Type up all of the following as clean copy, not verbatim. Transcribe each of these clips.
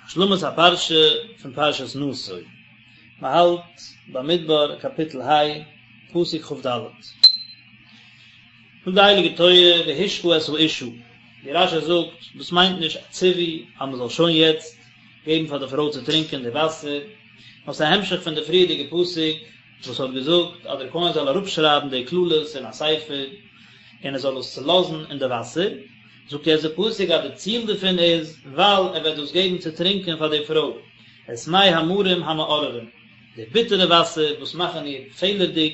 השלמת הפרשה פון פרשת נשא, מען האלט במדבר קאפיטל ה, פסוק כ"ד. זאגט די הייליגע תורה והשקה את האשה, ווי רש"י זאגט, דאס מיינט נישט א ציווי אז מען זאל שוין יעצט געבן פאר די פרוי צו טרינקען די וואסער, נאר ס'איז א המשך פון די פריערדיגע פסוק וואס האט געזאגט אז דער כהן זאל אראפשרייבן די קללות אין א ספר און ער זאל עס צולאזן אין די וואסער, זאגט יעצט די פסוק אז די ציל דערפון איז ווייל ער וועט דאס געבן צו טרינקען פאר די פרוי, את מי המרים המאררים, די ביטערע וואסער וואס מאכן איר פעלערדיג,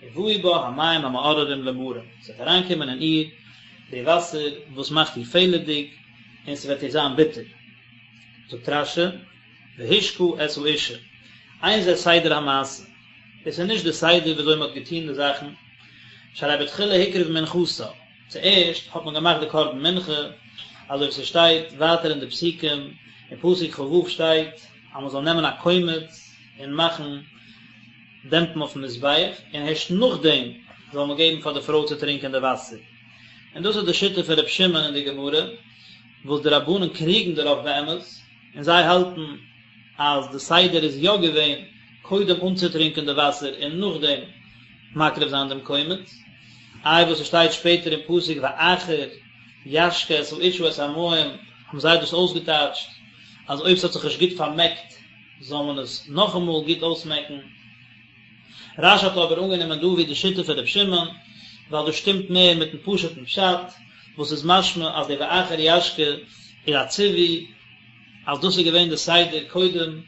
ובאו בה המים המאררים למרים, ס'וועט אריינקומען אין איר די וואסער וואס מאכט איר פעלערדיג, און ס'וועט איר זיין ביטער. זאגט רש"י, והשקה את האשה, אין זה סדר המעשה, דאס איז נישט די סדר ווי אזוי מען האט געטון די זאכן, שהרי בתחילה הקריב מנחתה, צוערשט האט מען געמאכט די קרבן מנחה, אזוי ווי ס'שטייט ווייטער אין די פסוקים, אין פסוק כ"ו שטייט אז מען זאל נעמען א קומץ און מאכן דעמפן אויפן מזבח, און הערשט נאכדעם זאל מען געבן פאר די פרוי צו טרינקען די וואסער. און דאס איז די שיטה פון ר' שמעון אין די גמרא, וואס די רבנן קריגן דערויף באמת, און זיי האלטן אז די סדר איז יא געווען קודם אנצוטרינקען די וואסער און נאכדעם מקריב זיין דעם קומץ, איי וואס עס שטייט שפעטער אין פסוק ואחר ישקה את האשה את המים, האבן זיי דאס אויסגעטייטשט אז אויב ס'האט זיך נישט גוט פארמעקט זאל מען עס נאכאמאל גוט אויסמעקן. רש"י האט אבער אנגענומען דא ווי די שיטה פון ר' שמעון, ווייל דאס שטימט מער מיטן פשוט'ן פשט, וואס איז משמע אז די ואחר ישקה איז א ציווי אז דאס איז געווען די סדר קודם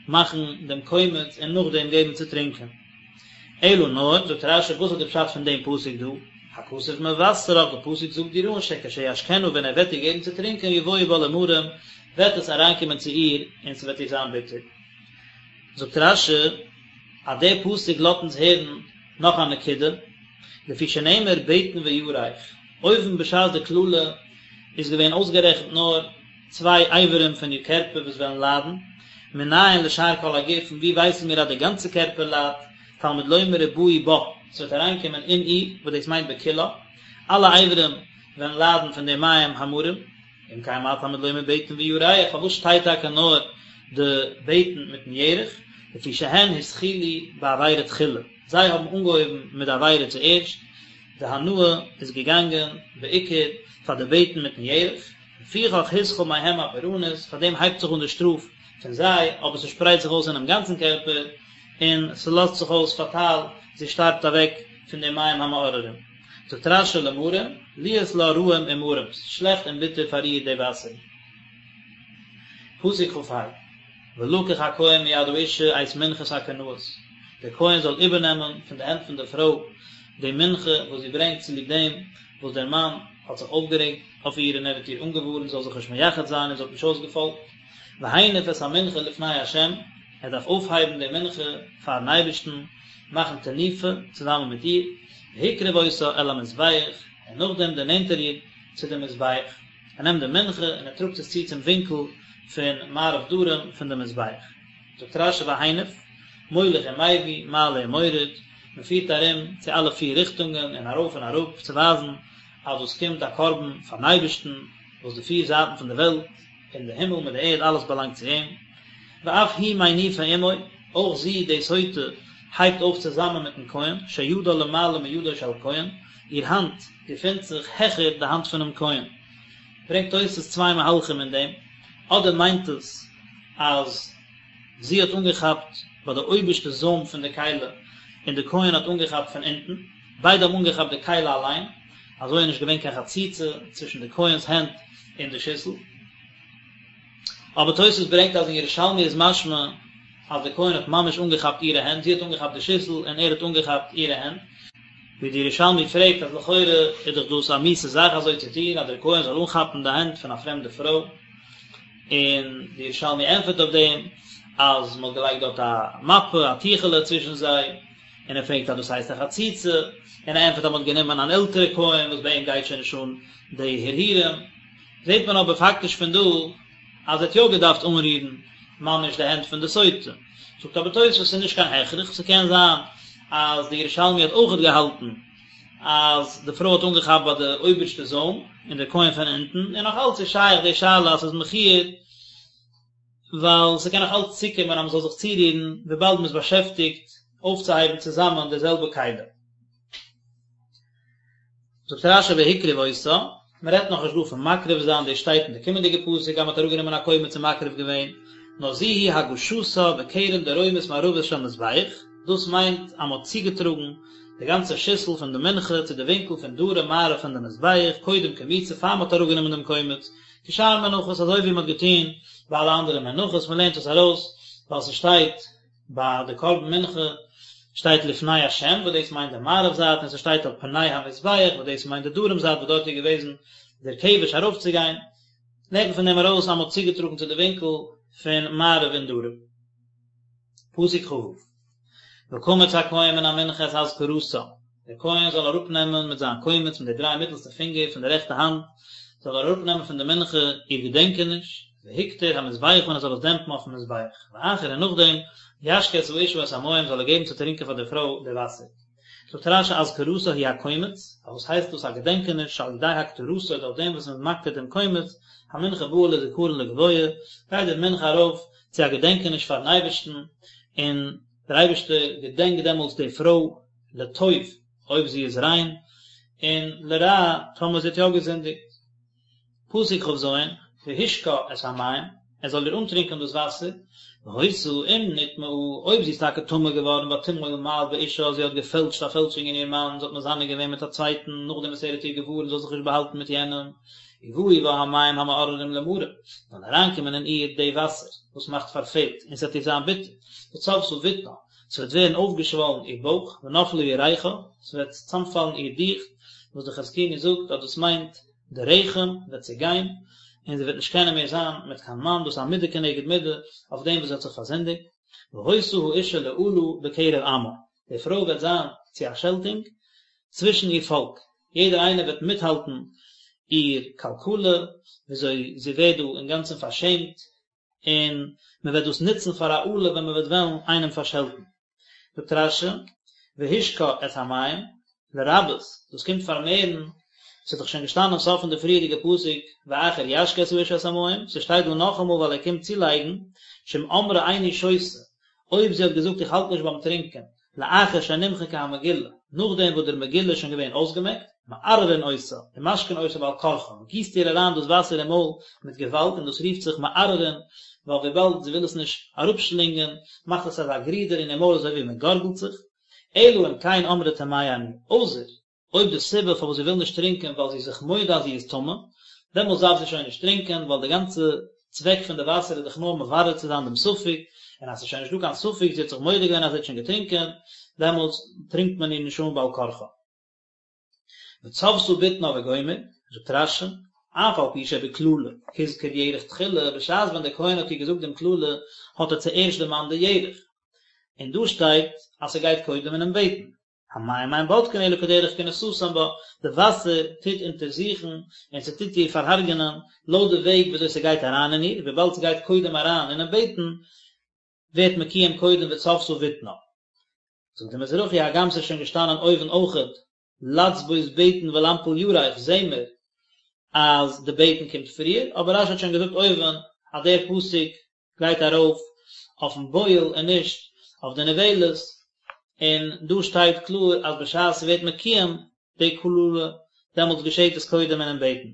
מאכן דעם קומץ און נאכדעם געבן צו טרינקען. אלא נאר, זאגט רש"י, וואס איז די פשט פון דעם פסוק דא? הכתוב מבשרך, די פסוק זאגט דיר אן שכשישקנה ווען ער וועט איר געבן צו טרינקען יבואו בה למרים, וועט עס אריינקומען צו איר און ס'וועט איר זיין ביטער. זאגט רש"י אז דער פסוק לאזט אונז הערן נאך א נקודה, לפי שנאמר בטן וירך, אויבן בשעת די קללה איז געווען אויסגערעכנט נאר צוויי אברים פון איר קערפער וואס וועלן ליידן, מנין לשאר כל הגוף, פון וואו ווייסן מיר אז די גאנצע קערפער ליידט, תלמוד לומר ובאו בה, ס'וועט אריינקומען אין איר, וואס דאס מיינט בכולה, אלע אברים וועלן ליידן פון די מים המרים. אם כן מה תלמוד לומר בטן וירך, פארוואס שטייט טאקע נאר די בטן מיטן ירך, לפי שהן התחילו בעבירה תחילה, זיי האבן אנגעהויבן מיט די עבירה צוערשט, די הנאה איז געגאנגען בעיקר פאר די בטן מיטן ירך, לפיכך התחיל מהם הפורענות, פאר דעם הייבט זיך אן די שטראף פון זיי, אבער ס'שפרייט זיך אויס אינעם גאנצן קערפער, און ס'לאזט זיך אויס פאטאל, זי שטארבט אוועק פון די מים המאררים. זאגט רש"י למרים, להיות לה רעים ומרים, ס'איז שלעכט און ביטער פאר איר די וואסער. פסוק כ"ה, ולקח הכהן מיד האשה את מנחת הקנאות, דער כהן זאל איבערנעמען פון די הענט פון די פרוי די מנחה וואס זי ברענגט צוליב דעם וואס דער מאן האט זיך אויפגערעגט אויף איר און ער האט איר אנגעווארנט זי זאל זיך נישט מייחד זיין און זי האט נישט אויסגעפאלגט, והניף את המנחה לפני ה', ער דארף אויפהייבן די מנחה פארן אייבערשטן, מאכן תנופה צוזאמען מיט איר, והקריב אותה אל המזבח, און נאכדעם דערנענט ער איר צו דעם מזבח. ער נעמט די מנחה און ער טראגט עס צו צום ווינקל פון מערב דרום פון דעם מזבח. זאגט רש"י והניף, מוליך ומביא, מעלה ומוריד, מען פירט ארום צו אלע פיר ריכטונגען און ארויף און אראפ צו ווייזן אז דאס קומט א קרבן פארן אייבערשטן, וואס די פיר זייטן פון די וועלט, און די הימל מיט די ערד אלעס באלאנגט צו אים, ואף היא מניפה עמו, אויך זי, די סוטה, הייבט אויף צוזאמען מיטן כהן, שידה למעלה מידו של כהן, איר האנט געפינט זיך העכער די האנט פונעם כהן. ברענגט תוס' צוויי מהלכים אין דעם, אדער מיינט עס אז זי האט אנגעכאפט ביי די אויבערשטע זוים פון די כלי און די כהן האט אנגעכאפט פון אונטן, ביידע האבן אנגעכאפט די כלי אליין, אזוי איז נישט געווען קיין חציצה צווישן די כהן'ס הענט און די שיסל. אבער תוס' ברענגט אז אין ירושלמי איז משמע אז די כהן האט ממש אנגעכאפט אירע הענט, זי האט אנגעכאפט די שיסל און ער האט אנגעכאפט אירע הענט. ווי די ירושלמי פרעגט אז לכאורה איז דאך דאס א מיאוסע זאך אזוי צו טון אז דער כהן זאל אנכאפן די הענט פון א פרעמדע פרוי, און די ירושלמי ענטפערט אויף דעם אז מען האט געלייגט דארט א מפה, א טיכעלע צווישן זיי, און ער פרעגט אז דאס הייסט א חציצה, און ער ענטפערט אז מען האט גענומען אן עלטערע כהן וואס ביי אים גייט שוין נישט אן די הרהורים, זעט מען אבער פאקטיש פון דא אז ער האט יא געדארפט אנרירן ממש די הענט פון די סוטה. זאגט אבער תוספות ס'איז נישט קיין הכרח, ס'קען זיין אז די ירושלמי האט אויכעט געהאלטן אז די פרוי האט אנגעכאפט ביי די אויבערשטע זוים און דער כהן פון אונטן, און נאך אלץ איז שייך די שאלה אז ס'איז מכוער. ווייל ס'קען נאך אלץ צוקומען אז מ'זאל זיך צורירן וויבאלד מ'איז באשעפטיגט אויפצוהייבן צוזאמען די זעלבע כלי. זאגט רש"י והקריב אותה, מ'רעדט נאכנישט דא פון מקריב זיין, דאס שטייט אין די קומענדיגע פסוק אז מ'האט אראפגענומען א קומץ און מקריב געווען, נאר זו היא הגשתה בקרן דרומית מערבית של מזבח, דאס מיינט אז מ'האט צוגעטראגן די גאנצע שיסל פון די מנחה צו די ווינקל פון דרום מערב פון די מזבח, קודם קמיצה פאר מ'האט אראפגענומען דעם קומץ, כשאר מנחות אזוי ווי מ'האט געטון ביי אלע אנדערע מנחות, מ'לערנט עס ארויס ווייל ס'שטייט ביי די קרבן מנחה שטייט לפני השם וואס דאס מיינט די מערב זייט און ס'שטייט על פני המזבח וואס דאס מיינט די דרום זייט וואס דארט איז געוועזן דער כבש ארויפצוגיין, לערנט מען פון דעם ארויס אז מ'האט צוגעטראגן צו די ווינקל פון מערב און דרום. פסוק כ"ו. וקמץ הכהן מן המנחה את אזכרתה, דער כהן זאל אראפנעמען מיט זיין קומץ מיט די דריי מיטלסטע פינגער פון די רעכטע האנט, זאל ער אראפנעמען פון די מנחה איר געדענקעניש, והקטיר המזבחה און ער זאל עס דעמפן אויפן מזבח, ואחר און נאכדעם, ישקה את האשה את המים זאל ער געבן צו טרינקען פאר די פרוי די וואסער. זאגט רש"י אזכרתה היא הקומץ, פארוואס הייסט דאס א געדענקעניש, שעל ידי הקטרתו דורך דעם וואס מען איז מקטיר דעם קומץ, המנחה באה לזכרון לגבוה, גייט די מנחה ארויף צו א געדענקעניש פארן אייבערשטן, און דער אייבערשטער געדענקט דעמאלטס די פרוי לטוב אויב זי איז ריין, און לרע טאמער זי האט יא געזינדיגט. פסוק כ"ז, והשקה את המים, ער זאל איר אנטרינקען דאס וואסער, והיתה אם נטמאה, אויב זי איז טאקע טמא געווארן ותמעול מעל באישה, זי האט געפעלטשט א פעלשונג אין איר מאן, זי האט מזנה געווען מיט א צווייטן, נאכדעם וואס ער האט איר געווארנט זי זאל זיך נישט באהאלטן מיט יענעם, ובאו בה המים המאררים למרה, זאלן אריינקומען אין איר די וואסער וואס מאכט פארפעלט, און ס'וועט איר זיין ביטער, וצבתה בטנה, ס'וועט ווערן אויפגעשוואלן איר בויך, ונפלה ירכה, ס'וועט צאמפאלן איר דיכט, וואס די חזקוני זאגט אז דאס מיינט די רחם וועט צעגיין, און זי וועט נישט קענען מער זיין מיט קיין מאן, דאס איז א מידה כנגד מידה אויף דעם וואס זי האט זיך פארזינדיגט, והיתה האשה לאלה בקרב עמה, די פרוי וועט זיין צו א שעלטונג צווישן איר פאלק, יעדער איינער וועט מיטהאלטן איר קלקלה, וויאזוי זי ווערט דא אינגאנצן פארשעמט, און מען וועט דאס נוצן פאר א אלה ווען מען וועט וועלן איינעם פארשעלטן. זאגט רש"י, והשקה את המים, לרבות, דאס קומט פארמערן, ס'איז דאך שוין געשטאנען סוף פון די פריערדיגע פסוק, ואחר ישקה את האשה את המים, ס'שטייט דא נאכאמאל ווייל ער קומט צולייגן, שאם אמרה איני שותה, אויב זי האט געזאגט איך האלט נישט ביים טרינקען, לאחר שנמחקה המגילה, נאכדעם וואס דער מגילה איז שוין געווען אויסגעמעקט, מערערין אותה, ומשקין אותה בעל כרחה, מען גיסט איר אריין דאס וואסער אין מויל מיט געוואלד און דאס רופט זיך מערערין, ווייל וויבאלד זי וויל עס נישט אראפשלינגען, מאכט עס אזא גרידער אין איר מויל אזוי ווי מען גארגלט זיך, אלא אם כן אמרה טמאה אני, אויסער אויב די סיבה פארוואס זי וויל נישט טרינקען ווייל זי איז זיך מודה אז זי איז טמא, דעמאלטס דארף זי שוין נישט טרינקען ווייל די גאנצע צוועק פון די וואסער איז דאך נאר מברר צו זיין דעם ספק, און אז ס'איז שוין נישט דא קיין ספק, זי האט זיך מודה געווען אז זי האט שוין געטרינקען, דעמאלטס טרינקט מען איר נישט אן בעל כרחה. וצבתה בטנה וגומר, זאגט רש"י, אף על פי שבקללה הזכיר ירך תחילה, בשעת ווען דער כהן האט איר געזאגט דעם קללה האט ער צוערשט דערמאנט די ירך, און דא שטייט אז ס'גייט קודם אינעם בטן, המים אין בודקין אלא כדרך כניסתן בה, די וואסער טוט אונטערזוכן און ס'טוט איר פארהרג'ענען לויט די וועג וויאזוי ס'גייט אריין אין איר, וויבאלד ס'גייט קודם אריין אינעם בטן ווערט מקוים קודם וצבתה בטנה. זאגט די מזרחי הגם ס'איז שוין געשטאנען אויבן אויכעט לצבות בטן ולנפיל ירך זעהן מיר אז די בטן קומט פריער, אבער רש"י האט שוין געזאגט אויבן אז דער פסוק גייט ארויף אויפן בועל און נישט אויף די נבעלת, און דא שטייט קלאר אז בשעת ס'ווערט מקוים די קללה דעמאלטס געשעט עס קודם אינעם בטן.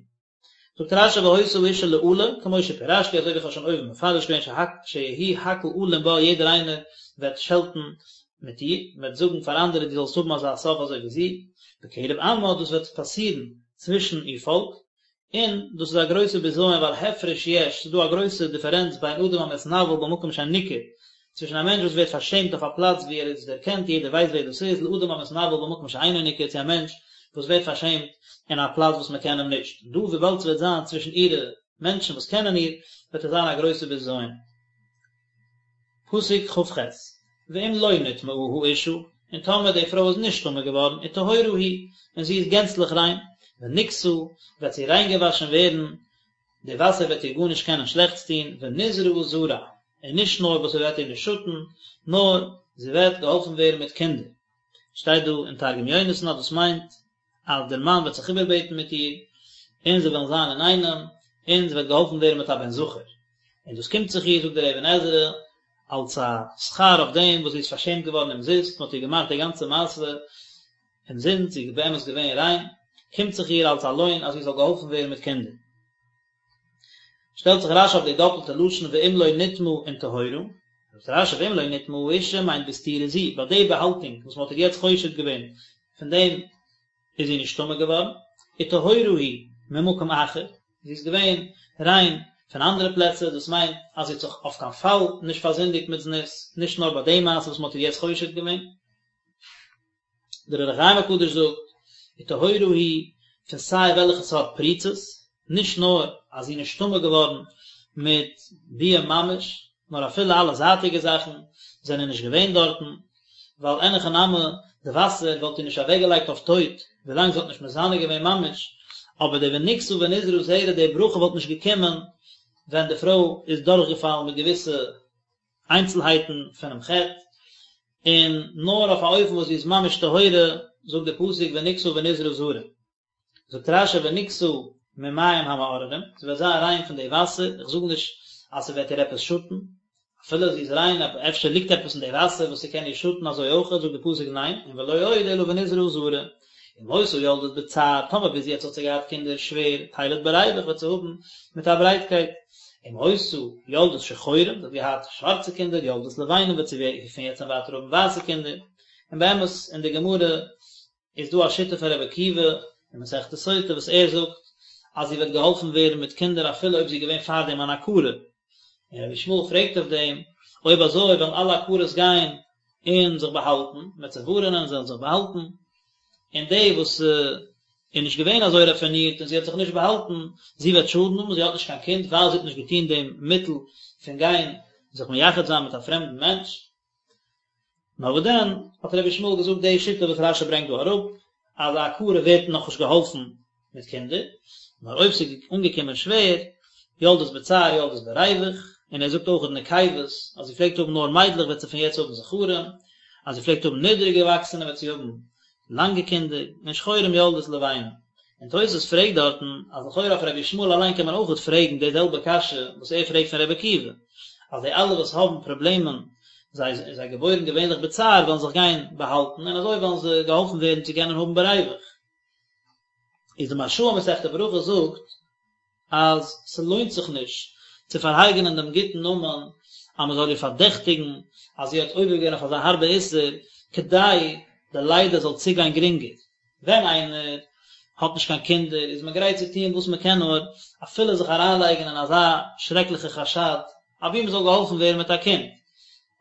זאגט רש"י והיתה האשה לאלה, כמו שפירשתי אזוי ווי איך האב שוין אויבן מפרש געווען שיהי' הכל אלין בה יעדער איינער וועט שעלטן מיט איר, מען וועט זאגן פאר אנדערע דו זאלסט האבן אזא סוף אזוי ווי זי, בקרב עמה דאס וועט פאסירן צווישן איר פאלק, און דאס איז א גרויסע בזיון ווייל הפרש יש, ס'איז דא א גרויסע דיפערענץ בין אדם המתנוול במקום שניכר, צווישן א מענטש וואס ווערט פארשעמט אויף א פלאץ וואו ער איז דערקענט, יעדער ווייסט ווער דאס איז, לאדם המתנוול במקום שאינו ניכר, צו א מענטש וואס ווערט פארשעמט אין א פלאץ וואס מען קען אים נישט. דא וויבאלד ס'וועט זיין צווישן אירע מענטשן וואס קענען איר, וועט עס זיין א גרויסע בזיון. פסוק כ"ח, ואם לא נטמאה האשה, און טאמער די פרוי איז נישט טמא געווארן, וטהורה היא, און זי איז גענצליך ריין, ונקתה, וועט זי ריינגעוואשן ווערן, די וואסער וועט איר גארנישט קענען שלעכטס טון, ונזרעה זרע, און נישט נאר וואס ס'וועט איר נישט שאטן, נאר זי וועט געהאלפן ווערן מיט קינדער. שטייט דא אין תרגום יונתן אז דאס מיינט אז דער מאן וועט זיך איבערבעטן מיט איר, און זיי וועלן זיין אינאיינעם, און זי וועט געהאלפן ווערן מיט א בן זכר. און דאס קומט זיך איר, זאגט דער אבן עזרא, אלס א שכר אויף דעם וואס זי איז פארשעמט געווארן אומזיסט, מען האט איר געמאכט די גאנצע מעשה אומזינסט, זי איז באמת געווען ריין, קומט זיך איר אלס א לוין אז זי זאל געהאלפן ווערן מיט קינדער. שטעלט זיך רשי אויף די דאפלטע לשון ואם לא נטמאה און טהורה, זאגט רשי ואם לא נטמאה האשה מיינט בסתירה זו, ביי די באהאלטונג וואס מען האט איר יעצט חושד געווען, פון דעם איז זי נישט טמא געווארן, וטהורה היא ממקום אחר, זי איז געווען ריין פון אנדערע פלעצער, דאס מיינט אז זי האט זיך אויף קיין פאל נישט פארזינדיגט מיט זנות, נישט נאר ביי די מעשה וואס מען האט איר יעצט חושד געווען. דער אור החיים הקדוש זאגט, וטהורה היא פון סיי וועלכע סארט פריצות, נישט נאר אז זי איז נישט טמא געווארן מיט ביאה ממש, נאר אפילו אלע זייטיגע זאכן זענען נישט געווען דארטן, ווייל אין הכי נמי די וואסער וואלט איר נישט אוועקגעלייגט אויף טויט ווילאנג זי האט נישט מזנה געווען ממש, אבער די ונקתה ונזרעה זרע די ברכה וואלט נישט געקומען ווען די פרוי איז דורכגעפאלן מיט געוויסע איינצלהייטן פונעם חטא, און נאר אויף א אופן וואס זי איז ממש טהורה, זאגט די פסוק ונקתה ונזרעה זרע. זאגט רשי ונקתה ממים המאררים, זי וועט זיין ריין פון די וואסער, איך זאג נישט אז ס'וועט איר עפעס שאטן, אפילו זי איז ריין אבער אפשר ליגט עפעס אין די וואסער וואס ס'קען איר שאטן אזוי אויך, זאגט די פסוק ניין, און ולא עוד אלא ונזרעה זרע, אם היתה יולדת בצער, טאמער ביז יעצט האט זי געהאט קינדער שווער, תלד בריוח וועט זי האבן מיט א ברייטקייט, אם היתה יולדת שחורים, זי האט געהאט שווארצע קינדער, יולדת לבנים וועט זי פון יעצט און ווייטער האבן ווייסע קינדער, און באמת אין די גמרא איז דא א שיטה פון רבי עקיבא אין מסכת סוטה וואס ער זאגט אז זי וועט געהאלפן ווערן מיט קינדער אפילו אויב זי איז געווען פארדעם אן עקרה, און רבי ישמעאל פרעגט אויף דעם, אויב אזוי וועלן אלע עקרות גיין און זיך באהאלטן, מען וועט זיי ווארענען זיי זאלן זיך באהאלטן, און די וואס איז נישט געווען אזוי ראפינירט און זי האט זיך נישט באהאלטן, זי וועט שאדן האבן, זי האט נישט קיין קינד ווייל זי האט נישט געטון דעם מיטל פון גיין זיך מייחד זיין מיט א פרעמדן מענטש. נאר וואס דען, האט רבי ישמעאל געזאגט די שיטה וואס רשי ברענגט דא אראפ, אז א עקרה ווערט נאכנישט געהאלפן מיט קינדער, נאר אויב ס'איז אנגעקומען שווער, יולדת בצער יולדת בריוח, און ער זאגט אויך נקבות, אז זי פלעגט האבן נאר מיידלעך וועט זי פון יעצט האבן זכרים, אז זי פלעגט האבן נידריג געוואקסענע וועט זי האבן לאנגע קינדער, און שחורים יולדת לבנים. און תוס' פרעגט דארטן אז לכאורה אויף רבי ישמעאל אליין קען מען אויכעט פרעגן די זעלבע קשיא וואס ער פרעגט פון רבי עקיבא, אז די אלע וואס האבן פראבלעמען זיי זיי געבוירן געווענליך בצער וועלן זיך גיין באהאלטן און אזוי וועלן זיי געהאלפן ווערן צו קענען האבן בריוח. איז די מהרש"א אין מסכת ברכות זאגט אז ס'לוינט זיך נישט צו פארהרג'ענען דעם גוטן נאמען אז מ'זאל איר פארדעכטיגן אז זי האט עובר געווען אויף אזא הארבע איסור כדי די לידה זאל צוגיין גרינגער. ווען איינער האט נישט קיין קינדער איז מען גרייט צו טון וואס מען קען נאר, אפילו זיך אריינלייגן אין אזא שרעקליכע חשד, אבי מען זאל געהאלפן ווערן מיט א קינד.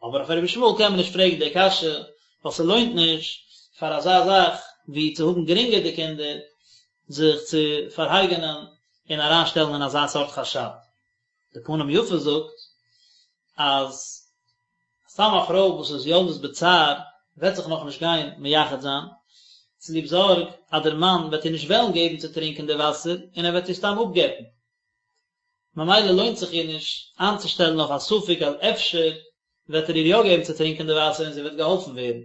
אבער אויף רבי ישמעאל קען מען נישט פרעגן די קשיא, ווייל ס'לוינט נישט פאר אזא זאך ווי צו האבן גרינגער די קינדער, זיך צו פארהרג'ענען און אריינשטעלן אין אזא סארט חשד. די פנים יפות זאגט אז סתם א פרוי וואס איז יולדת בצער וועט זיך נאכנישט גיין מייחד זיין, צוליב זארג אז דער מאן וועט איר נישט וועלן געבן צו טרינקען די וואסער און ער וועט איר סתם אפגט'ן. ממילא לוינט זיך איר נישט איינצושטעלן אויף א ספק אז אפשר וועט ער איר יא געבן צו טרינקען די וואסער און זי וועט געהאלפן ווערן.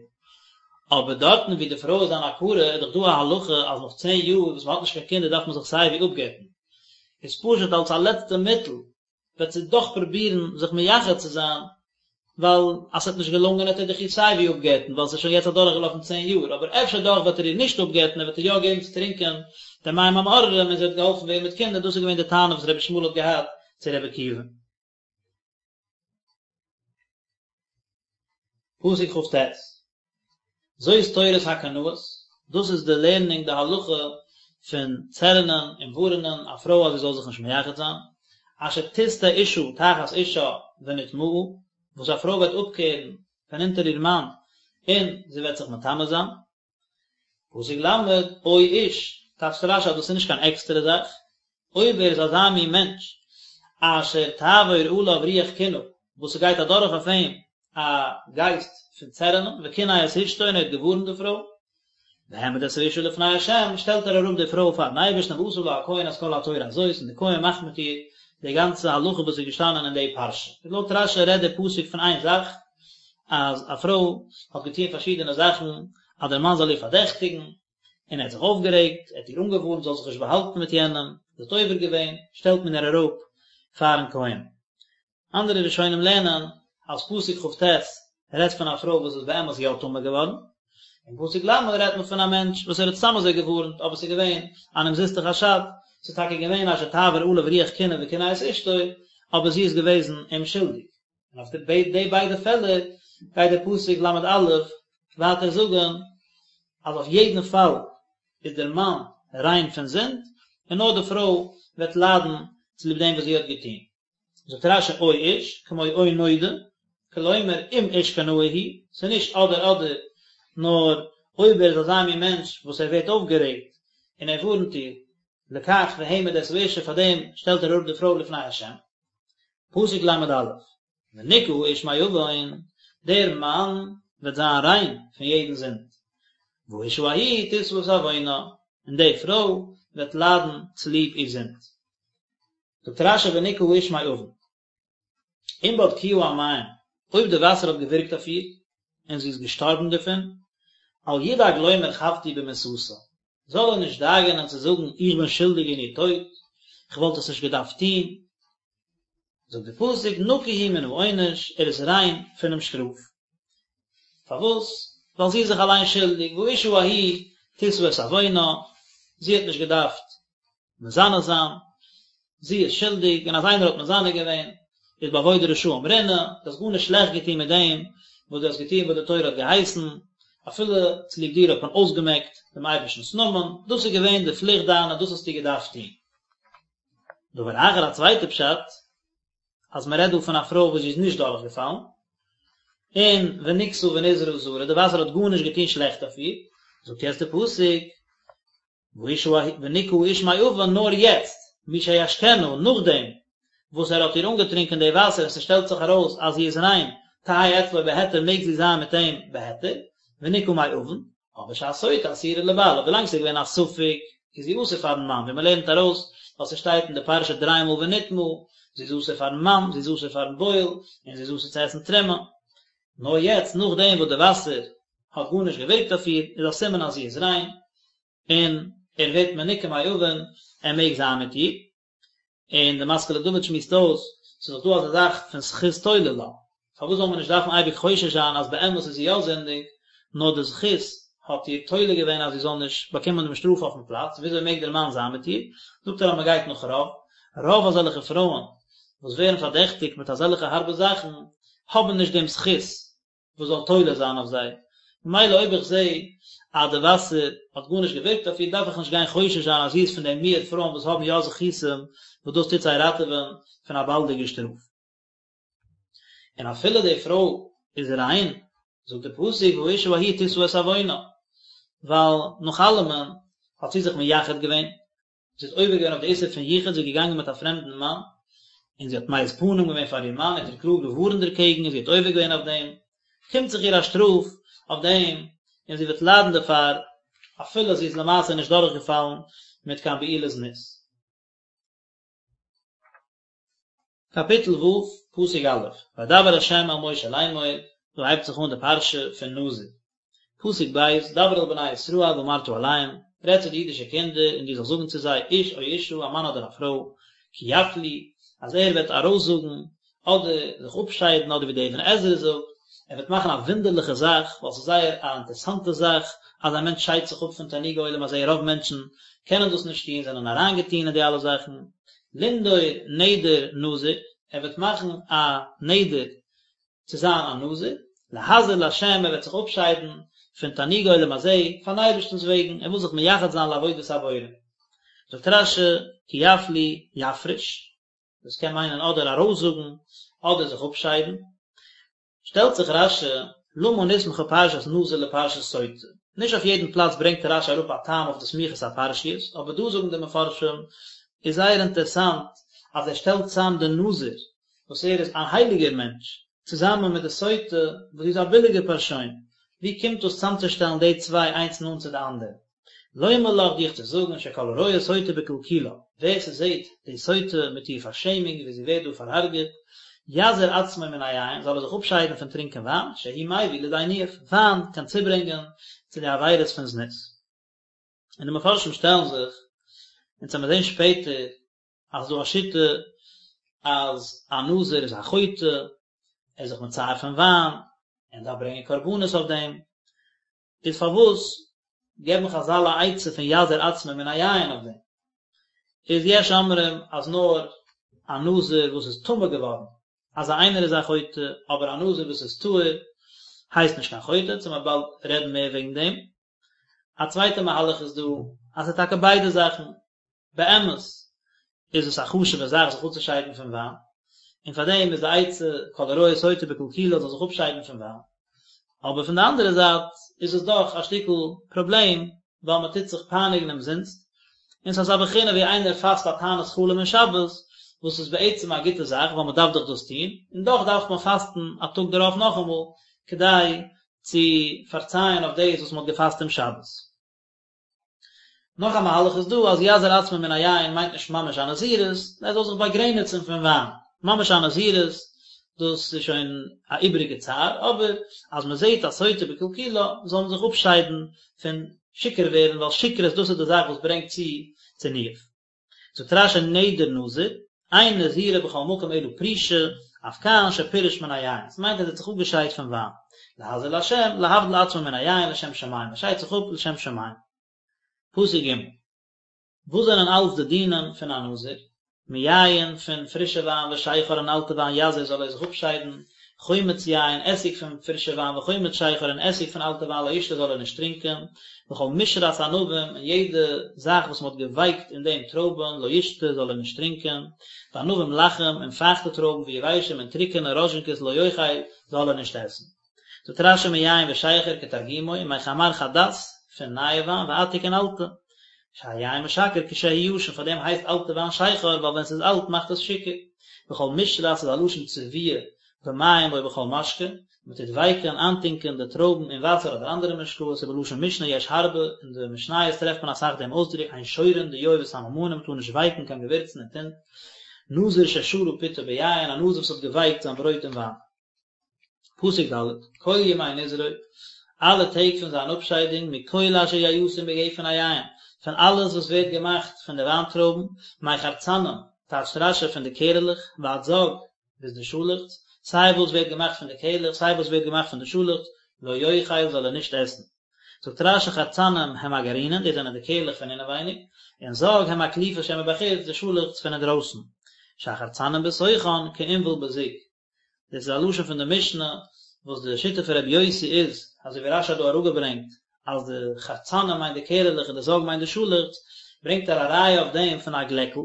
אבער דארטן וואו די פרוי איז אן עקרה איז דאך דא א הלכה אז נאך צען יאר וואס מען האט נישט קיין קינדער דארף מען זיך סייווי אפגט'ן. איז פשוט אלס א לעצטע מיטל וועט זי דאך פרובירן זיך מייחד צו זיין, ווייל אז ס'וועט נישט געלונגען וועט ער דאך איר סייווי אפגט'ן ווייל ס'איז שוין יעצט אדורכגעלאפן צען יאר, אבער אפשר דאך וועט ער איר נישט אפגט'ן ער וועט איר יא געבן צו טרינקען די מים המאררים און זי וועט געהאלפן ווערן מיט קינדער, דאס איז געווען די טענה וואס רבי ישמעאל האט געהאט צו רבי עקיבא. פסוק כ"ט, זאת תורת הקנאות, דאס איז די לערנונג די הלכה פון צערענען און ווארענען א פרוי אז זי זאל זיך נישט מייחד זיין, אשר תסטה אשה תחת אישה ונטמאה, וואס א פרוי וועט אפקערן פון אונטער איר מאן און זי וועט זיך מטמא זיין. פסוק ל', או איש, טייטשט רש"י אז דאס איז נישט קיין עקסטערע זאך, אויב ער איז אזא מין מענטש, אשר תעבור עליו רוח קנאה, וואס ס'גייט אדורך אויף אים א גייסט פון צערענען, וקנא את אשתו און ער האט געווארנט די פרוי, והעמיד את האשה לפני ה', שטעלט ער אראפ די פרוי פארן אייבערשטן ועשה לה הכהן את כל התורה הזאת, און די כהן מאכט מיט איר די גאנצע הלכה וואס איז געשטאנען אין די פרשה. לויט רש"י רעדט דער פסוק פון איין זאך, אז א פרוי האט געטון פארשידענע זאכן אז דער מאן זאל איר פארדעכטיגן, און ער האט זיך אויפגערעגט, ער האט איר אנגעווארנט זי זאל זיך נישט באהאלטן מיט יענעם, זי האט עובר געווען, שטעלט מען איר אראפ פארן כהן. אנדערע ראשונים לערנען אז פסוק כ"ט רעדט פון א פרוי וואס איז באמת יא טמא געווארן, און פסוק ל' רעדט מען פון א מענטש וואס ער האט סתם אזוי געווארנט אבער ס'איז געווען אן אומזיסטע חשד, ס'איז טאקע געווען אשר תעבר עליו רוח קנאה וקנא את אשתו, אבער זי איז געוועזן אומשולדיג. און אויף די ביידע פעלער גייט דער פסוק ל"א ווייטער זאגן אז אויף יעדן פאל איז דער מאן ריין פון זינד, און נאר די פרוי וועט ליידן צוליב דעם וואס זי האט געטון. זאגט רש"י או איש, כמו או נודע, כלומר אם איש קנאי הוא, ס'איז נישט אדער אדער, נאר אויב ער איז אזא מין מענטש וואס ער ווערט אויפגערעגט און ער ווארנט איר, לכך והעמיד את האשה פאר דעם שטעלט ער אראפ די פרוי לפני השם. פסוק ל"א, ונקה האיש מעון, דער מאן וועט זיין ריין פון יעדן זינד, והאשה ההיא תשא את עוונה, און די פרוי וועט ליידן צוליב איר זינד. זאגט רש"י ונקה האיש מעון, אם בדקוה המים, אויב די וואסער האט געווירקט אויף איר, און זי איז געשטארבן דערפון, אל ידאג לומר חבתי במיתתה, זאל ער נישט דאגה'נען צו זאגן איך בין שולדיג אין איר טויט, איך וואלט עס נישט געדארפט טון. זאגט די פסוק נקי הוא מן העונש, ער איז ריין פונעם שטראף. פארוואס? ווייל זי איז זיך אליין שולדיג, והאשה ההיא תשא את עוונה, זי האט נישט געדארפט מזנה זיין, זי איז שולדיג, און אז איינער האט מזנה געווען, איז באבוד רשעים רנה, דו האסט גארנישט שלעכט געטון מיט דעם וואס דו האסט געטון וואס די תורה האט געהייסן, אפילו צוליב דיר האט מען אויסגעמעקט דעם אייבערשטנ'ס נאמען, דאס איז געווען די פליכט דיינע, דאס האסטו געדארפט טון. דבר אחר, א צווייטע פשט, אז מען רעדט דא פון א פרוי וואס זי איז נישט דורכגעפאלן, און ונקתה ונזרעה זרע, די וואסער האט גארנישט געטון שלעכט אויף איר, זאגט יעצט די פסוק, והאשה ההיא ונקה האיש מעון נאר יעצט, משישקנה, נאכדעם וואס ער האט איר אנגעטרינקען די וואסער און ס'שטעלט זיך ארויס אז זי איז ריין, תהא אצלו בהיתר מעג זי זיין מיט אים בהיתר, ונקה מעון, אבער שהסוטה אסורה לבעלה, ווילאנג ס'איז געווען א ספק איז זי אסור פארן מאן, ווי מ'לערנט ארויס ווייל ס'שטייט אין די פרשה דריי מאל ונטמאה, זי איז אסור פארן מאן, זי איז אסור פארן בועל, און זי איז אסור צו עסן תרומה. נאר יעצט נאכדעם וואס די וואסער האט גארנישט געווירקט אויף איר, איז א סימן אז זי איז ריין, און ער ווערט מנוקה מעון, ער מעג זיין מיט איר, און די משכיל לדוד שמועסט אויס, ס'איז דאך דא אזא זאך פון זכות תולה לה, פארוואס זאל מען נישט דארפן אייביג חושש זיין אז באמת איז זי יא זינדיג, נאר די זכות האט איר תולה געווען אז זי זאל נישט באקומען דעם שטראף אויפן פלאץ, וויאזוי מעג דער מאן זיין מיט איר? זאגט ער אז מען גייט נאך רוב, רוב אזעלכע פרויען וואס ווערן פארדעכטיגט מיט אזעלכע הארבע זאכן האבן נישט דעם זכות וואס זאל תולה זיין אויף זיי, ממילא אויב איך זע אז די וואסער האט גארנישט געווירקט אויף איר דארף איך נישט גיין חושש זיין אז זי איז פון די מיעוט פרויען וואס האבן יא זכותים וואס דאס טוט זיי ראטעווען פון א באלדיגע שטראף. און אפילו די פרוי איז ריין, זאגט די פסוק והאשה ההיא תשא את עוונה, ווייל נאך אלעמען האט זי זיך מייחד געווען, זי האט עובר געווען אויף די איסור פון יחוד, זי איז געגאנגען מיט א פרעמדן מאן, און זי האט מעיז פנים געווען פאר איר מאן, ער האט איר קלאר געווארנט דערקעגן און זי האט עובר געווען אויף דעם, קומט זיך איר א שטראף אויף דעם, און זי וועט ליידן דערפאר, אפילו זי איז למעשה נישט דורכגעפאלן מיט קיין בעילת זנות. קאפיטל ו', פסוק א', וידבר ה' אל משה לאמור, דא הייבט זיך אן די פרשה פון נזיר. פסוק ב', דבר אל בני ישראל ואמרת אליהם, רעד צו די אידישע קינדער און דו זאלסט זאגן צו זיי, איש או אשה, א מאן אדער א פרוי, כי יפליא, אז ער וועט ארויסזאגן, אדער זיך אפשיידן, אדער ווי דער אבן עזרא זאגט, ער וועט מאכן א וואונדערליכע זאך, ווייל ס'איז זייער א אינטערעסאנטע זאך אז א מענטש שיידט זיך אפ פון תענוגי עולם הזה, רוב מענטשן קענען דאס נישט טון, זענען אריינגעטון אין די אלע זאכן, לנדור נדר נזיר, ער וועט מאכן א נדר צו זיין א נזיר, להזיר לה', ער וועט זיך אפשיידן פון תענוגי עולם הזה, פארן אייבערשטנ'ס וועגן, ער וויל זיך מייחד זיין לעבודת הבורא. זאגט רש"י, כי יפליא יפריש, דאס קען מיינען אדער ארויסזאגן, אדער זיך אפשיידן. שטעלט זיך רש"י, למה נסמכה פרשת נזיר לפרשת סוטה? נישט אויף יעדן פלאץ ברענגט רש"י אראפ א טעם אויף די סמיכות הפרשיות, אבער דא זאגן די מפרשים, איז זייער אינטערסאנט אז ער שטעלט צאם די נזיר, וואס ער איז א הייליגער מענטש, צוזאמען מיט די סוטה, וואס זי איז א ביליגע פארשוין, ווי קומט דאס צאמצושטעלן די צוויי איינס נאנט צו די אנדערע? לומר לך דיך צו זאגן שכל הרואה סוטה בקלקולה, ווער ס'זעט די סוטה מיט איר פארשעמונג ווי זי ווערט דא פארהארגעט, יזיר עצמו מן היין, זאל ער זיך אפשיידן פון טרינקען וויין, שהוא מביא לידי ניאוף, וויין קען צוברענגען צו די עבירות פון זנות. און די מפרשים שטעלן זיך, אונז וועמיר זען שפעטער אז ס'דא א שיטה. אז א נזיר איז א חוטא, ער איז זיך מצער פון וויין, און דארף ברענגען קרבנות אויף דעם, איז פארוואס געבן חזל א עצה פון יזיר עצמו מן היין אויף דעם? איז יש אומרים אז נאר א נזיר וואס איז טמא געווארן, אזא איינער איז א חוטא, אבער א נזיר וואס איז טהור הייסט נישט קיין חוטא, אונז וועלן באלד רעדן מער וועגן דעם. א צווייטע מהלך איז דא אז ס'איז טאקע ביידע זאכן, באמת איז עס א חשוב'ע זאך זיך אפצושיידן פון וויין, און פאר דעם איז די עצה כל הרואה סוטה בקלקולה זאל זיך אפשיידן פון וויין, אבער פון די אנדערע זייט איז עס דאך א שטיקל פראבלעם ווייל מען טוט זיך פייניגן אומזינסט, און ס'איז אזא בחינה ווי איינער פאסט א תענית חלום אין שבת, וואס איז בעצם א גוטע זאך ווייל מען דארף דאך דאס טון, און דאך דארף מען פאסטן א טאג דערויף נאכאמאל כדי צו פארצייען אויף דאס וואס מען האט געפאסט אום שבת. נאך א מהלך איז דא אז יזיר עצמו מן היין מיינט נישט ממש א נזירות, ער זאל זיך באגרעניצן פון וויין, ממש א נזירות דאס איז שוין א איבעריגע צער, אבער אז מען זעט א סוטה בקלקולה זאל מען זיך אפשיידן פון שיכור ווערן ווייל שכרות דאס איז די זאך וואס ברענגט צו צו ניאוף. זאגט רש"י נדר נזיר, אין נזירה בכל מקום אלא פרישה, אף כאן שפירש מן היין, עס מיינט אז ער האט זיך אפגעשיידט פון וויין, להזיר לה', להבדיל עצמו מן היין לשם שמים, ער שיידט זיך אפ לשם שמים. פסוק ג'. וואס זענען אלץ די דינים פון א נזיר? מיין פון פרישע וויין ושכר און אלטע וויין יזיר זאל ער זיך אפשיידן, חומץ יין, עסיג פון פרישע וויין וחומץ שכר און עסיג פון אלטע וויין לא ישתה זאל ער נישט טרינקען, וכל משרת ענבים און יעדע זאך וואס מען האט געווייקט אין דעם טרויבן לא ישתה זאל ער נישט טרינקען, וענבים לחים און פייכטע טרויבן ויבשים און טרוקענע ראזשינקעס לא יאכל זאל ער נישט עסן. זאגט רש"י מיין ושכר כתרגומו ומחמר חדת פון נייע וויין ועתיק און אלטע. שהיין משכר כשהוא ישן פאר דעם הייסט אלטע וויין שכר ווייל ווען ס'איז אלט מאכט עס שיכור. וכל משרת איז א לשון צביעה במים או בכל משקה, מען טוט ווייקען, איינטונקען, די טרויבן אין וואסער אדער אנדערע משקאות, ובלשון משנה יש הרבה, אין די משניות טרעפט מען אסאך דעם אויסדרוק אין שורין דיו וסממנים, מען טאר נישט ווייקן קיין געווירצן אין טינט, נזיר ששרה פתו ביין, א נזיר וואס האט געווייקט זיין ברויט אין וויין. פסוק ד', כל ימי נזרו, אלע טעג פון זיין אפשיידונג, מכל אשר יעשה מגפן היין, פון אלעס וואס ווערט געמאכט פון די וויינטרויבן, מחרצנים, טייטשט רש"י פון די קערעלעך, ועד זג, ביז די שאלעכץ, סיי וואס ווערט געמאכט פון די קערלעך סיי וואס ווערט געמאכט פון די שאלעכץ, לא יאכל זאל ער נישט עסן. זאגט רש"י חרצנים הם הגרעינין, דאס זענען די קערלעך פון אינעווייניג, און זג הם הקליפה שמבחוץ, די שאלעכץ פון אינדרויסן. שהחרצנים בתוכן כעינבל בזוג. דאס איז א לשון פון די משנה, וואס די שיטה פון רבי יוסי איז, אזוי ווי רש"י האט דא אראפגעברענגט, אז די חרצנים מיינט די קערעלעך און די זג מיינט די שאלעכץ, ברענגט ער א ראיה אויף דעם פון א גלעקל,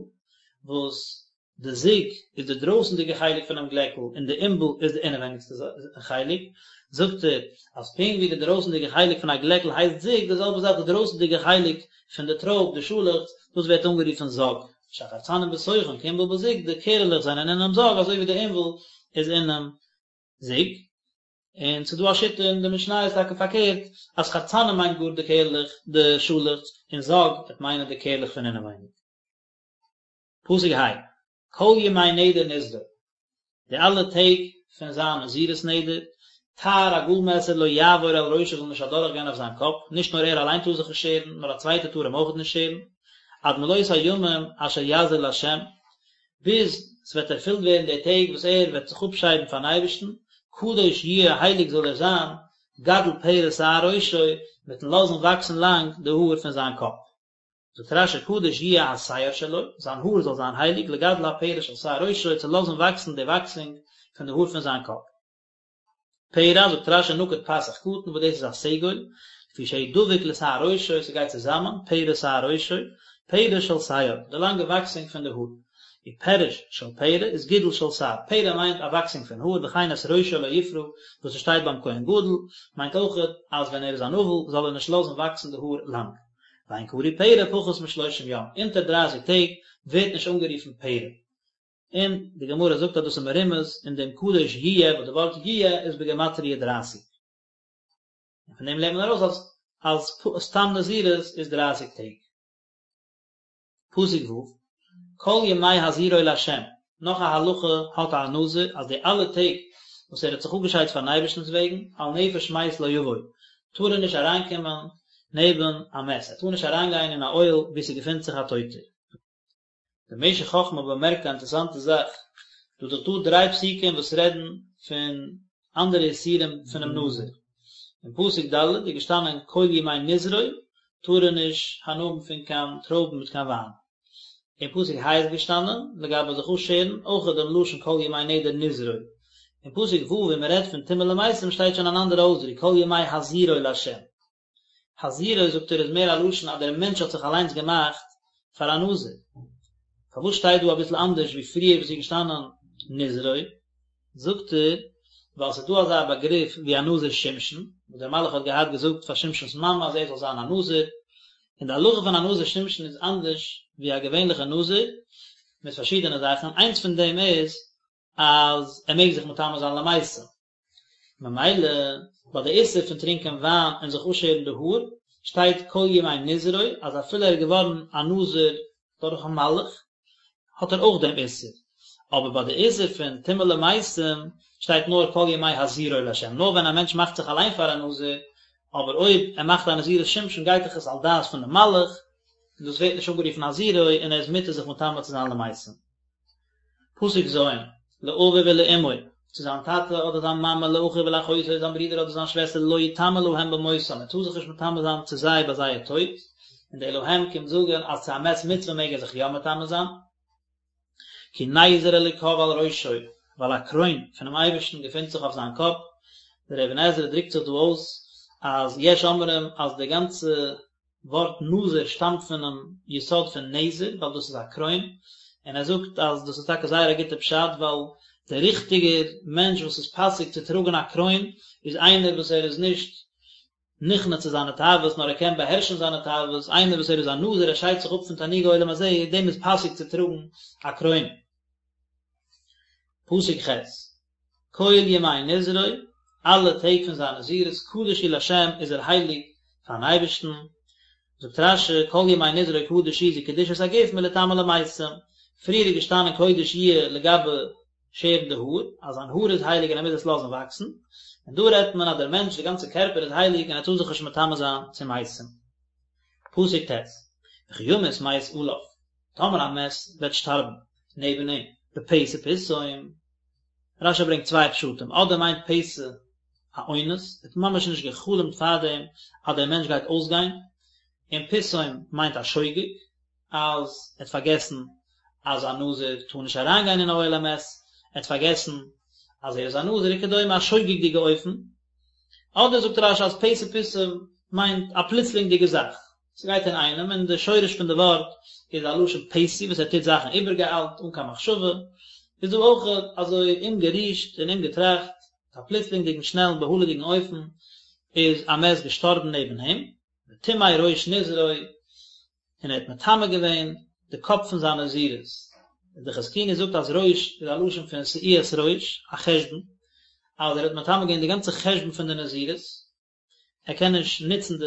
וואס די זוג איז די דרויסנדיגע חלק פונעם גלעקל און די עינבל איז די אינעווייניגסטע חלק, זאגט ער אז פונקט ווי די דרויסנדיגע חלק פון א גלעקל הייסט זוג, די זעלבע זאך די דרויסנדיגע חלק פון די טרויב, די שאלעכץ, דאס ווערט אנגערופן זג. שהחרצנים בתוכן כעינבל בזוג, די קערעלעך זענען אינעם זג אזוי ווי די עינבל איז אינעם זוג. און ס'איז דא א שיטה אין די משניות טאקע פארקערט, אז חרצנים מיינט גאר די קערלעך, די שאלעכץ, און זג וועט מיינען די קערלעך פון אינעווייניג. פסוק ה', כל ימי נדר נזרו, די אלע טעג פון זיין נזירות נדר, תער א גאל מעסער לא יעבור על ראשו זאל נישט אדורך גיין אויף זיין קאפ, נישט נאר ער אליין טאר זיך נישט שערן, נאר א צווייטער טאר אים אויך נישט שערן, עד מלאות הימים אשר יזיר לה', ביז ס'וועט ערפילט ווערן די טעג וואס ער וועט זיך אפשיידן פארן אייבערשטן, קדוש יהיה הייליג זאל ער זיין, גדל פרע שער ראשו, מיטן לאזן וואקסן לאנג די האר פון זיין קאפ. זאגט רש"י קדוש יהיה השער שלו, זיין האר זאל זיין הייליג, לגדל הפרע של שער ראשו, צו לאזן וואקסן די וואקסונג פון די האר פון זיין קאפ. פרע, זאגט רש"י נקוד פתח קטן, וואס דאס איז א סגול, לפי שהוא דבוק לשער ראשו, ס'גייט צוזאמען, פרע שער ראשו, פרע של שער, די לאנגע וואקסונג פון די האר. ופירוש של פרע איז גידול של שער, פרע מיינט א וואקסונג פון האר, וכן את ראשו לא יפרע, וואס עס שטייט ביים כהן גדול, מיינט אויכעט אז ווען ער איז אן אבל זאל ער נישט לאזן וואקסן די האר לאנג. ואין קרוי פרע פחות משלושים יום, אונטער דרייסיג טעג ווערט נישט אנגערופן פרע. און די גמרא זאגט אז דאס איז מרומז אין דעם קדוש יהיה וואס די ווארט יהיה איז בגימטריא דרייסיג. און פון דעם לערנט מען ארויס אז אז סתם נזירות איז דרייסיג טעג. פסוק ו', כל ימי הזירו לה', נאך א הלכה האט א נזיר אז די אלע טעג וואס ער האט זיך אפגעשיידט פארן אייבערשטנ'ס וועגן, אל נפש מת לא יבוא, טאר ער נישט אריינקומען נעבן א מת, ער טאר נישט אריינגיין אין א אוהל וואו ס'געפינט זיך א טויטער. דער משך חכמה באמערקט א אינטערעסאנטע זאך, דא איז דאך דא דריי פסוקים וואס רעדן פון אנדערע איסורים פונעם נזיר. אין פסוק ד' איז געשטאנען כל ימי נזרו טאר ער נישט הנאה האבן פון קיין טרויבן מיט קיין וויין. אין פסוק ה' איז געשטאנען לגבי זיך אפשערן אויך דעם לשון כל ימי נדר נזרו. אין פסוק ו' ווי מען רעדט פון טומאה למתים שטייט שוין אן אנדערע אויסדרוק כל ימי הזירו לה'. הזירו זאגט ער איז מער א לשון אז דער מענטש האט זיך אליינס געמאכט פאר א נזיר. פארוואס שטייט דא אביסל אנדערש ווי פריער וואס איז געשטאנען נזרו? זאגט ער, ווייל ס'איז דא אזא באגריף ווי א נזיר שמשון, וואס דער מלאך האט געהאט געזאגט פאר שמשון'ס מאמע אז ער זאל זיין א נזיר, און די הלכה פון א נזיר שמשון איז אנדערש ווי א געווענליכע נזיר, מיט פארשידענע זאכן, איינס פון דעם איז אז ער מעג זיך מטמא זיין למתים. ממילא ביי די איסור פון טרינקען וויין און זיך אפשערן די האר, שטייט כל ימי נזרו אז אפילו ער איז געווארן א נזיר דורכן מלאך האט ער אויך דעם איסור, אבער ביי די איסור פון טומאה למתים שטייט נאר כל ימי הזירו לה', נאר ווען א מענטש מאכט זיך אליין פאר א נזיר, אבער אויב ער מאכט א נזירות שמשון גייט דאך עס על דעת פון די מלאך, און דאס ווערט נישט אנגערופן הזירו און ער איז מותר זיך מטמא צו זיין למתים. פסוק ז', לאביו ולאמו, צו זיין טאטע אדער זיין מאמע, לאחיו ולאחותו, זיין ברודער אדער זיין שוועסטער, לא יטמא להם במותם, ער טאר זיך נישט מטמא זיין צו זיי ביי זייער טויט, און די להם קומט זאגן אז צו א מת מצוה מעג ער זיך יא מטמא זיין, כי נזר אלוקיו על ראשו, ווייל א קרוין פונעם אייבערשטן געפינט זיך אויף זיין קאפ, דער אבן עזרא דרוקט זיך דא אויס אז יש אומרים אז די גאנצע ווארט נזיר שטאמט פונעם יסוד פון נזר ווייל דאס איז א קרוין, און ער זאגט אז דאס איז טאקע זייער א גוטע פשט ווייל דער ריכטיגער מענטש וואס איז פאסיג צו טראגן א קרוין איז איינער וואס ער איז נישט נכנע צו זיינע תאוות נאר ער קען באהערשן זיינע תאוות, איינער וואס ער איז א נזיר ער שיידט זיך אפ פון תענוגי עולם הזה, דעם איז פאסיג צו טראגן א קרוין. פסוק ח'. כל ימי נזרו, אלע טעג פון זיין נזירות, קדוש הוא לה', איז ער הייליג פארן אייבערשטן. זאגט רש"י, כל ימי נזרו קדוש הוא זו קדושת הגוף מליטמא למתים. פריער איז געשטאנען קודש יהיה לגבי שערן די האר, אז זיין האר איז הייליג און ער מוז עס לאזן וואקסן, און דא רעדט מען אז דער מענטש, די גאנצע קערפער איז הייליג און ער טאר זיך נישט מטמא זיין צו מתים. פסוק ט', וכי ימות מת עליו, טאמער א מת וועט שטארבן נעבן אים, בפתע פתאום, רש"י ברענגט צוויי פשטים, אדער מיינט פתע א אונס, ער האט ממש נישט גע'חלומ'ט פארדעם אז דער מענטש גייט אויסגיין, און פתאום מיינט א שוגג, אז ער האט פארגעסן אז א נזיר טאר נישט אריינגיין אין אוהל המת, ער האט פארגעסן אז ער איז א נזיר וכדומה א שוגג'דיגע אופן, אדער זאגט רש"י אז פתע פתאום מיינט א פלוצלינגדיגע זאך, ס'גייט אינאיינעם, און די שורש פון די ווארט איז א לשון פתי וואס ער טוט זאכן איבערגעאיילט אן קיין מחשבה, איז דא אויך אזוי אומגערישט און אומגעטראכט, א פלוצלינגדיגן שנעלן בהלה'דיגן אופן איז א מת געשטארבן נעבן אים, וטמא ראש נזרו, און ער האט מטמא געווען די קאפ פון זיין נזירות. די חזקוני זאגט אז ראש איז א לשון פון שאו את ראש, א חשבון, אז ער האט מטמא געווען די גאנצע חשבון פון די נזירות, ער קען נישט נוצן די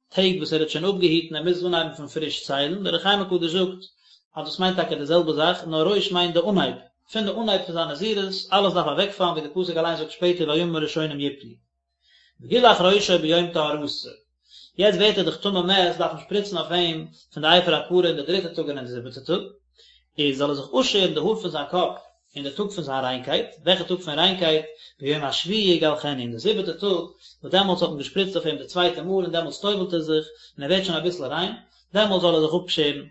טעג וואס ער האט שוין אפגעהיטן, ער מוז אנהייבן פון פריש ציילן, דער אור החיים הקדוש זאגט אז דאס מיינט טאקע די זעלבע זאך, נאר ראש מיינט די אנהייב, פון די אנהייב פון זיין נזירות, אלעס דארף אוועקפאלן ווי די פסוק אליין זאגט שפעטער והימים הראשונים יפלו. וגילח ראשו ביום טהרתו. יעצט ווערט ער דאך טמא מת, דארף מען שפריצן אויף אים פון די אפר הפרה אין די דריטע טאג און אין די זיבעטע טאג, איז זאל ער זיך אפשערן די האר פון זיין קאפ אין די טאג פון זיין ריינקייט, וועלכע טאג פון ריינקייט? ביום השביעי יגלחנו, אין די זיבעטע טאג, וואס דעמאלטס האט מען געשפריצט אויף אים די צווייטע מאל און דעמאלטס טובל'ט ער זיך, און ער ווערט שוין אביסל ריין, דעמאלטס זאל ער זיך אפשערן.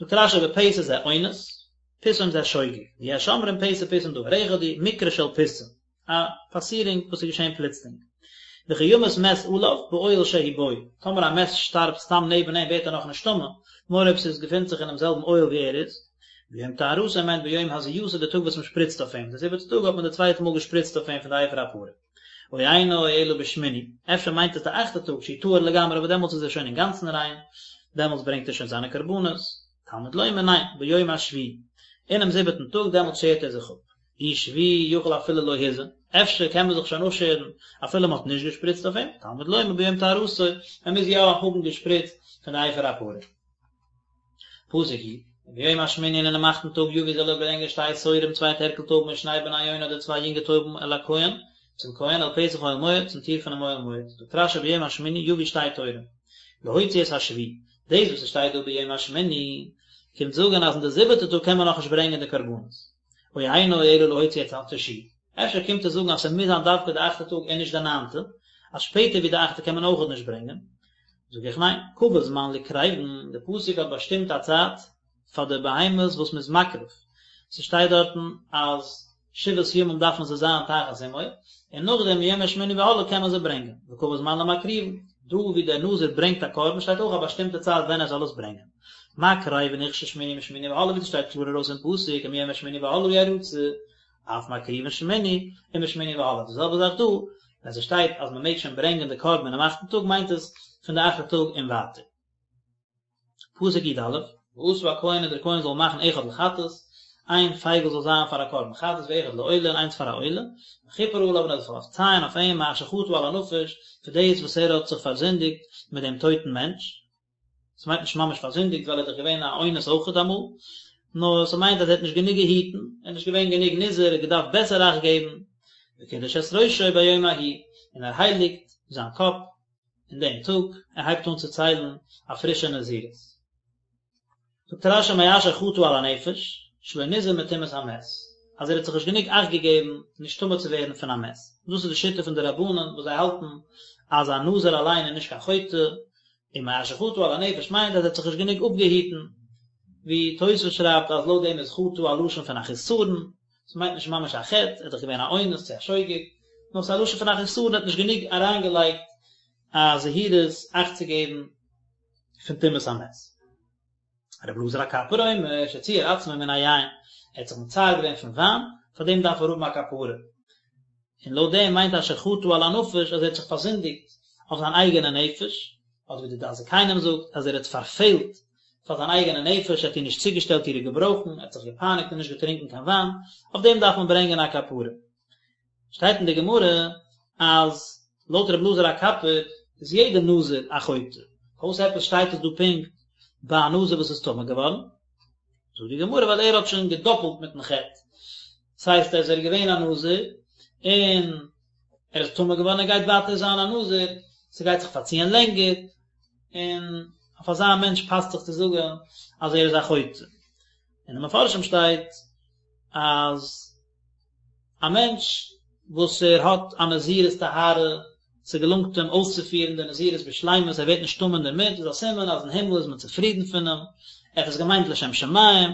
זאגט רש"י בפתע זה אונס, פתאום זה שוגג, ויש אומרים פתע פתאום דבר אחד הוא, מקרה של פתאום. א פאסירונג וואס איז געשען פלוצלינג. וכי ימות מת עליו באוהל שהוא בו, טאמער א מת שטארבט סתם נעבן אים ווערט ער נאך נישט טמא, נאר אויב ס'איז געפינט זיך אינעם זעלבן אוהל ווי ער איז. ביום טהרתו מיינט ביום הזייתו די טאג וואס מ'שפריצט אויף אים, די זיבעטע טאג האט מען די צווייטע מאל געשפריצט אויף אים פון די אפר הפרה. או אינו אלא בשמיני, אפשר מיינט עס די אכטע טאג שהוא טהור לגמרי וואס דעמאלטס איז ער שוין אינגאנצן ריין, דעמאלטס ברענגט ער שוין זיינע קרבנות. תלמוד לומר ניין, ביום השביעי, אינעם זיבעטן טאג דעמאלטס שערט ער זיך אפ. אי שביעי יכול אפילו לא הזה, אפשר קען מען זיך שוין אפשערן אפילו מען האט נישט געשפריצט אויף אים, תלמוד לומר ביום טהרתו, מען מוז יא האבן געשפריצט פון די אפר הפרה. פסוק י, וביום השמיני און אינעם אכטן טאג יביא זאל ער ברענגען שתי תורים צוויי טערקל טויבן או שני בני יונה אדער צוויי יונגע טויבן אל הכהן, צום כהן אל פתח אוהל מועד, צום טיר פונעם אוהל מועד. זאגט רש"י ביום השמיני יביא שתי תורים, להוציא את השביעי, דאס וואס עס שטייט דא ביום השמיני. קומט זאגן אז אין די זיבעטע טאג קען מען נאכנישט ברענגען די קרבנות. או אינו אלא להוציא את התשיעי. אפשר קומט עס זאגן אז ס'מוז זיין דווקא די אכטע טאג און נישט די ניינטע, אז שפעטער ווי די אכטע קען מען אויכעט נישט ברענגען. זאג איך ניין, קבע זמן לקרבין, די פסוק האט באשטימט א צייט פאר די בהמות וואס מ'איז מקריב, ס'שטייט דארטן אז שבעת ימים דארפן זיי זיין תחת אמו, און נאכדעם מיום השמיני והלאה קען מען זיי ברענגען, וקבע זמן למקריבין, דא ווי דער נזיר ברענגט א קרבן שטייט אויך א באשטימטע צייט ווען ער זאל עס ברענגען. מה קרבין הוכשר שמיני ומשמיני והלאה ווי ס'שטייט קלאר ארויס אין פסוק ומיום השמיני והלאה ירצה, אף מקריבין שמיני ומשמיני והלאה, די זעלבע זאך דא, ווען ס'שטייט אז מ'מעג שוין ברענגען די קרבן אינעם אכטן טאג מיינט עס פון די אכטע טאג און ווייטער. פסוק י א, ועשה הכהן און דער כהן זאל מאכן אחד לחטאת, איין פייגל זאל זיין פאר א קרבן חטאת ואחד לעולה און איינס פאר א עולה, וכפר עליו און ער זאל פארצייען אויף אים מאשר חטא על הנפש, פאר דאס וואס ער האט זיך פארזינדיגט מיט דעם טויטן מענטש. עס מיינט נישט ממש פארזינדיגט ווייל ער איז דאך געווען א אונס אויכעט אמאל, נאר ס'מיינט אז ער האט נישט גענוג געהיטן, ער איז נישט געווען גענוג נזהר, ער האט געדארפט בעסער אכט געבן, וקידש את ראשו ביום ההוא, און ער הייליגט זיין קאפ אין דעם טאג, ער הייבט אן צו ציילן א פרישע נזירות. זאגט רש י מאשר חטא על הנפש, שלא נזהר מטומאת המת, אז ער האט זיך נישט גענוג אכט געגעבן נישט טמא צו ווערן פון א מת. דאס איז די שיטה פון די רבנן וואס זיי האלטן אז א נזיר אליין איז נישט קיין חוטא, און מאשר חטא על הנפש מיינט אז ער האט זיך נישט גענוג אפגעהיטן, ווי תוספות שרייבט אז לויט דעם איז חטא א לשון פון א חיסרון, ס'מיינט נישט ממש א חטא, ער איז דאך געווען א אונס צו א שוגג, נאר ס'איז א לשון פון א חיסרון, ער האט נישט גענוג אריינגעלייגט א זהירות אכט צו געבן פון טומאת המת. רבי אלעזר הקפר אומר שציער עצמו מן היין, ער האט זיך מצער געווען פון וויין, פאר דעם דארף ער האבן א כפרה. און לויט דעם מיינט אשר חטא על הנפש אז ער האט זיך פארזינדיגט אויף זיין אייגענע נפש, אדער ווי די דעת זקנים זאגט אז ער האט פארפעלט פאר זיין אייגענע נפש, ער האט איר נישט צוגעשטעלט אירע געברויכן, ער האט זיך געפייניגט און נישט געטרינקען קיין וויין, אויף דעם דארף מען ברענגען א כפרה. שטייט אין די גמרא אז לויט רבי אלעזר הקפר איז יעדער נזיר א חוטא, פארוואס עפעס שטייט עס דא פונקט ביי א נזיר וואס איז טמא געווארן? זאגט די גמרא ווייל ער האט שוין געדאפלט מיטן חטא, דאס הייסט אז ער איז געווען א נזיר און ער איז טמא געווארן ער גייט ווייטער זיין א נזיר, ס'גייט זיך פארציען לענגער, און אויף אזא מענטש פאסט זיך צו זאגן אז ער איז א חוטא. אין די מפרשים שטייט אז א מענטש וואס ער האט א נזירות טהרה, ס'געלונגט אים אויסצופירן די נזירות בשלימות, ער ווערט נישט טמא אינדערמיט, איז א סימן אז אין הימל איז מען צופרידן פון אים, ער האט עס געמיינט לשם שמים,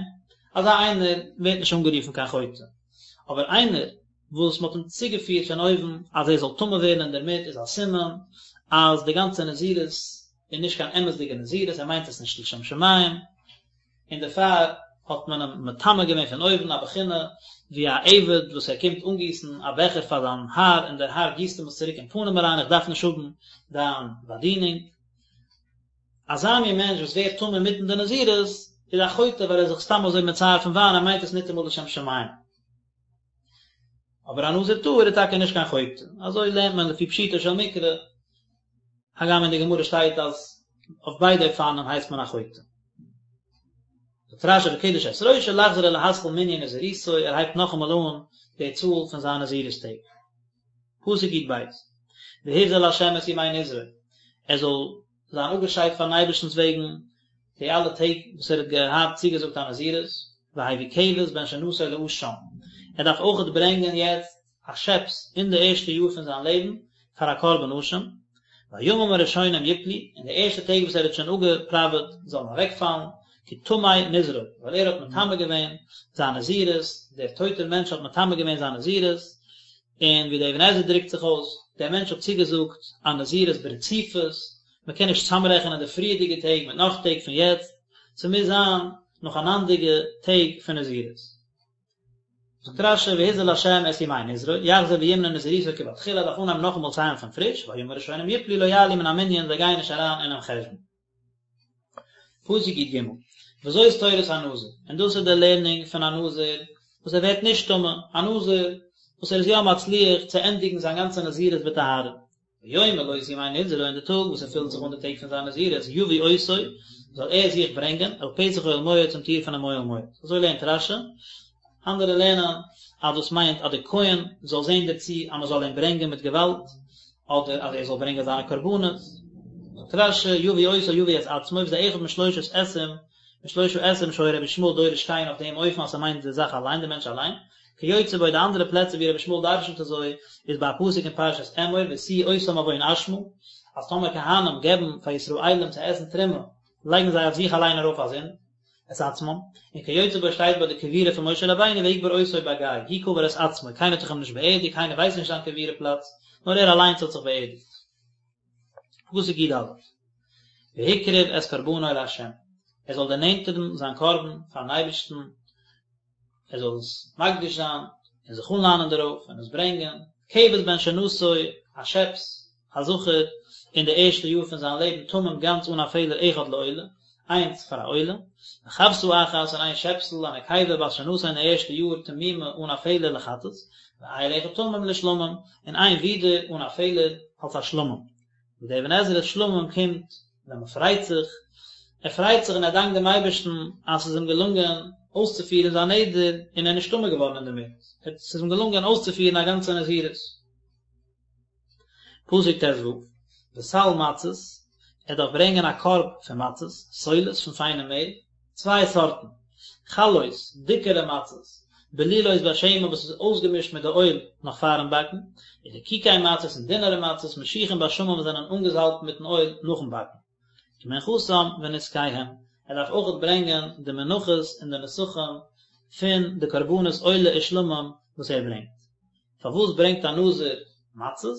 אזא איינער ווערט נישט אנגערופן קיין חוטא. אבער איינער וואס מ'האט אים צוגעפירט פון אויבן אז ער זאל טמא ווערן אינדערמיט איז א סימן אז די גאנצע נזירות איז נישט קיין אמת'דיגע נזירות, ער מיינט עס נישט לשם שמים, און דערפאר האט מען אים מטמא געווען פון אויבן, א בחינה ווי א עבד וואס ער קומט אנגיסן א בעכער פאר זיין האר און דער האר גיסט אים עס צוריק אין פנים אריין, איך דארף נישט האבן דיין באדינונג. אזא מין מענטש וואס ווערט טמא אינמיטן די נזירות איז א חוטא ווייל ער איז זיך סתם אזוי מצער פון וויין, ער מיינט עס ניטאמאל לשם שמים. אבער א נזיר טהור איז טאקע נישט קיין חוטא, אזוי לערנט מען לפי פשוטו של מקרא, הגם אין די גמרא שטייט אז אויף ביידע אופנים הייסט מען א חוטא. זאגט רשי וקדש את ראשו לחזור ולהתחיל מנין נזירותו, ער הייבט נאכאמאל אן די צאל פון זיין נזירות טעג. פסוק י ב, והבדיל לה' את ימי נזרו, ער זאל זיין אפגעשיידט פארן אייבערשטנ'ס וועגן די אלע טעג וואס ער האט געהאט צוגעזאגט א נזירות, והביא כבש בן שנתו לאשם, ער דארף אויכעט ברענגען יעצט א שעפס אין די ערשטע יאר פון זיין לעבן פאר א קרבן אשם, והימים הראשונים יפלו, און די ערשטע טעג וואס ער האט שוין אפגעפראוועט זאלן אוועקפאלן, כי טמא נזרו, ווייל ער האט מטמא געווען זיין נזירות, דער טויטער מענטש האט מטמא געווען זיין נזירות, און ווי דער אבן עזרא דרוקט זיך אויס, דער מענטש האט צוגעזאגט א נזירות ברציפות, מען קען נישט צוזאמרעכענען די פריערדיגע טעג מיט נאך טעג פון יעצט, ס'מוז זיין נאכאנאנדיגע טעג פון נזירות. זאגט רשי והבדיל לה' את ימי נזרו, יחזור וימנה נזירותו כבתחילה, דארף אנהייבן נאכאמאל ציילן פון פריש, והימים הראשונים יפלו לא יעלו מן המנין, זיי גייען נישט אריין אינעם חשבון. פסוק י ג, וזאת תורת הנזיר, און דאס איז די לערנונג פון א נזיר וואס ער ווערט נישט טמא, א נזיר וואס ער איז יא מצליח צו ענדיגן זיין גאנצע נזירות בטהרה. ביום מלאות ימי נזרו אין די טאג וואס ער פילט זיך אן די טעג פון זיין נזירות, יביא אותו, זאל ער זיך ברענגען, אל פתח אוהל מועד צום טיר פונעם אוהל מועד. אזוי לערנט רשי, אנדערע לערנען אז דאס מיינט אז דער כהן זאל זען דערצו אז מען זאל אים ברענגען מיט געוואלד, אדער אז ער זאל ברענגען זיינע קרבנות. זאגט רשי, יביא אותו יביא את עצמו, וזה אחד משלושת אתים. משלושה אתרים שהיה רבי ישמעאל דורש כן אויף דעם אופן אז ס'מיינט די זאך אליין די מענטש אליין, כיוצא בו די אנדערע פלעצער ווי רבי ישמעאל דרשנ'ט אזוי איז ביי א פסוק אין פרשת אמור והשיאו אותם עון אשמה אז טאמער כהנים געבן פאר ישראלים צו עסן תרומה לייגן זיי אויף זיך אליין ארויף א זינד, את עצמם, און כיוצא בו שטייט ביי די קבורה פון משה רבינו ויקבר אותו בגיא, הוא קבר את עצמו, קיינער האט דאך אים נישט באערדיגט, קיינער ווייסט נישט זיין קבורה פלאץ, נאר ער אליינס האט זיך באערדיגט. פסוק י א, והקריב את קרבנו לה', ער זאל דערנענטערן זיין קרבן פארן אייבערשטן, ער זאל עס מקדיש זיין און זיך אנלאנען דערויף און עס ברענגען, כבש בן שנתו, א שעפס, א זכר, אין די ערשטע יאר פון זיין לעבן תמים גאנץ אן א פעלער אחד לעולה, איינס פאר א עולה, וכבשה אחת און איין שעפסל, א נקבה בת שנתו אין די ערשטע יאר תמימה אן א פעלער לחטאת, ואיל אחד תמים לשלמים, און איין ווידער אן א פעלער אלס א שלמים. זאגט דער אבן עזרא שלמים קומט ווען מען פרייט זיך, ער פרייט זיך און ער דאנקט דעם אייבערשטן אז ס'איז אים געלונגען אויסצופירן זיין נדר און ער איז נישט טמא געווארן אינדערמיט, ס'איז אים געלונגען אויסצופירן א גאנצע נזירות. פסוק ט ו, וסל מצות, ער דארף ברענגען א קארב פון מצות, סולת פון פיינע מעל, צוויי סארטן, חלות, דיקערע מצות, בלולות בשמן וואס איז אויסגעמישט מיט די אויל נאך פארן באקן, ורקיקי מצות און דינערע מצות, משוחים בשמן וואס זענען אנגעזאלבט מיטן אויל נאכן באקן. ומנחתם ונסכיהם, ער דארף אויכעט ברענגען די מנחות און די נסכים פון די קרבנות עולה ושלמים וואס ער ברענגט. פארוואס ברענגט א נזיר מצות?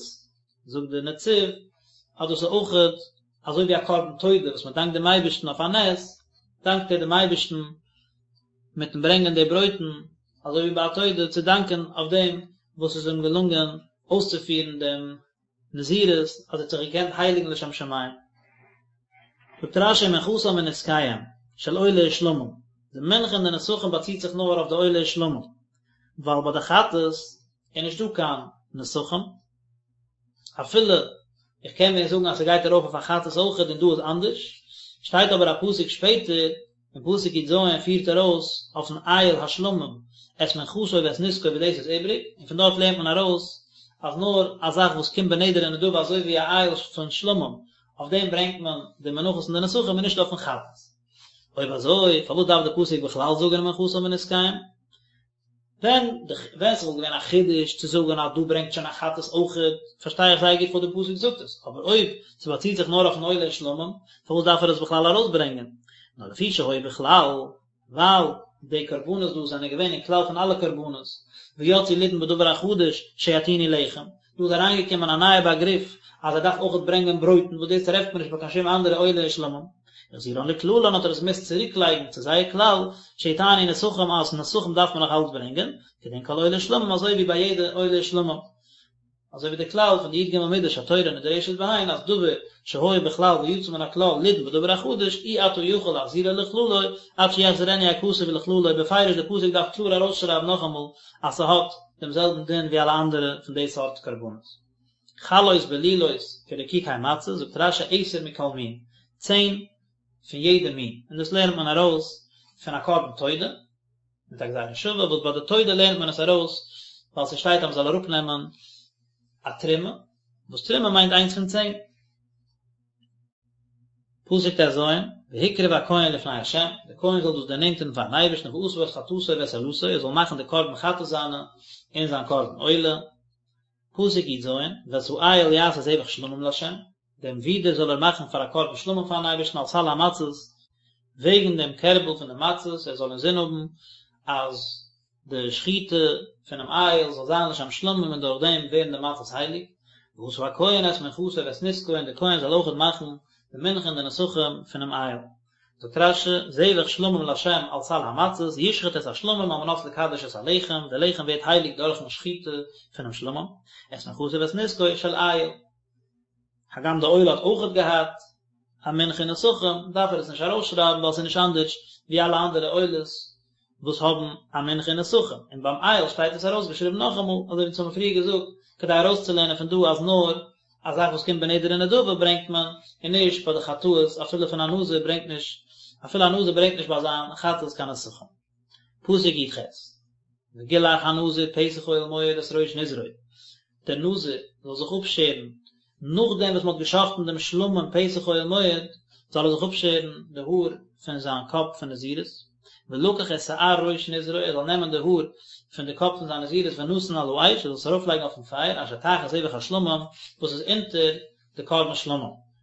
זאגט דער נציב אז דאס איז אויכעט אזוי ווי א קרבן תודה וואס מען דאנקט דעם אייבערשטן אויף א נס, דאנקט ער דעם אייבערשטן מיטן ברענגען די ברויטן, אזוי ווי ביי א תודה צו דאנקען אויף דעם וואס עס איז אים געלונגען אויסצופירן דעם נזירות, אז ער האט זיך געקענט הייליגן לשם שמים. זאגט רשי מנחתם ונסכיהם של עולה ושלמים, די מנחה און די נסכים באציט זיך נאר אויף די עולה ושלמים, ווייל ביי די חטאת איז נישטא קיין נסכים, אפילו איך קען ווען זאגן אז ס'גייט ארויף אויף א חטאת אויכעט און דא איז אנדערש, שטייט אבער א פסוק שפעטער, אין פסוק י ז פירט ער אויס אויפן איל השלמים את מנחתו ואת נסכו ווי דאס איז איבריג, און פון דארט לערנט מען ארויס אז נאר א זאך וואס קומט בנדר ונדבה אזוי ווי א איל פון שלמים, אויף דעם ברענגט מען די מנחות און די נסכים און נישט אויפן חטאת. אויב אזוי פארוואס דארף די פסוק בכלל זאגן ומנחתם ונסכיהם? ווען די ווען ס'וואלט געווען א חידוש צו זאגן אז דא ברענגט שוין א חטאת אויכעט, פארשטיי איך זייער גוט פארוואס די פסוק זאגט עס, אבער אויב ס'באציט זיך נאר אויפן עולה ושלמים, פארוואס דארף ער עס בכלל ארויסברענגען? נאר לפי שהיו בכלל, ווייל די קרבנות דא זענען געווען אין כלל פון אלע קרבנות, ויצאו לידון בדבר החדש שיטעינו לחם, דא איז אריינגעקומען א נייע באגריף אז ער דארף אויכעט ברענגען ברויטן וואס דאס טרעפט מען נישט ביי קיין שום אנדערע עולה ושלמים. החזירן לכללן האט ער עס געמוזט צוריקלייגן צו זייער כלל, שיטענו נסכים אז נסכים דארף מען נאך אלץ ברענגען, כדין כל עולה ושלמים אזוי ווי ביי יעדע עולה ושלמים. אזוי ווי די כלל פון די י ג מידות שהתורה נדרשת בהן אז דבר שהיה בכלל ויצא מן הכלל לידון בדבר החדש אי אתה יכול להחזירו לכללו עד שיחזירנו הכתוב לכללו בפירוש די פסוק דארף קלאר ארויסשרייבן נאכאמאל אז ס'האט דעם זעלבן דין ווי אלע אנדערע פון די סארט קרבנות. חלות בלולות כרקיקי מצות, זאגט רשי עשר מכל מין, צען פון יעדע מין, און דאס לערנט מען ארויס פון א קרבן תודה, מיט א גזירה שווה, וואס ביי די תודה לערנט מען עס ארויס ווייל ס'שטייט אז מ'זאל אראפנעמען א תרומה, וואס תרומה מיינט איינס פון צען. פסוק ט ז, והקריב הכהן לפני ה', דער כהן זאל דאס דערנענטערן פארן אייבערשטן ועשה את חטאתו ואת עולתו, ער זאל מאכן די קרבן חטאת זיינע און זיין קרבן עולה. פסוק י ז, ואת האיל יעשה זבח שלמים לה', דעם ווידער זאל ער מאכן פאר א קרבן שלמים פארן אייבערשטן על סל המצות, וועגן דעם קערבל פון די מצות, ער זאל אינזין האבן אז די שחיטה פונעם איל זאל זיין לשם שלמים און דורך דעם ווערן די מצות הייליג, ועשה הכהן את מנחתו ואת נסכו און דער כהן זאל אויכעט מאכן די מנחה און די נסכים פונעם איל. זאגט רשי, זבח שלמים לה' על סל המצות, ישחט את השלמים על מנת לקדש את הלחם, די לחם ווערט הייליג דורכן שחיטה פונעם שלמים, את מנחתו ואת נסכו של איל. הגם די עולה האט אויכעט געהאט א מנחה און נסכים, דארף ער עס נישט ארויסשרייבן ווייל עס איז נישט אנדערש ווי אלע אנדערע עולות וואס האבן א מנחה און נסכים, און ביים איל שטייט עס ארויסגעשריבן נאכאמאל, אזוי ווי אונז האבן פריער געזאגט, כדי ארויסצולערנען פון דא אז נאר א זאך וואס קומט בנדר ונדבה ברענגט מען, און נישט ביי די חטאות, אפילו פון א נזיר ברענגט נישט, אפילו א נזיר ברענגט נישט ביי זיין חטאת קיין נסכים. פסוק י ח, וגלח הנזיר פתח אוהל מועד את ראש נזרו, דער נזיר זאל זיך אפשערן נאכדעם וואס מען האט געשחט'ן דעם שלמים פתח אוהל מועד, זאל ער זיך אפשערן די האר פון זיין קאפ פון נזירות, ולקח את שער ראש נזרו, ער זאל נעמען די האר פון די קאפ פון זיין נזירות ונתן על האש, ער זאל עס ארויפלייגן אויפן פייער, אשר תחת זבח השלמים, וואס איז אונטער די קרבן שלמים,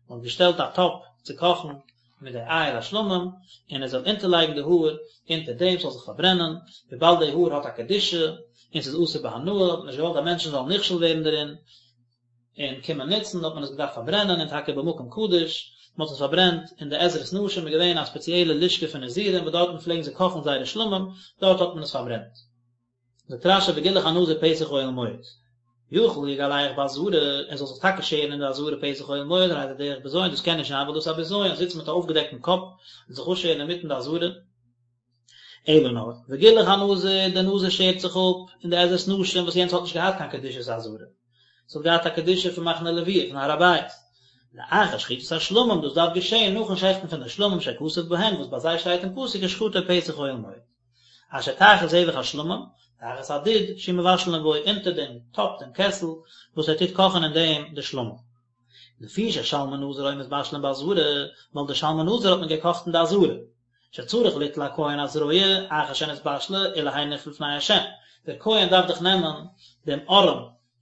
מען האט געשטעלט א טאפ צו קאכן מיט די איל השלמים, און ער זאל אונטערלייגן די האר אונטער דעם ס'זאל זיך פארברענען, וויבאלד די האר האט א קדושה, און ס'איז אסור בהנאה, האט מען נישט געוואלט אז מענטשן זאלן נכשל ווערן דערין, און קומען נוצן, האט מען עס געדארפט פארברענען, און טאקע במקום קדוש, מען האט עס פארברענט אין די עזרת נשים איז געווען א ספעציעלע לשכה פון נזירים וואס דארטן פלעגן זיי קאכן זייערע שלמים, דארט האט מען עס פארברענט. זאגט רש"י וגילח הנזיר פתח אוהל מועד. יכול יגלח בעזרה, ער זאל זיך טאקע שערן אין די עזרה פתח אוהל מועד, הרי זה דרך בזיון, דאס קען נישט זיין ווייל דאס איז א בזיון, זיצן מיט א אויפגעדעקטן קאפ און זיך אפשערן אינמיטן די עזרה. אלא נאר, וגילח הנזיר, דער נזיר שערט זיך אפ אין די עזרת נשים וואס יענץ האט נישט געהאט קיין קדושת עזרה, עס האט געהאט א קדושה פון מחנה לוויה, פון הר הבית. לאחר שחיטת השלמים, דאס דארף געשען נאכן שעכטן פון די שלמים שכתוב בהן, וואס ביי זיי שטייט אין פסוק ושחטו פתח אוהל מועד. אשר תחת זבח השלמים, תחת הדוד, שהוא מבשלין בו, אונטער דעם טאפ, דעם קעסל, וואס ער טוט קאכן אין דעם די שלמים. לפי ששלמי נזיר היו מתבשלין בעזרה, ווייל די שלמי נזיר האט מען געקאכט אין די עזרה. שצריך ליטול הכהן הזרוע אחר שנתבשלה ולהניף לפני השם, דער כהן דארף דאך נעמען דעם ארעם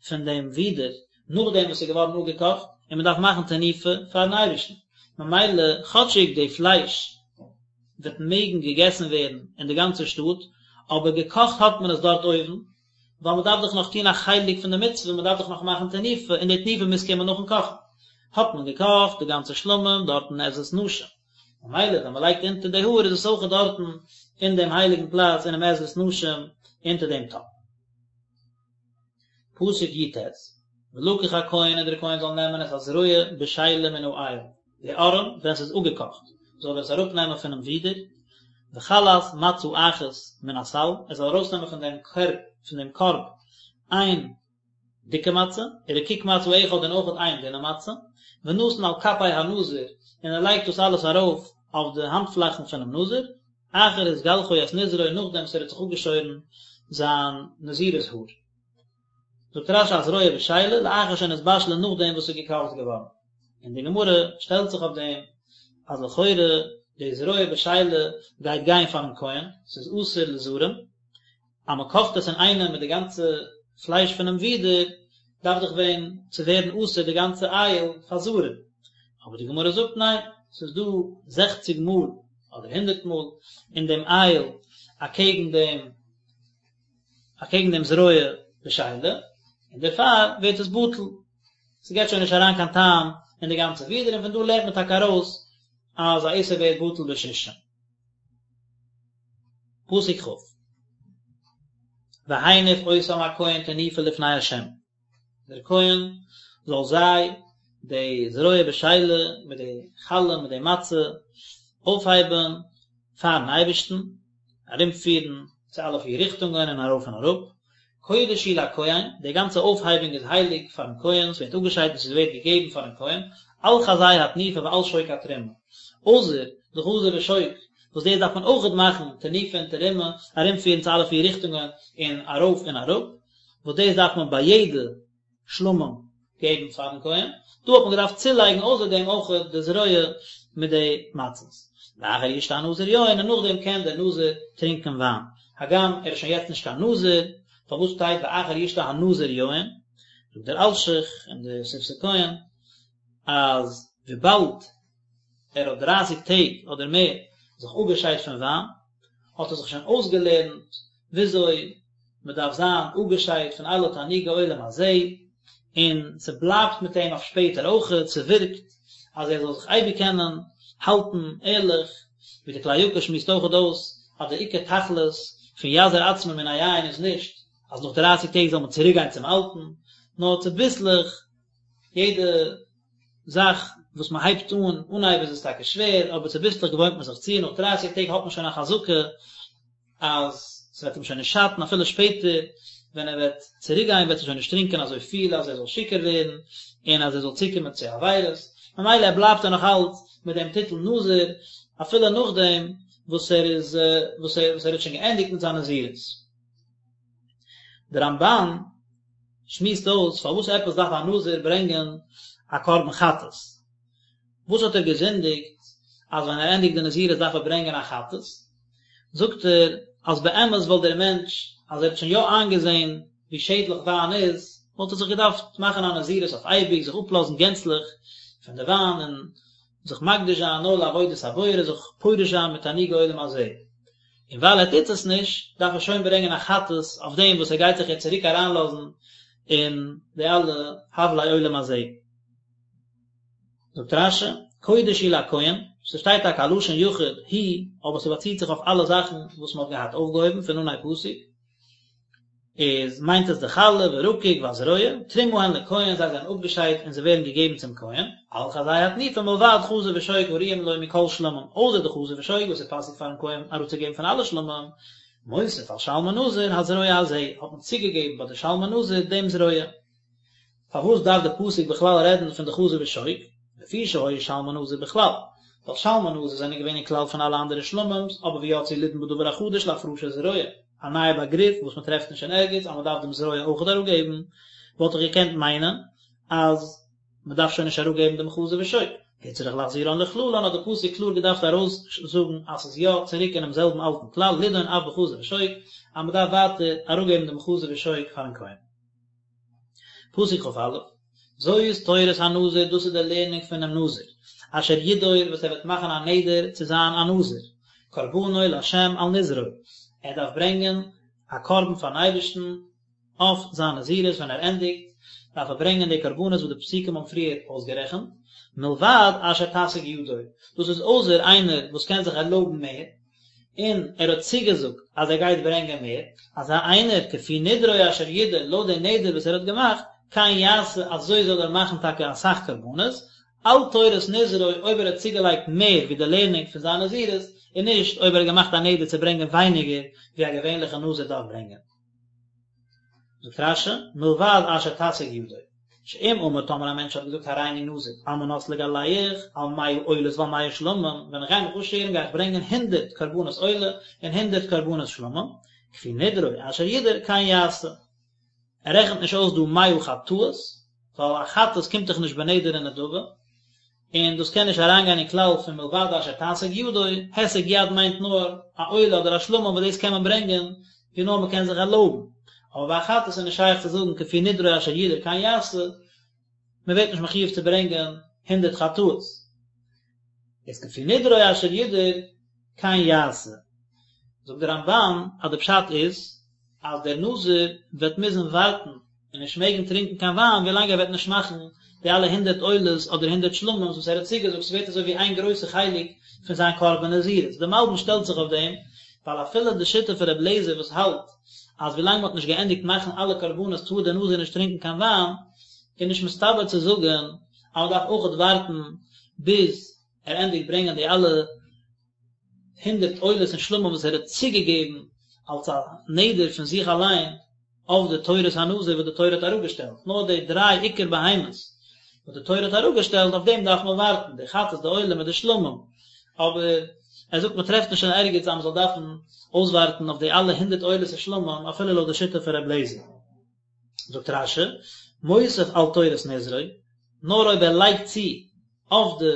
פון דעם ווידער נאכדעם וואס ס'איז געווארן אפגעקאכט, און מען דארף מאכן תנופה פארן אייבערשטן, ממילא כאטשיג די פלייש וועט מעגן געגעסן ווערן אין די גאנצע שטאט, אבער געקאכט האט מען עס דארט אויבן, ווייל מען דארף דאך נאך טון א חלק פון די מצוה, מען דארף דאך נאך מאכן תנופה, און די תנופה מוז קומען נאכן קאכן. האט מען געקאכט די גאנצע שלמים דארט אין עזרת נשים. ממילא ווען מען לייגט אונטער די האר איז עס אויך דארטן אין דעם הייליגן פלאץ אינעם עזרת נשים אונטער דעם טאפ. פסוק י"ט, ולקח הכהן און דער כהן זאל נעמען את הזרוע בשלה מן האיל, די ארעם ווען ס'איז אפגעקאכט, זאל ער עס אראפנעמען פונעם ווידער, וחלת מצה אחת מן הסל, ער זאל ארויסנעמען פון דעם קערב, פון דעם קארב, איין דיקע מצה, ורקיק מצה אחד און אויכעט איין דינע מצה, ונתן על כפי הנזיר, און ער לייגט דאס אלעס ארויף אויף די האנטפלאכן פונעם נזיר, אחר התגלחו את נזרו נאכדעם וואס ער האט זיך אפגעשוירן זיין נזירות האר. זאגט רש"י הזרוע בשלה לאחר שנתבשלה נאכדעם וואס ס'איז געקאכט געווארן. און די גמרא שטעלט זיך אויף דעם אז לכאורה די זרוע בשלה גייט גיין פארן כהן, ס'איז אסור לזרים, אז מען קאכט עס אינאיינעם מיט די גאנצע פלייש פונעם ווידער, דארף דאך ווען צו ווערן אסור די גאנצע איל פאר זרים. אבער די גמרא זאגט ניין, ס'איז דא זעכציג מאל אדער הונדערט מאל אין דעם איל אקעגן דעם אקעגן דעם זרוע בשלה, און דערפאר ווערט עס בטל, ס'געט שוין נישט אריין קיין טעם אין די גאנצע ווידער, און פון דא לערנט מען טאקע ארויס אז א איסור ווערט בטל בשישים. פסוק כ' והניף אותם הכהן תנופה לפני ה', דער כהן זאל זיי, די זרוע בשלה מיט די חלה מיט די מצה, אויפהייבן פארן אייבערשטן, ארומפירן צו אלע פיר ריכטונגען און ארויף און אראפ, קודש הוא לכהן, די גאנצע אויפהייבונג איז הייליג פארן כהן, ס'ווערט אפגעשיידט און ס'ווערט געגעבן פארן כהן, על חזה התנופה ועל שוק התרומה, אויסער די חזה ושוק, וואס דאס דארף מען אויכעט מאכן תנופה און תרומה, ארומפירן צו אלע פיר ריכטונגען און ארויף און אראפ, וואס דאס דארף מען ביי יעדע שלמים געבן פארן כהן, דא האט מען געדארפט צולייגן אויסער דעם אויך די זרוע מיט די מצות. ואחר ישתה הנזיר יין, און נאכדעם קען דער נזיר טרינקען וויין, הגם ער איז שוין יעצט נישט קיין נזיר, פארוואס שטייט ואחר ישתה הנזיר יין? זאגט דער אלשיך און די שפתי כהן אז וויבאלד ער האט דרייסיג טעג אדער מער זיך אפגעשיידט פון וויין, האט ער זיך שוין אויסגעלערנט וויאזוי מען דארף זיין אפגעשיידט פון אלע תענוגי עולם הזה, און ס'בלייבט מיט אים אויף שפעטער אויכעט, ס'ווירקט אז ער זאל זיך אייביג קענען האלטן ערליך, ווי די כלי יקר שמועסט אויכעט אויס אז די עיקר תכלית פון יזיר עצמו מן היין איז נישט אז נאך דרייסיג טעג זאל מען צוריק גיין צום אלטן, נאר צוביסלעך יעדע זאך וואס מען הייבט אן, אנהייב איז עס טאקע שווער, אבער צוביסלעך געוואוינט מען זיך צו, נאך דרייסיג טעג האט מען שוין א חזקה אז ס'וועט אים שוין נישט שאטן אפילו שפעטער ווען ער וועט צוריק גיין וועט ער שוין נישט טרינקען אזוי פיל אז ער זאל שיכור ווערן און אז ער זאל צוקומען צו עבירות, ממילא ער בלייבט ער נאך אלץ מיט דעם טיטל נזיר אפילו נאכדעם וואס ער איז וואס ער וואס ער האט שוין געענדיגט מיט זיין נזירות. דער רמב"ן שמועסט אויס פארוואס עפעס דארף א נזיר ברענגען א קרבן חטאת, וואס האט ער געזינדיגט? אז ווען ער ענדיגט די נזירות דארף ער ברענגען א חטאת, זאגט ער אז באמת וואלט דער מענטש אז ער האט שוין יא איינגעזען ווי שעדליך וויין איז, וואלט ער זיך געדארפט מאכן א נזירות אויף אייביג, זיך אפלאזן גענצליך פון די וויין און זיך מקדיש זיין נאר לעבודת הבורא, זיך פורש זיין מתענוגי עולם הזה. און ווייל ער טוט עס נישט, דארף ער שוין ברענגען א חטאת אויף דעם וואס ער גייט זיך יעצט צוריק אריינלאזן אין די אלע הבלי עולם הזה. זאגט רש"י, קודש הוא לכהן, ס'שטייט טאקע א לשון יחיד הוא, אבער ס'באציט זיך אויף אלע זאכן וואס מ'האט געהאט אויפגעהויבן פון אנהייב פסוק, איז מיינט עס די חלה ורקיק והזרוע, תרומה הן לכהן, זיי זענען אפגעשיידט און זיי ווערן געגעבן צום כהן, על חזה התנופה מלבד חזה ושוק הראויים לו מכל שלמים, אויסער די חזה ושוק וואס איז פאסיג פארן כהן אראפצוגעבן פון אלע שלמים, מוסיף על שלמי נזיר הזרוע הזה, האט מען צוגעגעבן ביי די שלמי נזיר דעם זרוע. פארוואס דארף די פסוק בכלל רעדן פון די חזה ושוק? לפי שהיו שלמי נזיר בכלל, ווייל שלמי נזיר זענען געווען אין כלל פון אלע אנדערע שלמים'ס, אבער ויצאו לידון בדבר החדש להפרשת זרוע, א נייע באגריף וואס מען טרעפט נישט אין ערגעץ אז מען דארף דעם זרוע אויכעט אראפגעבן, וואלט איך געקענט מיינען אז מען דארף שוין נישט אראפגעבן דעם חזה ושוק. הוצרך להחזירן לכללן האט די פסוק קלאר געדארפט ארויסזאגן אז ס'איז יא צוריק אינעם זעלבן אלטן כלל לידון אף בחזה ושוק אז מען דארף ווייטער אראפגעבן דעם חזה ושוק פארן כהן. פסוק כ"א, זאת תורת הנזיר דאס איז די לערנונג פונעם נזיר, אשר ידור וואס ער וועט מאכן א נדר צו זיין א נזיר, קרבנו לה' על נזרו, ער דארף ברענגען א קרבן פארן אייבערשטן אויף זיין נזירות ווען ער ענדיגט, דארף ער ברענגען די קרבנות וואס די פסוקים האבן פריער אויסגערעכנט, מלבד אשר תשיג ידו, דאס איז אויסער איינער וואס קען זיך ערלויבן מער, און ער האט צוגעזאגט אז ער גייט ברענגען מער, אזא איינער כפי נדרו אשר ידור לויט די נדר וואס ער האט געמאכט, כן יעשה אזוי זאל ער מאכן טאקע אסאך קרבנות, על תורת נזרו אויב ער האט צוגעלייגט מער ווי די לערנונג פון זיין נזירות, און נישט אויב ער האט געמאכט א נדר צו ברענגען ווייניגער ווי א געווענליכע נזיר דארף ברענגען. זאגט רש"י, מלבד אשר תשיג ידו, שאם אמר טאמער א מענטש האט געזאגט הריני נזיר על מנת לגלח על מאה עולות ועל מאה שלמים, ווען איך גיי מיך אפשערן גיי איך ברענגען הונדערט קרבנות עולה און הונדערט קרבנות שלמים, כפי נדרו אשר ידור כן יעשה. ער רעכנט נישט אויס דא מאה חטאות, ווייל א חטאת קומט דאך נישט בנדר און נדבה, און דאס קען נישט אריינגיין אין כלל פון מלבד אשר תשיג ידו, הישג יד מיינט נאר א עולה אדער א שלמים וואס דאס קען מען ברענגען ווי נאר מען קען זיך ערלויבן, אבער ביי א חטאת איז נישט שייך צו זאגן כפי נדרו אשר ידור כן יעשה, מען ווערט נישט מחויב צו ברענגען הונדערט חטאות. איז כפי נדרו אשר ידור כן יעשה. זאגט דער רמב"ן אז די פשט איז אז דער נזיר וועט מוזן ווארטן און נישט מעגן טרינקען קיין וויין ווילאנג ער וועט נישט מאכן די אלע הונדערט עולות אדער הונדערט שלמים'ס וואס ער האט צוגעזאגט, ס'ווערט אזוי ווי איין גרויסע חלק פון זיין קרבן נזירות. דער מלבי"ם שטעלט זיך אויף דעם, ווייל אפילו די שיטה פון רבי אליעזר וואס האלט אז ווילאנג מ'האט נישט געענדיגט מאכן אלע קרבנות טאר דער נזיר נישט טרינקען קיין וויין, איז נישט מסתבר צו זאגן אז מ'דארף אויכעט ווארטן ביז ער ענדיגט ברענגען די אלע הונדערט עולות און שלמים וואס ער האט צוגעגעבן אלס א נדר פון זיך אליין אויף די תורת הנזיר וואס די תורה האט אראפגעשטעלט, נאר די דריי עיקר בהמות וואס די תורה האט אראפגעשטעלט אויף דעם דארף מען ווארטן, די חטאת די עולה מיט די שלמים, אבער ער זאגט מען טרעפט נישט אין ערגעץ אז מען זאל דארפן אויסווארטן אויף די אלע הונדערט עולות און שלמים אפילו לויט די שיטה פון ר' אליעזר. זאגט רש"י, מוסיף על תורת נזרו, נאר אויב ער לייגט צו אויף די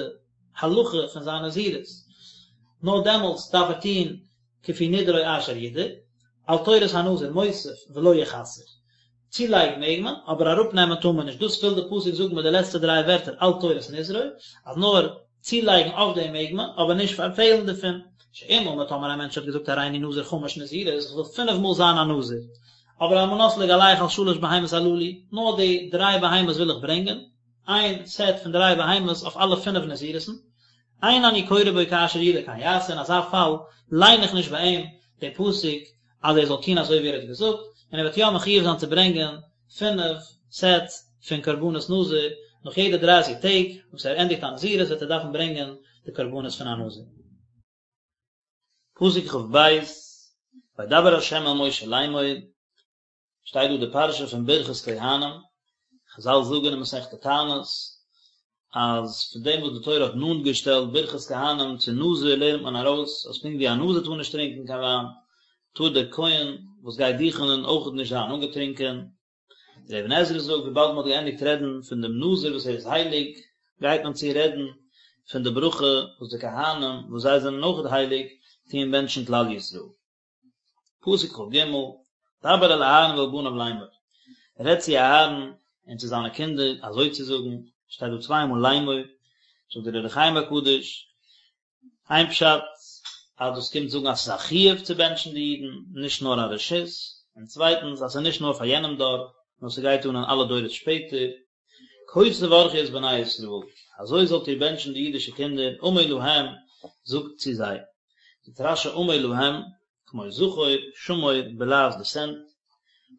הלכה פון זיין נזירות, נאר דעמאלטס דארף ער טון כפי נדרו אשר ידור, על תורת הנזיר מוסיף ולא יחסר. צולייגן מעג מען, אבער אראפנעמען טאר מען נישט, דאס וויל די פסוק זאגן מיט די לעצטע דריי ווערטער על תורת נזרו, אז נאר צולייגן אויף דעם מעג מען, אבער נישט פארפעלן דערפון. שאם אמר טאמער א מענטש האט געזאגט הריני נזיר חמש נזירות, איך וויל פינף מאל זיין א נזיר, אבער על מנת לגלח על שלש בהמות הללו, נאר די דריי בהמות וויל איך ברענגען, איין סעט פון דריי בהמות אויף אלע פינף נזירות'ן, אין אני קורא בו כאשר ידור כן יעשה, אין אזא פאל ליין איך נישט ביי אים די פסוק אז ער זאל טון אזוי ווי ער האט געזאגט, און ער וועט יא מחויב זיין צו ברענגען פינף סעטס פון קרבנות נזיר, נאך יעדע דרייסיג טעג וואס ער ענדיגט א נזירות וועט ער דארפן ברענגען די קרבנות פון א נזיר. פסוק כ"ב, וידבר ה' אל משה לאמור, שטייט דא די פרשה פון ברכת כהנים, חזל זאגן אין מסכת תענית אז פון דעם וואס די תורה האט נאנט געשטעלט ברכת כהנים צו נזיר לערנט מען ארויס אז פונקט ווי א נזיר טאר נישט טרינקען קיין וויין, טאר דער כהן וואס גייט דוכענען אויכעט נישט זיין אנגעטרינקען. דער אבן עזרא זאגט וויבאלד מען האט געענדיגט רעדן פון דעם נזיר וואס ער איז הייליג, גייט מען צו רעדן. פון די ברכה וואס די כהנים וואס זיי זענען אויכעט הייליג טוען בענטשן כלל ישראל. פסוק כג, דבר אל אהרן ואל בניו לאמור, רעד צו אהרן און צו זיינע קינדער אזוי צו זאגן, שטייט דא צוויי מאל לאמור, זאגט דער אור החיים הקדוש, איין פשט אז דאס קומט זאגן אז ס'איז א חיוב צו בענטשן די אידן, נישט נאר א רשות, און צווייטנס אז ס'איז נישט נאר פאר יענעם דור, נאר ס'גייט אן אין אלע דורות שפעטער, כה תברכו את בני ישראל, אזוי זאלט איר בענטשן די אידישע קינדער, אמור להם, זאגט צו זיי. זאגט רש"י אמור להם, כמו זכור, שמור, בלע"ז דיסענט,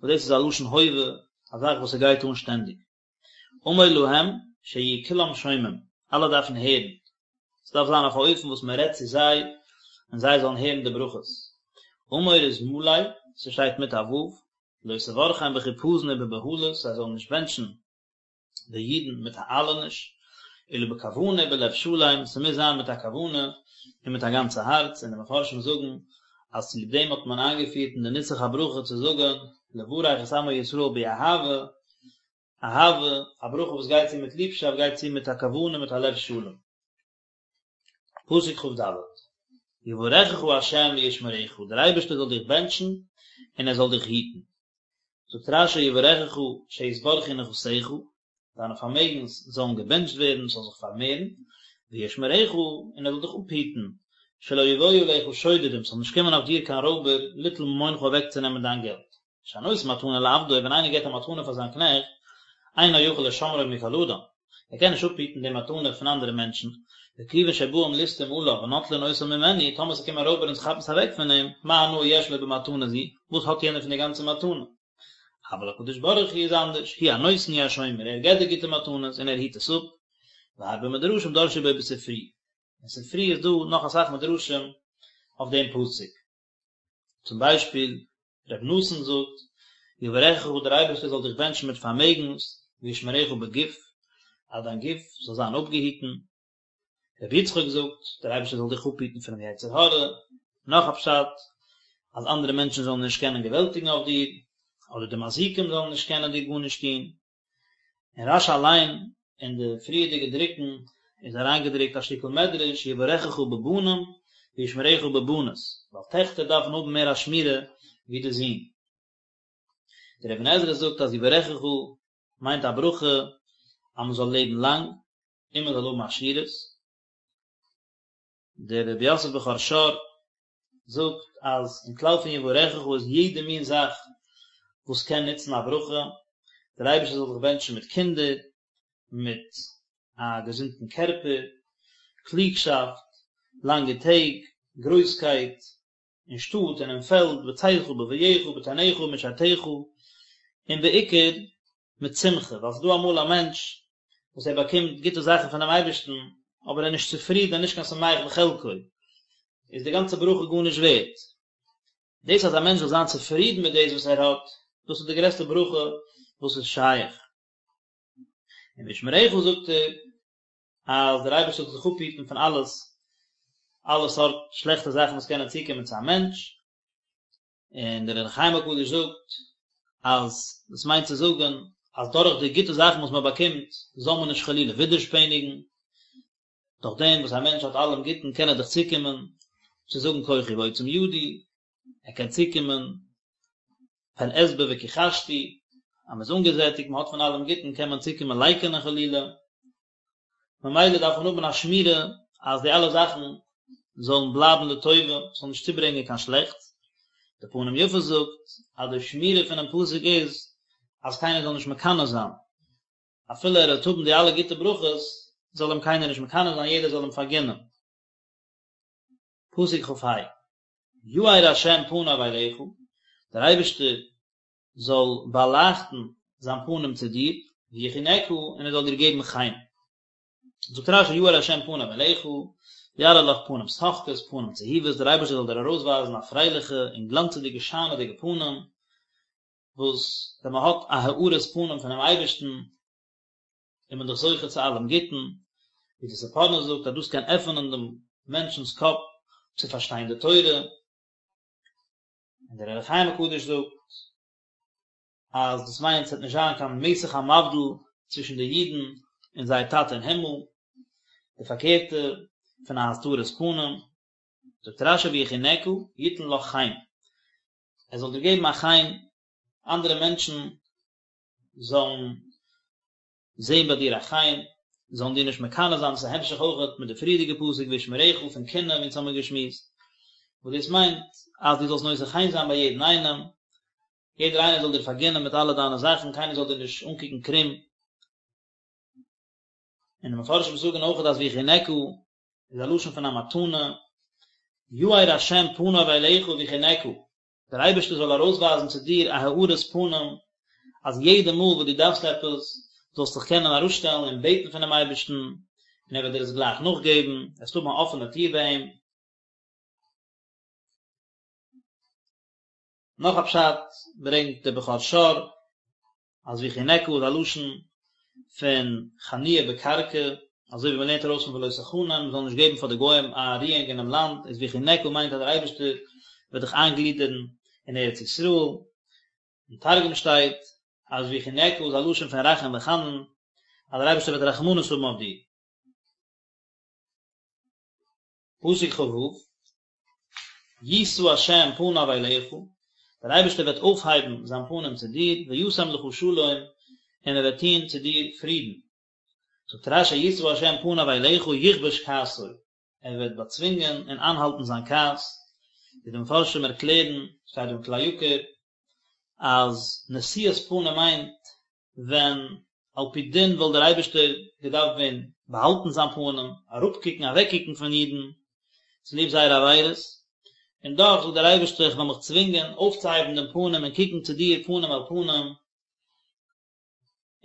וואס דאס איז א לשון הווה, א זאך וואס ס'גייט אן שטענדיג. אמור להם, שיהיו כולם שומעים, אלע דארפן הערן. ס'דארף זיין אויף א אופן וואס מען רעדט צו זיי, און זיי זאלן הערן די ברכות. אמור איז מלא, ס'שטייט מיט א ו', לא תברכם בחיפזון ובבהלות, זיי זאלן נישט בענטשן די אידן מיט א איילעניש, אלא בכוונה ובלב שלם, ס'מוז זיין מיט א כוונה און מיט א גאנצע הארץ, און די מפרשים זאגן אז צוליב דעם האט מען איינגעפירט אין די נוסח הברכה צו זאגן לברך את עמו ישראל באהבה, אהבה, א ברכה וואס גייט צו מיט ליבשאפט גייט צו מיט א כוונה מיט א לב שלם. פסוק כ"ד, יברכך ה' וישמרך, דער אייבערשטער זאל דיך בענטשן און ער זאל דיך היטן. זאגט רש"י יברכך שיתברכו נכסיך, דיינע פארמעגנס זאלן געבענטשט ווערן, ס'זאל זיך פארמערן, וישמרך, און ער זאל דיך אפהיטן, שלא יבואו עליך שודדים, ס'זאל נישט קומען אויף דיר קיין רויבער, ליטול ממונך אוועקצונעמען דיין געלט. שהנותן מתנה לעבדו, ווען איינער געבט א מתנה פאר זיין קנעכט, אינו יכול לשמרו מכל אדם, ער קען נישט אפהיטן די מתנה פון אנדערע מענטשן, וכיוון שבאים ליסטים עליו ונוטלין אותה ממנו, טאמער ס'קומען רויבער און ס'כאפן עס אוועק פון אים, מה הנאה יש לו במתנה זו, וואס האט יענער פון די גאנצע מתנה? אבל הקדוש ברוך הוא איז אנדערש, הוא הנותן הוא השומר, ער געבט די גוטע מתנות און ער היט עס אפ, והרבה מדרשים דרשו בו בספרי, אין ספרי איז דא נאך אסאך מדרשים אויף דעם פסוק. צום ביישפיל, ר' נתן זאגט, יברכך דער אייבערשטער זאל דיך בענטשן מיט פארמעגנס, וישמרך בגוף, אז דיין גוף זאל זיין אפגעהיטן. ר' יצחק זאגט, דער אייבערשטער זאל דיך אפהיטן פונעם יצר הרע. נאך א פשט, אז אנדערע מענטשן זאלן נישט קענען געוועלטיגן אויף דיר, אדער די מזיקים זאלן נישט קענען דיר גארנישט טון. אין רש"י אליין אין די פריערדיגע דרוקן איז אריינגעדרוקט א שטיקל מדרש יברכך בבנים וישמרך בבנות, ווייל טעכטער דארפן האבן מער א שמירה ווי די זין. דער אבן עזרא זאגט אז יברכך מיינט א ברכה אז מען זאל לעבן לאנג און מען זאל האבן עשירות. דער רבי יוסף בכור שור זאגט אז אין כלל פון יברכך איז יעדע מין זאך וואס קען נוצן א ברכה, דער אייבערשטער זאל דיך בענטשן מיט קינדער, מיט א געזונטן קערפער, קלוגשאפט, לאנגע טעג, גרויסקייט, אין שטאט און אין פעלד, בצאתך ובבואך, בטנאך ובמשארתך, און בעיקר מיט שמחה, ווייל ס'איז דא אמאל א מענטש וואס ער באקומט גוטע זאכן פונעם אייבערשטן, אבער ער איז נישט צופרידן, נישט קיין שמח בחלקו, איז די גאנצע ברכה גארנישט ווערט. דאס אז א מענטש זאל זיין צופרידן מיט דאס וואס ער האט, דאס איז די גרעסטע ברכה וואס איז שייך. און וישמרך זאגט ער, אז דער אייבערשטער זאל דיך אפהיטן פון אלעס, אלע סארט שלעכטע זאכן וואס קענען צוקומען צו א מענטש, און דער אור החיים הקדוש זאגט אז דאס מיינט צו זאגן אז דורך די גוטע זאכן וואס מען באקומט זאל מען נישט חלילה ווידערשפעניגן, דורך דעם וואס א מענטש האט אלעם גוטן קען ער דאך צוקומען צו זאגן כוחי ועוצם ידי, ער קען צוקומען פן אשבע וכחשתי, אז מען איז אנגעזעטיגט, מען האט פון אלעם גוטן קען מען צוקומען לייקענען חלילה. ממילא דארף מען האבן א שמירה אז די אלע זאכן זאלן בלייבן לטובה, ס'זאל נישט צוברענגען קיין שלעכטס. די פנים יפות זאגט אז די שמירה פונעם פסוק איז אז קיינער זאל נישט מקנא זיין, אפילו ער וועט האבן די אלע גוטע ברכות, זאל אים קיינער נישט מקנא זיין, יעדער זאל אים פארגינען. פסוק כ"ה, יאר ה' פניו אליך, דער אייבערשטער זאל באלייכטן זיין פנים צו דיר, ויחנך, און ער זאל דיר געבן חן. זאגט רש"י יאר ה' פניו אליך, יראה לך פנים שוחקות, פנים צהובות, דער אייבערשטער זאל דיר ארויסווייזן א פרייליכע און גלאנצעדיגע שיינעדיגע פנים, וואס ווען מען האט א הארת פנים פונעם אייבערשטן, איז מען דאך זוכה צו אלעם גוטן, ווי די ספורנו זאגט אז דאס קען עפענען דעם מענטשנ'ס קאפ צו פארשטיין די תורה, און דער אור החיים הקדוש זאגט אז דאס מיינט ס'וועט נישט זיין קיין מסך המבדיל צווישן די אידן און זייער טאטע אין הימל. די פארקערטע פון א הסתרת פנים. זאגט רש"י ויחנך יתן לך חן, ער זאל דיר געבן א חן, אנדערע מענטשן זאלן זען ביי דיר א חן, זאלן דיר נישט מקנא זיין, דאס איז א המשך אויכעט מיט די פריערדיגע פסוק וישמרך פון קנאה ווי אונז האמיר געשמועסט, וואס דאס מיינט אז דו זאלסט נושא חן זיין ביי יעדן איינעם, יעדער איינער זאל דיר פארגינען מיט אלע דיינע זאכן, קיינער זאל דיר נישט אנקוקן קרום. און די מפרשים זאגן אויכעט אז ויחנך איז א לשון פון א מתנה, יאר השם פניו אליך ויחנך, דער אייבערשטער זאל ארויסווייזן צו דיר א הארת פנים, אז יעדע מאל וואס דו דארפסט עפעס, זאלסט זיך קענען אראפשטעלן און בעטן פונעם אייבערשטן, און ער וועט דיר עס גלייך נאכגעבן, וועסט האבן א אפענע טיר ביי אים. נאך א פשט ברענגט דער בכור שור, אז ויחנך איז א לשון פון חניה בקרקע, אזוי ווי מען לערנט ארויס פון ולא תחנם, מען זאל נישט געבן פאר די גוים א רואונג אינעם לאנד, איז ויחנך מיינט אז דער אייבערשטער וועט דיך איינגלידערן אין ארץ ישראל. אין תרגום שטייט אז ויחנך איז א לשון פון רחום וחנון, אז דער אייבערשטער וועט רחמנות האבן אויף דיר. פסוק כ"ו, ישא ה' פניו אליך, דער אייבערשטער וועט אויפהייבן זיין פנים צו דיר, וישם לך שלום, און ער וועט טון צו דיר פרידן. זאגט רש"י ישא ה' פניו אליך יכבוש כעסו, ער וועט באצווינגען און איינהאלטן זיין כעס, ווי די מפרשים ערקלערן, שטייט דא אין כלי יקר, אז נשיאת פנים מיינט ווען על פי דין וואלט דער אייבערשטער געדארפט ווען באהאלטן זיין פנים, אראפקוקן, אוועקקוקן פון אידן, צוליב זייערע עבירות, און דאך זאגט דער אייבערשטער איך וועל מיך צווינגען אויפצוהייבן דעם פנים און קוקן צו דיר פנים אל פנים,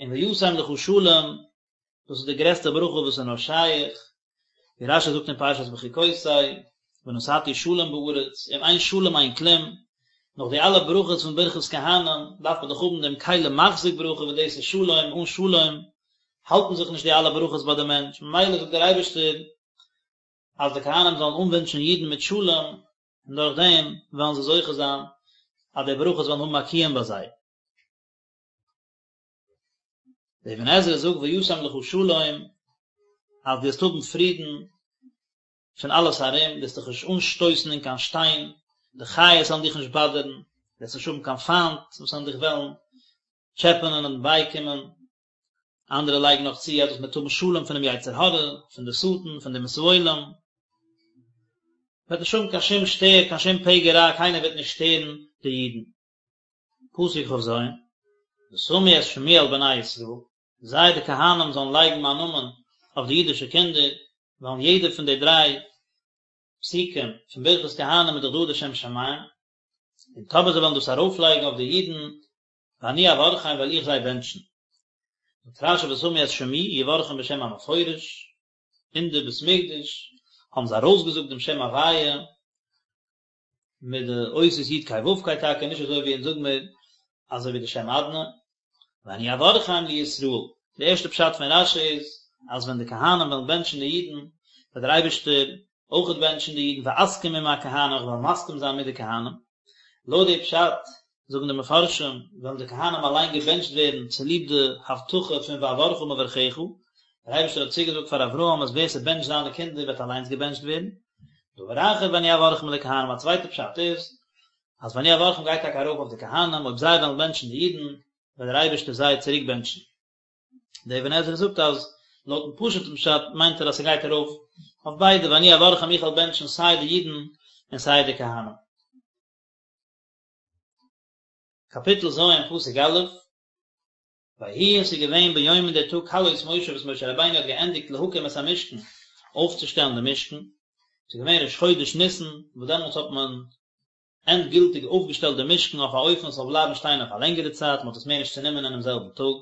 און וישם לך שלום, דאס איז די גרעסטע ברכה וואס איז נאר שייך, ווי רש"י זאגט אין פרשת בחוקותי, ונתתי שלום בארץ, אם אין שלום אין כלום, נאך די אלע ברכות פון ברכת כהנים, דארף מען דאך האבן דעם כלי מחזיק ברכה וואס דאס איז שלום, אן שלום האלטן זיך נישט די אלע ברכות ביי די מענטש, ממילא זאגט דער אייבערשטער אז די כהנים זאלן אנווינטשן אידן מיט שלום, און דורך דעם וועלן זיי זוכה זיין אז די ברכות וועלן האבן א קיום ביי זיי. דער אבן עזרא זאגט וישם לך שלום אז דו וועסט האבן פרידן פון אלעס ארום, דו וועסט דיך נישט אנשטויסן אין קיין שטיין, די חיות וועלן דיך נישט באדערן, דו וועסט נישט האבן קיין פיינט וואס וועלן דיך וועלן טשעפענען און בייקומען. אנדערע לייגן נאך צו אז דאס מיינט האבן שלום פונעם יצר הרע, פון די שטן, פון די אומות העולם. מ'וועט נישט האבן קיין שום שטער, קיין שום פגע רע, קיינער וועט נישט שטערן די אידן. פסוק כ"ז, ושמו את שמי על בני ישראל, זיי די כהנים זאלן לייגן מיין נאמען אויף די אידישע קינדער, ווייל אין יעדע פון די דריי פסוקים פון ברכת כהנים איז דאך דא די שם שמים, און טאמער זיי וועלן דאס ארויפלייגן אויף די אידן, ואני אברכם וועל איך זיי בענטשן. זאגט רש"י ושמו את שמי יברכם בשם המפורש, אין די בית מקדש האבן זיי ארויסגעזאגט דעם שם הוויה, מיט די אותיות י' ק' ו' ק' טאקע נישט אזוי ווי אונז זאג מיר אזוי ווי די שם אדני ואני אברכם לישראל די ערשטע פשט פון רש"י איז אז ווען די כהנים וועלן בענטשן די אידן וועט דער אייבערשטער אויכעט בענטשן די אידן ואסכים עם הכהנים איך וועל מסכים זיין מיט די כהנים לויט די פשט זאגן די מפרשים, וועלן די כהנים אליין געבענטשט ווערן צוליב די הבטחה פון ואברכה מברכיך, דער אייבערשטער האט צוגעזאגט פאר אברהם אז ווער ס'בענטשט זיינע קינדער וועט אליינס געבענטשט ווערן. דבר אחר ואני אברכם לכהנים, א צווייטע פשט איז, אז ואני אברכם גייט טאקע ארויף אויף די כהנים, אויב זיי וועלן בענטשן די אידן, וועט דער אייבערשטער זיי צוריק בענטשן. דער אבן עזרא זאגט אז לויטן פשוט'ן פשט מיינט ער אז ס'גייט ארויף אויף ביידע, ואני אברכם איך וועל בענטשן סיי די אידן און סיי די כהנים. קאפיטל ז' פסוק א', ויהי און ס'איז געווען ביום אין דער טאג כלות משה וואס משה רבינו האט געענדיגט להקים את המשכן, אויפצושטעלן דעם משכן, ס'איז געווען ראש חודש ניסן, וואס דעמאלטס האט מען ענדגילטיג אויפגעשטעלט דעם משכן אויף א אופן ס'זאל בלייבן שטיין אויף א לענגערע צייט, מ'האט עס מער נישט צענומען אינעם זעלבן טאג.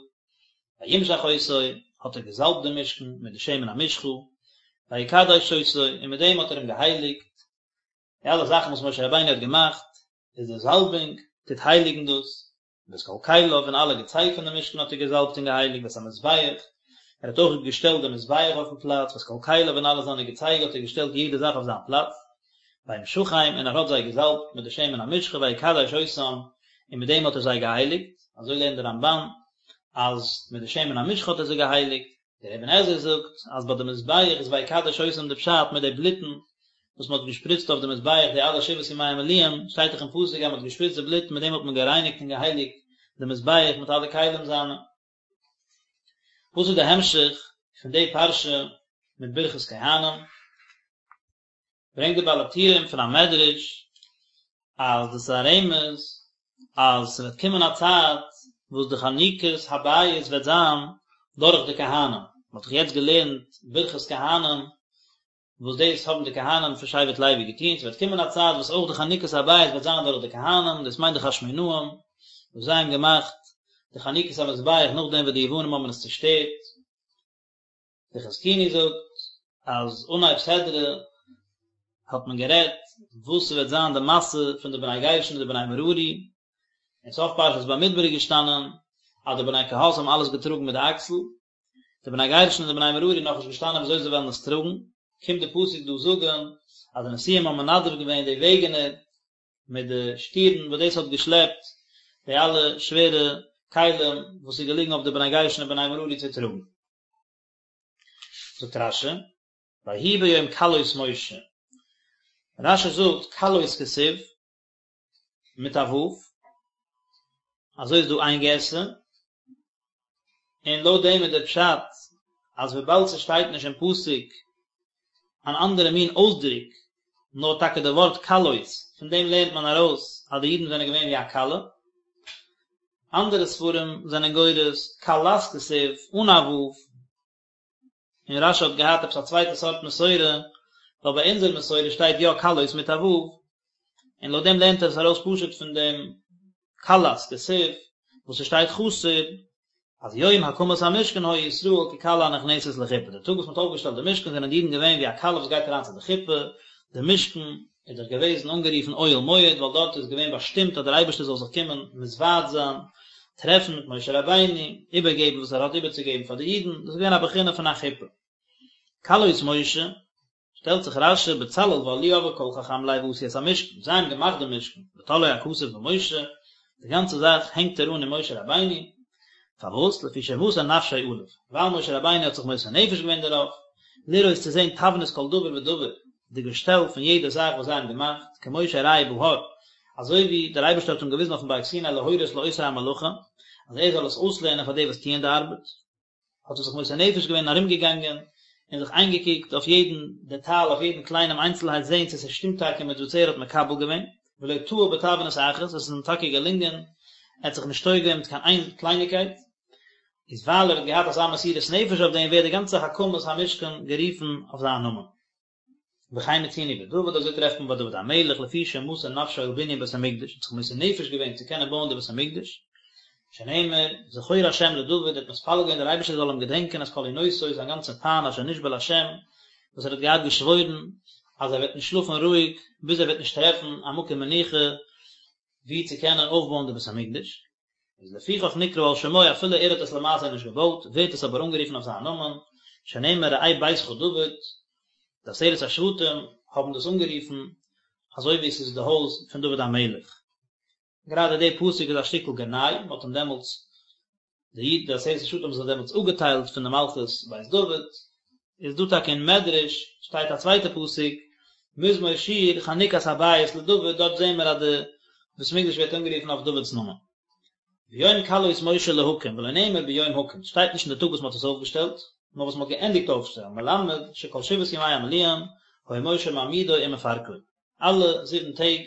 וימשח אותו, האט ער געזאלבט דעם משכן מיט די שמן המשחה, ויקדש אותו, און מיט דעם האט ער אים געהייליגט, די אלע זאכן וואס משה רבינו האט געמאכט, איז די זאלבונג טוט הייליגן דאס, ואת כל כליו און אלע געצייג פון די משכן האט ער געזאלבט און געהייליגט ואת המזבח, ער האט אויך געשטעלט די מזבח אויפן פלאץ, ואת כל כליו און אלע זיינע געצייג האט ער געשטעלט יעדע זאך אויף זיין פלאץ, וימשחם און ער האט זיי געזאלבט מיט די שמן המשחה ויקדש אותם און מיט דעם האט ער זיי געהייליגט, אזוי לערנט דער רמב"ן אז מיט די שמן המשחה האט ער זיי געהייליגט. דער אבן עזרא זאגט אז ביי די מזבח איז ויקדש אותם די פשט מיט די בלוטן וואס מען האט געשפריצט אויף די מזבח די אלע שבעת ימי המילואים, שטייט דאך אין פסוק אז מען האט געשפריצט די בלוט מיט דעם האט מען גערייניגט און געהייליגט די מזבח מיט אלע כלים זיינע. וואס איז די המשך פון די פרשה מיט ברכת כהנים? ברענגט די בעל הטורים פון א מדרש אז דאס איז א רמז אז ס'וועט קומען א צייט וואס די חנוכת הבית וועט זיין דורך די כהנים, מ'האט דאך יעצט געלערנט ברכת כהנים וואס דאס האבן די כהנים פון שבט לוי געטון, ס'וועט קומען א צייט וואס אויך די חנוכת הבית וועט זיין דורך די כהנים, דאס מיינט די חשמונאים וואס זיי האבן געמאכט די חנוכת המזבח נאכדעם וואס די יוונים האבן עס צושטערט. דער חזקוני זאגט אז אנהייב סדרה האט מען גערעדט וואס ס'וועט זיין די משא פון די בני גרשון און די בני מררי, אין סוף פרשת במדבר איז געשטאנען אז די בני קהת האבן אלעס געטראגן מיט די אקסל, די בני גרשון און די בני מררי נאכנישט געשטאנען וויאזוי זיי וועלן עס טראגן, קומט די פסוק דא זאגן אז די נשיאים האבן מנדב געווען די וועגענער מיט די שטירן וואס דאס האט געשלעפט די אלע שווערע כלים וואס איז געליגן אויף די בני גרשון און בני מררי צו טראגן. זאגט רש"י, ויהי ביום כלות משה, רש"י זאגט כלות כתיב מיט א ו', אזוי איז דא איין גירסא, און לויט דעם איז דער פשט אז וויבאלד ס'שטייט נישט אין פסוק אן אנדערע מין אויסדרוק, נאר טאקע די ווארט כלות, פון דעם לערנט מען ארויס אז די אידן זענען געווען ווי א כלה. אנדערע ספרים זענען גורס כלת כתיב אן א ו', און רש"י האט געהאט עפעס א צווייטע סארט מסורה, ווייל ביי אונזער מסורה שטייט יא כלות מיט א ו', און לויט דעם לערנט ער עס ארויס פשוט פון דעם כלת כתיב וואס עס שטייט חסר אז יום הקמת המשכן היו ישראל ככלה הנכנסת לחופה, די טאג וואס מען האט אויפגעשטעלט די משכן זענען די אידן געווען ווי א כלה וואס גייט אריין צו די חופה, די משכן איז דאך געוועזן אנגערופן אוהל מועד ווייל דארט איז געווען באשטימט אז דער אייבערשטער זאל זיך קומען מתוועד זיין, טרעפן מיט משה רבינו, איבערגעבן וואס ער האט איבערצוגעבן פאר די אידן, דאס איז געווען א בחינה פון א חופה. כלות משה. שטעלט זיך רש"י בצלאל ואהליאב וכל חכם לב עשו את המשכן, זיי האבן געמאכט די משכן, ותלאו הכתוב במשה, די גאנצע זאך הענגט ער אן אין משה רבינו, פארוואס? לפי שמסר נפשו עליו, ווייל משה רבינו האט זיך מוסר נפש געווען דערויף, לראות צו זען תבנית כל דבר ודבר, די געשטעל פון יעדע זאך וואס זיי האבן געמאכט, כמו שהראהו בהר, אזוי ווי דער אייבערשטער האט אים געוויזן אויפן בארג סיני להורות לעושי המלאכה, אז ער זאל עס אויסלערנען פאר די וואס טוען די ארבעט. האט ער זיך מוסר נפש געווען און ארומגעגאנגען און זיך איינגעקוקט אויף יעדן דעטאל, אויף יעדן קליינעם איינצלהייט זען צו ס'שטימט טאקע מיט וואס ער האט מקבל געווען, ולא טעה בתבנית אחת, עס איז אים טאקע געלונגען, ער האט זיך נישט טועה געווען מיט קיין איין קלייניקייט, איז ווייל ער האט געהאט אזא מסירות נפש אויף דעם ווערט די גאנצע הקמת המשכן גערופן אויף זיין נאמען. וכן מצינו בדוד, אזוי טרעפט מען ביי דוד המלך, לפי שמסר נפשו על בנין בית המקדש, האט זיך מוסר נפש געווען צו קענען בויען די בית המקדש, שנאמר, זכור השם לדוד, ער האט מתפלל געווען דער אייבערשטער זאל אים געדענקען את כל ענותו, זיין גאנצע פיין אשר נשבע להשם, וואס ער האט געהאט געשוואוירן אז ער וועט נישט שלאפן רואיג ביז ער וועט נישט טרעפן א מקום מנוחה וואו צו קענען אויפבויען די בית המקדש. איז לפיכך נקרא על שמו אפילו ער האט עס למעשה נישט געבויט ווערט עס אבער אנגערופן אויף זיין נאמען, שנאמר ראה ביתך דוד, די עשרת השבטים האבן דאס אנגערופן אזוי ווי עס איז די הויז פון דוד המלך. גראדע די פסוק איז א שטיקל גנאי, מען האט אים דעמאלטס, די איד די עשרת השבטים האבן זיך דעמאלטס אפגעטיילט פון די מלכות בית דוד, איז דא טאקע אין מדרש שטייט א צווייטע פסוק מזמור שיר חנוכת הבית לדוד דארט זעהן מיר אז די בית מקדש ווערט אנגערופן אויף דוד'ס נאמען. ביום כלות משה להקים ולא נאמר ביום הקים שטייט נישט אין די טאג וואס מען האט עס אויפגעשטעלט נאר וואס מען האט געענדיגט אויפשטעלן מלמד שכל שבעת ימי המילואים היה משה מעמידו ומפרקו. אלע זיבן טעג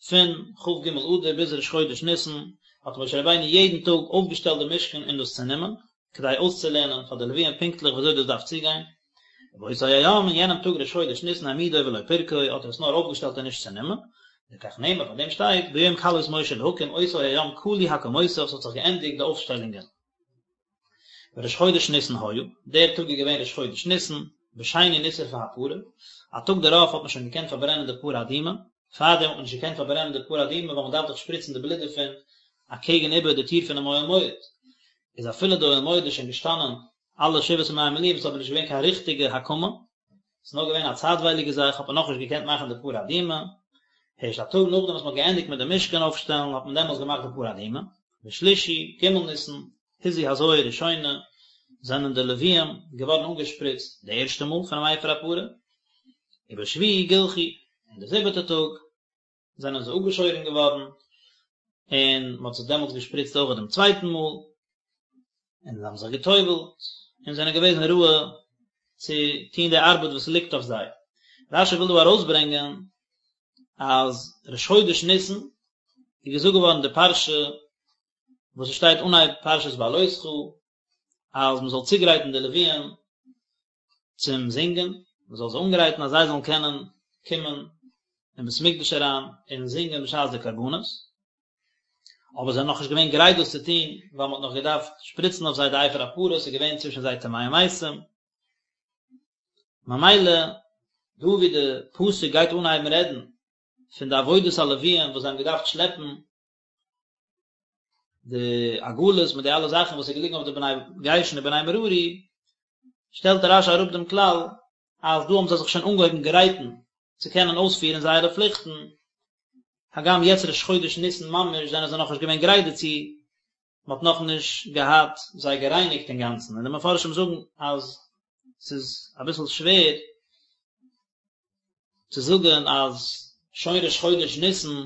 פון כ"ג אדר ביז ראש חודש ניסן האט משה רבינו יעדן טאג אויפגעשטעלט די משכן און דאס צענומען, כדי אויסצולערנען פאר די לוויים פונקטליך ווי אזוי דאס דארף צוגיין. ובאותו היום, אין יענעם טאג ראש חודש ניסן העמידו ולא פירקו, האט ער עס נאר אויפגעשטעלט און נישט צענומען, לכך נאמר, פאר דעם שטייט, ביום כלות משה להקים אותו היום כלו הקמותיו, ס'האט זיך געענדיגט די אויפשטעלונגען. וראש חודש ניסן היה, דער טאג איז געווען ראש חודש ניסן, בשני נשרפה הפרה, א טאג דערויף האט מען שוין געקענט פארברענען די פרה אדומה, פארדעם האט מען נישט געקענט פארברענען די פרה אדומה ווייל מען דארף דאך שפריצן די בלוט דערפון אקעגן איבער די טיר פונעם אוהל מועד, איז אפילו די אוהל מועד איז שוין געשטאנען אלע שבעת ימי המילואים איז אבער נישט געווען קיין ריכטיגע הקמה, ס'איז נאר געווען א צייטווייליגע זאך האט מען נאכנישט געקענט מאכן די פרה אדומה, הערשט א טאג נאכדעם וואס מען האט געענדיגט מיט די משכן אויפשטעלן האט מען דעמאלס געמאכט די פרה אדומה, בשלישי, ג' ניסן, הזו הזיה ראשונה. זענען די לוויים געווארן אנגעשפריצט די ערשטע מאל פונעם אפר הפרה, ובשביעי גלחו, און די זיבעטע טאג זענען זיי אפגעשוירן געווארן, און מען האט זיי דעמאלטס געשפריצט אויך דעם צווייטן מאל, און זיי האבן זיך גע'טובל'ט, און זענען געוועזן ראוי צו טון די ארבעט וואס ליגט אויף זיי. רשי וויל דא ארויסברענגען אז ראש חודש ניסן איז געזאגט געווארן די פרשה וואס עס שטייט אנהייב פרשת בהעלותך אז מען זאל צוגרייטן די לוויים צום זינגען, מען זאל זיי אנגרייטן אז זיי זאלן קענען קומען אין בית המקדש אריין און זינגען בשעת די קרבנות, אבער זיי זענען נאכנישט געווען גרייט דאס צו טון, ווייל מען האט נאך געדארפט שפריצן אויף זיי די אפר הפרה, ס'איז געווען צווישן זיי טמאי מתים, ממילא דא ווי די פסוק גייט אנהייבן רעדן פון די עבודת הלוויים וואס זיי האבן געדארפט שלעפן די עגלות מיט די אלע זאכן וואס איז געליגן אויף די בני גרשון און בני מררי, שטעלט רשי אראפ דעם כלל אז דא האבן זיי זיך שוין אנגעהויבן גרייטן צו קענען אויספירן זייערע פליכטן, הגם יעצט ראש חודש ניסן ממש זענען זיי נאכנישט געווען גרייט דערצו, מען האט נאכנישט געהאט זיי גערייניגט אינגאנצן, און די מפרשים זאגן אז ס'איז אביסל שווער צו זאגן אז שוין ראש חודש ניסן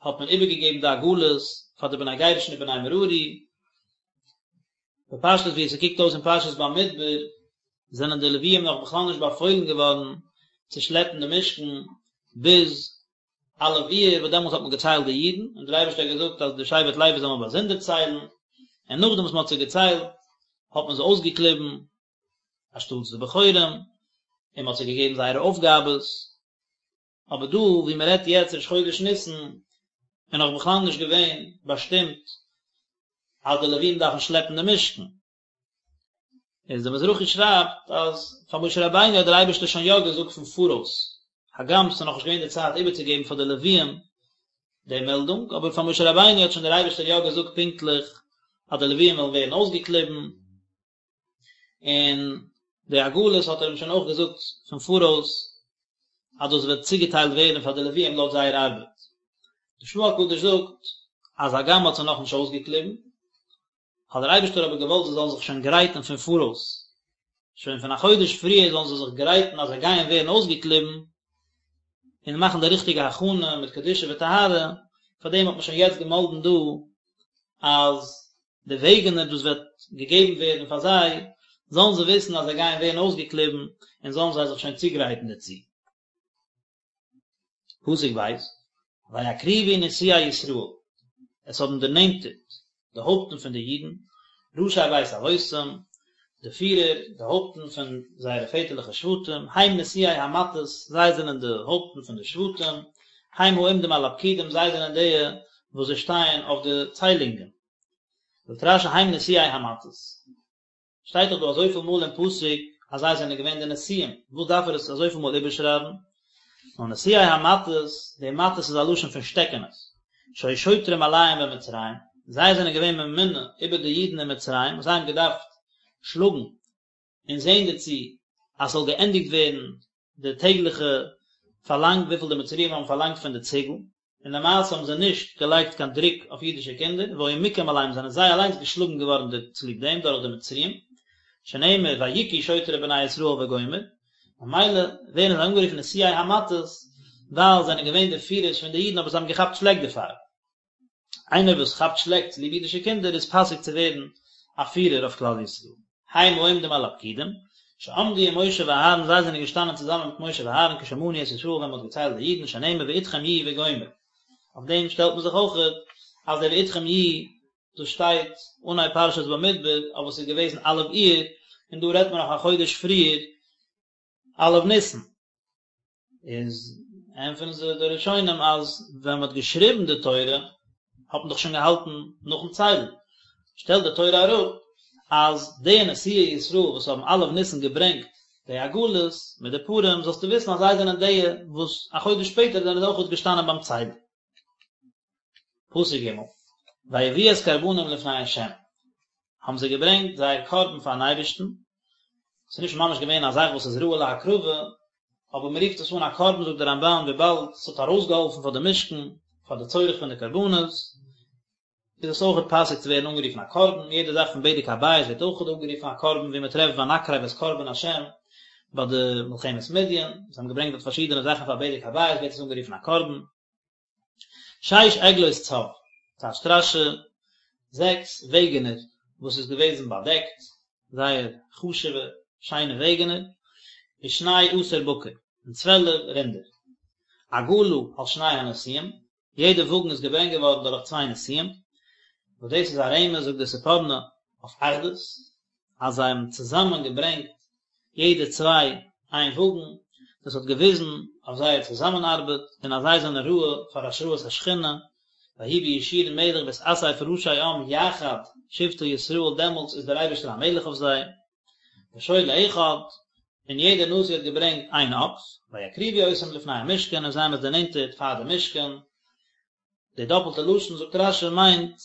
האט מען איבערגעגעבן די עגלות פאר די בני גרשון און בני מררי, בפשטות ווי עס קוקט אויס אין פרשת במדבר זענען די לוויים נאך בכלל נישט באפוילן געווארן צו שלעפן די משכן ביז א' אייר וואס דעמאלטס האט מען געציילט די אידן און דער אייבערשטער האט געזאגט אז די שבט לוי זאל מען באזונדער ציילן, און נאכדעם וואס מען האט זיי געציילט האט מען זיי אויסגעקליבן אנשטאטס די בכורים און מען האט זיי געגעבן זייערע אויפגאבעס. אבער דא ווי מען רעדט יעצט ראש חודש ניסן איז נאך בכלל נישט געווען באשטימט אז די לווים דארפן שלעפן די משכן. איז דער מזרחי שרייבט אז פאר משה רבינו האט דער אייבערשטער שוין יא געזאגט פון פאראויס, הגם ס'איז נאכנישט געווען די צייט איבערצוגעבן פאר די לווים די מעלדונג, אבער פאר משה רבינו האט שוין דער אייבערשטער יא געזאגט פונקטליך אז די לווים וועלן ווערן אויסגעקליבן, און די עגלות האט ער אים שוין אויך געזאגט פון פאראויס אז דאס וועט צוגעטיילט ווערן פאר די לוויים לויט זייער ארבעט. די של"ה הקדוש זאגט אז הגם מ'האט זיי נאכנישט אויסגעקליבן, האט דער אייבערשטער אבער געוואלט זיי זאלן זיך שוין גרייטן פון פאראויס, שוין פון א חודש פריער זאלן זיי זיך גרייטן אז זיי גייען ווערן אויסגעקליבן, און מאכן די ריכטיגע הכנה מיט קדושה וטהרה, פארדעם האט מען שוין יעצט געמאלדן דא אז די וועגענער דאס וועט געגעבן ווערן פאר זיי, זאלן זיי וויסן אז זיי גייען ווערן אויסגעקליבן, און זאלן זיי זיך שוין צוגרייטן דערצו. פסוק ב', ויקריבו נשיאי ישראל, עס האבן דערנענטערט די הויפטן פון די אידן, ראשי בית אבותם, די פירער, די הויפטן פון זייערע פעטערליכע שבטים, הם נשיאי המטות, זיי זענען די הויפטן פון די שבטים, הם העומדים על הפקודים, זיי זענען די וואס זיי שטייען אויף די ציילונגען. זאגט רש"י הם נשיאי המטות. שטייט דאך דא אזויפיל מאל אין פסוק אז זיי זענען געווען די נשיאים, וואס דארף ער עס אזויפיל מאל איבערשרייבן? נאר נשיאי המטות, די מטות איז א לשון פון שטעקענעס, שהיו שוטרים עליהם במצרים, זיי זענען געווען ממונה איבער די אידן אין מצרים, זיי האבן געדארפט שלאגן און זען דערצו אז ס'זאל געענדיגט ווערן די טעגליכע פארלאנג וויפיל די מצריים האבן פארלאנגט פון די ציגל, און למעשה האבן זיי נישט געלייגט קיין דרוק אויף אידישע קינדער, והיו מוכים עליהם זענען זיי אליינס געשלאגן געווארן צוליב דעם דורך די מצריים, שנאמר ויכו שוטרי בני ישראל וגומר, ממילא ווערן זיי אנגערופן נשיאי המטות ווייל זיי זענען געווען די פירערס פון די אידן אבער זיי האבן געכאפט שלעק דערפאר. איינער וואס כאפט שלעק צוליב אידישע קינדער איז פאסיג צו ווערן א פירער אויף כלל ישראל. הם העומדים על הפקודים, שעמדו עם משה ואהרן זיי זענען געשטאנען צוזאמען מיט משה ואהרן כשמנו את ישראל ווען מען האט געציילט די אידן שנאמר ואתכם יהיו וגומר. אויף דעם שטעלט מען זיך אויכעט אז דער ואתכם יהיו דאס שטייט אנהייב פרשת במדבר אבער ס'איז געוועזן א' אייר און דא רעדט מען נאך א חודש פריער א' ניסן. איז ענטפערן זיי די ראשונים אז ווען מען האט געשריבן די תורה האט מען דאך שוין געהאלטן נאכן ציילן, שטעלט די תורה אראפ אז די נשיאי ישראל וואס האבן א' ניסן געברענגט די עגלות מיט די פרים זאלסטו וויסן אז זיי זענען די וואס א חודש שפעטער זענען זיי אויכעט געשטאנען ביים ציילן. פסוק ג' ויביאו את קרבנם לפני ה' האבן זיי געברענגט זייער קרבן פארן אייבערשטן, ס'איז נישט ממש געווען א זאך וואס איז ראוי להקרבה, אבער מען רופט עס אן א קרבן זאגט דער רמב"ן וויבאלד ס'האט ארויסגעהאלפן פאר די משכן, פאר די צורך פון די קרבנות. איז עס אויכעט פאסיג צו ווערן אנגערופן א קרבן, יעדע זאך פון בדק הבית ווערט אויכעט אנגערופן א קרבן, ווי מען טרעפט ונקרב את קרבן השם ביי די מלחמת מדין, זיי האבן געברענגט דארט פארשידענע זאכן פאר בדק הבית ווערט עס אנגערופן א קרבן. שש עגלות צב, טייטשט רש"י, זעקס וועגענער וואס איז געוועזן באדעקט, זייער חשוב'ע שיינע וועגענער, ושני עשר בקר, און צוועלף רינדער. עגלה על שני הנשיאים, יעדע וואגן איז געברענגט געווארן דורך צוויי נשיאים, וואס דאס איז א רמז זאגט דער ספורנו אויף אחדות, אז זיי האבן צוזאמען געברענגט יעדע צוויי איין וואגן, דאס האט געוויזן אויף זייער צוזאמענארבעט און אז זיי זענען ראוי פאר השראת השכינה, ויהי בישורון מלך בהתאסף ראשי עם יחד שבטי ישראל דעמאלטס איז דער אייבערשטער א מלך אויף זיי. ושור לאחד, און יעדער נשיא האט געברענגט איין אקס, ויקריבו אותם לפני המשכן און זיי האבן עס דערנענטערט פאר די משכן, די דאפלטע לשון זאגט רש"י מיינט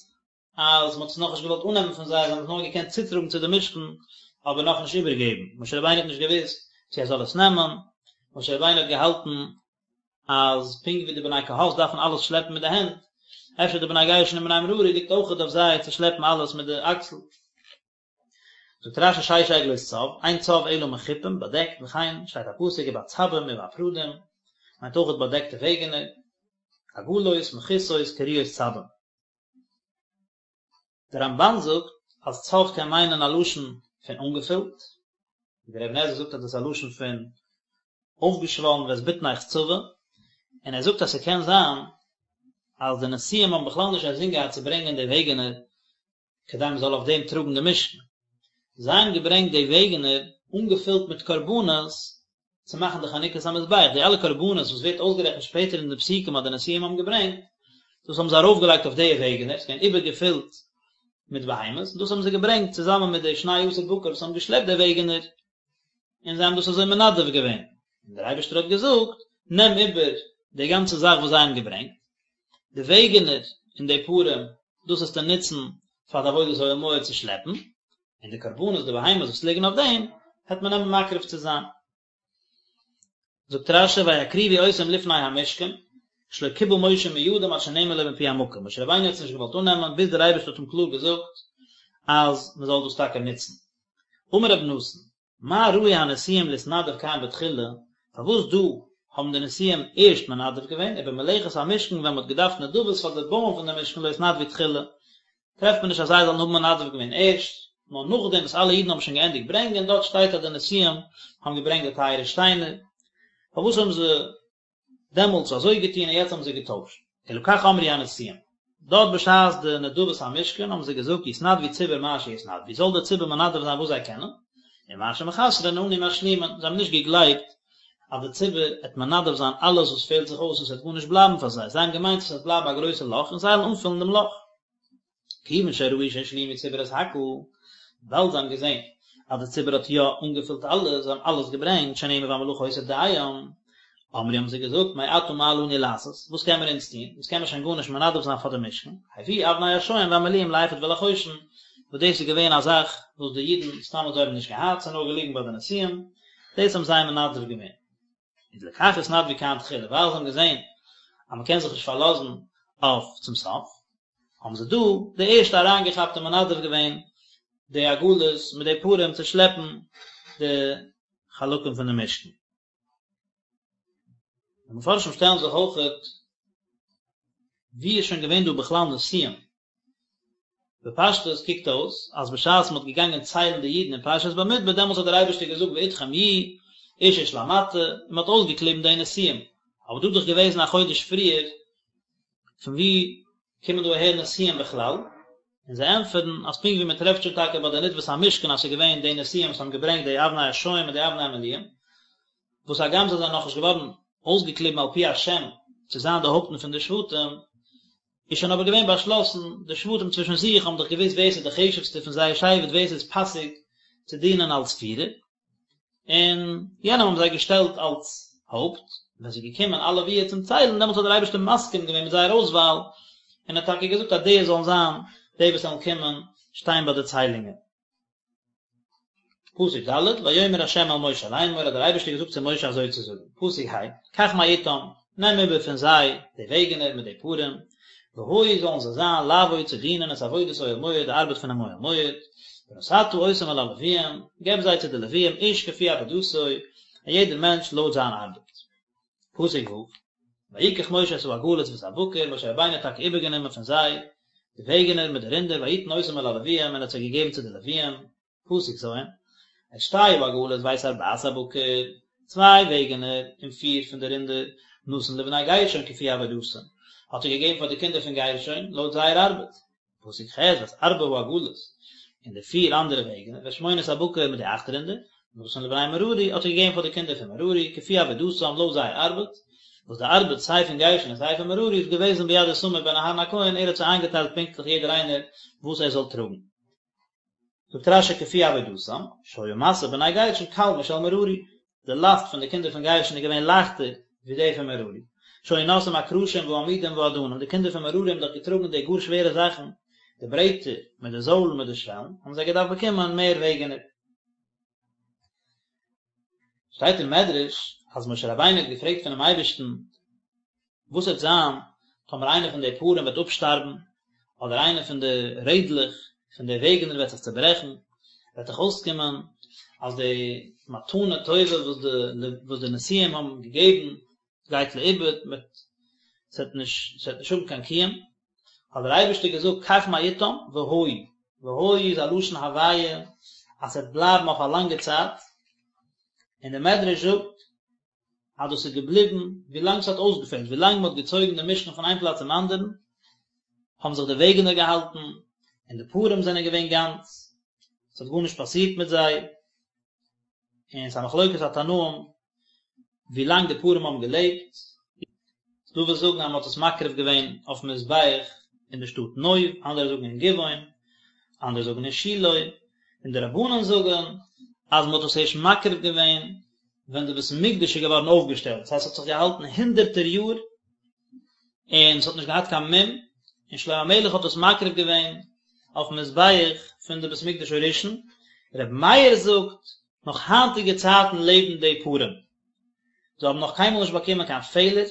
אז מען האט עס נאכנישט געוואלט אננעמען פון זיי, זיי האבן עס נאר געקענט צוטראגן צו די משכן, אבער נאכנישט איבערגעבן, משה רבינו האט נישט געוואוסט צו ער זאל עס נעמען, משה רבינו האט געהאלטן אז פונקט ווי די בני קהת דארפן אלעס שלעפן מיט די הענט, אפשר די בני גרשון און בני מררי ליגט אויכעט אויף זיי צו שלעפן אלעס מיט די אקסל. זאגט רש"י שש עגלות צב, אין צב אלא מחופים, באדעקט, וכן שטייט א פסוק ובצבים ובפרדים, מיינט אויכעט באדעקטע וועגענער, עגלות, מכוסות, קרויות צבים. דער רמב"ן זאגט אז צב קען מיינען א לשון פון אנגעפילט, ווי דער אבן עזרא זאגט אז דאס איז א לשון פון אויפגעשוואלן ואת בטנך צבה, און ער זאגט אז ס'קען זיין אז די נשיאים האבן בכלל נישט אינזין געהאט צו ברענגען די וועגענער כדי מען זאל אויף דעם טראגן די משכן. זיי האבן געברענגט די וועגענער אנגעפילט מיט קרבנות צו מאכן די חנוכת המזבח, די אלע קרבנות וואס ווערט אויסגערעכנט שפעטער אין די פסוקים אז די נשיאים האבן געברענגט, דאס האבן זיי ארויפגעלייגט אויף די וועגענער, ס'איז געווען איבערגעפילט מיט בהמות, און דאס האבן זיי געברענגט צוזאמען מיט די שני עשר בקר וואס האבן געשלעפט די וועגענער, און זיי האבן דאס אזוי מנדב געווען, און דער אייבערשטער האט געזאגט, נעם איבער די גאנצע זאך וואס זיי האבן געברענגט, די וועגענער און די פרים, דאס וועסטו נוצן פאר די עבודת אוהל מועד צו שלעפן, און די קרבנות, די בהמות וואס ליגן אויף דעם, העט מען נעמען מקריב צו זיין. זאגט רש"י ויקריבו אותם לפני המשכן, שלא קיבל משה מידם עד שנאמר לו מפי המקום, משה רבינו האט עס נישט געוואלט אננעמען ביז דער אייבערשטער האט אים קלאר געזאגט אז מען זאל דאס טאקע נוצן. אמר רבי נתן, מה ראו הנשיאים להתנדב כאן בתחילה, פארוואס דא האבן די נשיאים ערשט מנדב געווען, ובמלאכת המשכן ווען מען האט געדארפט נדבות פאר די בויען פון די משכן לא התנדבו תחילה, טרעפט מען נישט אז זיי זאלן האבן מנדב געווען ערשט, נאר נאכדעם וואס אלע אידן האבן שוין געענדיגט ברענגען, דארט שטייט אז די נשיאים האבן געברענגט די טייערע שטיינער, פארוואס האבן זיי דעמאלטס אזוי געטון און יעצט האבן זיי געטוישט? אלא כך אמרו הנשיאים, דארט בשעת די נדבת המשכן האבן זיי געזאגט יתנדבו ציבור מה שיתנדבו, זאל דער ציבור מנדב זיין וואס זיי קענען, ומה שמחסרין אנו משלימין, זיי האבן נישט געגלייבט אז די ציבור עט מנדב זיין אלעס וואס פעלט זיך אויס און ס'וועט גארנישט בלייבן פאר זיי, זיי האבן געמיינט אז ס'וועט בלייבן א גרויסע לאך און זיי וועלן אנפילן דעם לאך. כיוון שראו שהשלימו ציבור את הכל, וויבאלד זיי האבן געזען אז די ציבור האט יא אנגעפילט אלעס, זיי האבן אלעס געברענגט, שנאמר והמלאכה היתה דים, אמרו האבן זיי געזאגט, מעתה מה לנו לעשות, וואס קען מיר אונז טון, אונז קען מיר שוין גארנישט מנדב זיין פאר די משכן, הביאו אבני השוהם והמלואים לאפוד ולחושן, וואס דאס איז געווען א זאך וואס די אידן סתם אזוי האבן נישט געהאט, ס'איז נאר געליגן ביי די נשיאים, דאס האבן זיי מנדב געווען. איז לכך התנדבו כאן תחילה, ווייל זיי האבן געזען אז מען קען זיך נישט פארלאזן אויף צום סוף, האבן זיי דא די ערשטע אריינגעכאפט און מנדב געווען די עגלות מיט די פרים צו שלעפן די חלקים פון די משכן. די מפרשים שטעלן זיך אויכעט, ווי איז שוין געווען דא בכלל נשיאים? בפשטות קוקט אויס אז בשעת מען האט געגאנגען ציילן די אידן אין פרשת במדבר דעמאלטס האט דער אייבערשטער געזאגט ואתכם יהיו איש איש למטה און מען האט אויסגעקליבן די נשיאים, אבער דא איז דאך געוועזן א חודש פריער, פון ווי קומען דא אהער נשיאים בכלל? און זיי ענטפערן אז פונקט ווי מען טרעפט שוין טאקע ביי די נדבת המשכן אז ס'איז געווען די נשיאים וואס האבן געברענגט די אבני השוהם און די אבני המלואים, וואס הגם זיי זענען נאכנישט געווארן אויסגעקליבן על פי השם צו זיין די הויפטן פון די שבטים, איז שוין אבער געווען באשלאסן, די שבטים צווישן זיך האבן דאך געוואוסט ווער ס'איז די חשוב'סטע פון זייער שבט, ווער ס'איז פאסיג צו דינען אלס פירער, און יענעם האבן זיי געשטעלט אלס הויפט, ווען ס'איז געקומען אלע ווי צום ציילן, דעמאלטס האט דער אייבערשטער מסכים געווען מיט זייער אויסוואל, און האט טאקע געזאגט אז די זאלן זיין די וואס וועלן קומען שטיין ביי די ציילונגען. פסוק ד', ויאמר ה' אל משה לאמור, האט דער אייבערשטער געזאגט צו משה אזוי צו זאגן, פסוק ה', קח מאתם, נעם איבער פון זיי די וועגענער מיט די פרים, והיו זאלן זיי זיין לעבוד צו דינען את עבודת אוהל מועד די ארבעט פונעם אוהל מועד, ונתתה אותם אל הלוויים, געב זיי צו די לוויים איש כפי עבודתו, א יעדער מענטש לויט זיין ארבעט. פסוק ו', ויקח משה את העגלות ואת הבקר, משה רבינו האט טאקע איבערגענומען פון זיי די וועגענער מיט די רינדער ויתן אותם אל הלוויים און האט זיי געגעבן צו די לוויים, פסוק ז', את שתי העגלות ואת ארבעת הבקר, צוויי וועגענער און פיר פון די רינדער, נתן לבני גרשון כפי עבודתם, האט ער געגעבן פאר די קינדער פון גרשון לויט זייער ארבעט. פסוק ח', ואת ארבע העגלות, און די פיר אנדערע וועגענער, ואת שמונת הבקר מיט די אכט רינדער, נתן לבני מררי, האט ער געגעבן פאר די קינדער פון מררי, כפי עבודתם, לויט זייער ארבעט, וואס די ארבעט סיי פון גרשון און סיי פון מררי איז געוועזן ביד איתמר בן אהרן הכהן, ער האט זיי איינגעטיילט פונקטליך יעדער איינער וואס ער זאל טראגן. זאגט רש"י כפי עבודתם, שהיה משא בני גרשון קל משל מררי, די לאסט פון די קינדער פון גרשון איז געווען לייכטער ווי די פון מררי, שהיו נושאים הקרשים והעמודים והאדנים, די קינדער פון מררי האבן דאך געטראגן די גאר שווערע זאכן, די ברעטער מיט די זוילן מיט די שוועלן, האבן זיי געדארפט באקומען מער וועגענער. שטייט אין מדרש אז משה רבינו האט געפרעגט פונעם אייבערשטן וואס וועט זיין טאמער איינע פון די פרים וועט אפשטארבן, אדער איינע פון די רעדלעך פון די וועגענער וועט זיך צעברעכן, וועט דאך אויסקומען אז די מתנה טובה וואס די וואס די נשיאים האבן געגעבן גייט לאיבוד, מיט ס'וועט נישט ס'וועט נישט האבן קיין קיום, האט דער אייבערשטער געזאגט קח מאתם והיו, והיו איז א לשון הוויה אז ס'וועט בלייבן אויף א לאנגע צייט, און דער מדרש זאגט אז דאס איז געבליבן ווי לאנג ס'האט אויסגעפעלט, ווי לאנג מ'האט געצויגן די משכן פון איין פלאץ צום אנדערן, האבן זיך די וועגענער געהאלטן, און די פרים זענען געווען גאנץ, ס'האט גארנישט פאסירט מיט זיי, און ס'איז א מחלוקת התנאים ווי לאנג די פרים האבן געלעבט, ס'דא וואס זאגן אז מ'האט עס מקריב געווען אויפן מזבח אין די שטאט נוב, אנדערע זאגן אין גבעון, אנדערע זאגן אין שילה, און די רבנן זאגן אז מ'האט עס ערשט מקריב געווען ווען די בית המקדש איז געווארן אויפגעשטעלט, דאס הייסט ס'האט זיך געהאלטן הונדערטער יאר און ס'האט נישט געהאט קיין מום, און שלמה המלך האט עס מקריב געווען אויפן מזבח פון די בית המקדש הראשון, רבי מאיר זאגט, נאך היינטיגע צייטן לעבן די פרים, זיי האבן נאך קיינמאל נישט באקומען קיין פעלער,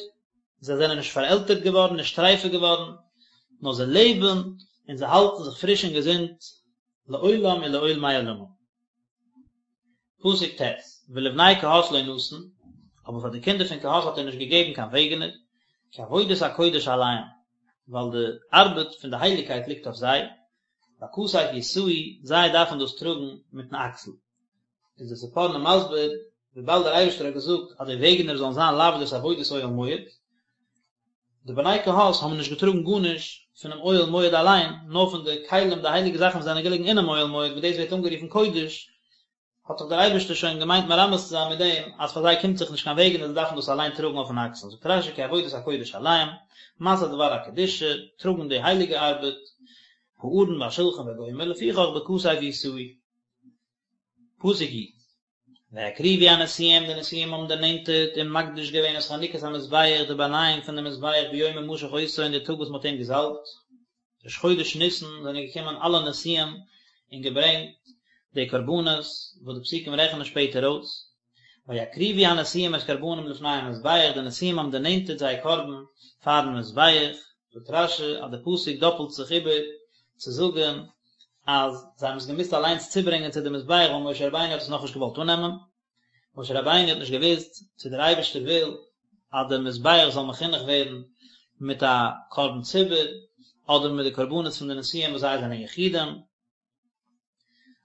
זיי זענען נישט פארעלטערט געווארן, נישט טרייפע געווארן, נאר זיי לעבן און זיי האלטן זיך פריש און געזונט לעולם ולעולמי עולמים. פסוק ט', ולבני קהת לא נתן, אבער פאר די קינדער פון קהת האט ער נישט געגעבן קיין וועגענער, כי עבודת הקודש עליהם, ווייל די ארבעט פון די הייליגקייט ליגט אויף זיי, בכתף ישאו, זיי דארפן דאס טראגן מיטן אקסל. איז דער ספורנו מסביר, וויבאלד דער אייבערשטער האט געזאגט אז די וועגענער זאלן זיין לעבוד את עבודת אוהל מועד, די בני קהת האבן נישט געטראגן גארנישט פונעם אוהל מועד אליין, נאר פון די כלים, די הייליגע זאכן וואס זענען געליגן אינעם אוהל מועד, וואס דאס ווערט אנגערופן קודש, האט דאך דער אייבערשטער שוין געמיינט מרמז צו זיין מיט דעם אז פאר זיי קומט זיך נישט קיין וועגענער, זיי דארפן דאס אליין טראגן אויפן אקסל, זאגט רש"י כי עבודת הקודש עליהם, משא דבר הקדושה, טראגן די הייליגע ארבעט, הארון והשלחן וגומר, לפיכך בכתף ישאו. פסוק י'. ויקריבו הנשיאים, די נשיאים האבן דערנענטערט און מקדיש געווען את חנוכת המזבח, די באנייאונג פון דעם מזבח ביום המשח אותו אין די טאג וואס מען האט אים געזאלבט, ראש חודש ניסן זענען געקומען אלע נשיאים און געברענגט די קרבנות וואס די פסוקים רעכענען שפעטער אויס, ויקריבו הנשיאים את קרבנם לפני המזבח, די נשיאים האבן דערנענטערט זייער קרבן פארן מזבח, זאגט רש"י אז די פסוק דאפלט זיך איבער צו זאגן אז זיי האבן עס געמוזט אליינס צוברענגען צו די מזבח ווייל משה רבינו האט עס נאכנישט געוואלט אננעמען, משה רבינו האט נישט געוואוסט צו דער אייבערשטער וויל אז דער מזבח זאל מחונך ווערן מיט א קרבן ציבור אדער מיט די קרבנות פון די נשיאים וואס זיי זענען יחידים.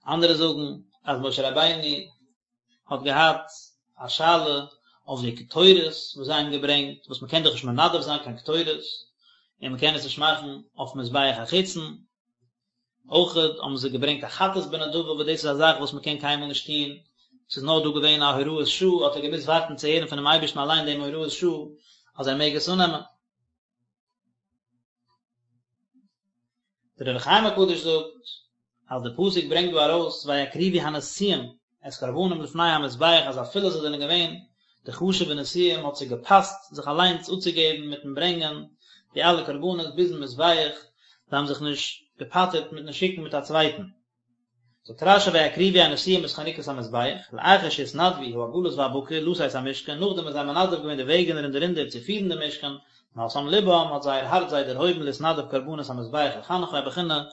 אנדערע זאגן אז משה רבינו האט געהאט א שאלה אויף די קטורת וואס זיי האבן געברענגט, וואס מען קען דאך נישט מנדב זיין קיין קטורת, און מען קען עס נישט מאכן אויף מזבח החיצון. אויכעט האבן זיי געברענגט א חטאת בנדבה וואס דאס איז א זאך וואס מען קען קיינמאל נישט טון, ס'איז נאר דא געווען א הוראת שעה, האט ער געמוזט ווארטן צו הערן פונעם אייבערשטן אליין דעם הוראת שעה אז ער מעג עס אננעמען. דער אור החיים הקדוש זאגט אז די פסוק ברענגט דא ארויס ויקריבו הנשיאים את קרבנם לפני המזבח אז אפילו זיי זענען געווען די חשובע נשיאים האט זיי געפאסט זיך אליינס אפצוגעבן מיטן ברענגען די אלע קרבנות ביזן מזבח, זיי האבן זיך נישט געפטר'ט מיטן שיקן מיט א צווייטן. זאגט רשי ויקריבו הנשיאים את חנוכת המזבח, לאחר שהתנדבו העגלות והבקר לשאת המשכן, נאכדעם וואס זיי האבן מנדב געווען די וועגענער און די רינדער צו פירן די משכן, נשאם לבם, האט זייער הארץ זיי דערהויבן להתנדב קרבנות המזבח לחנכו א בחינה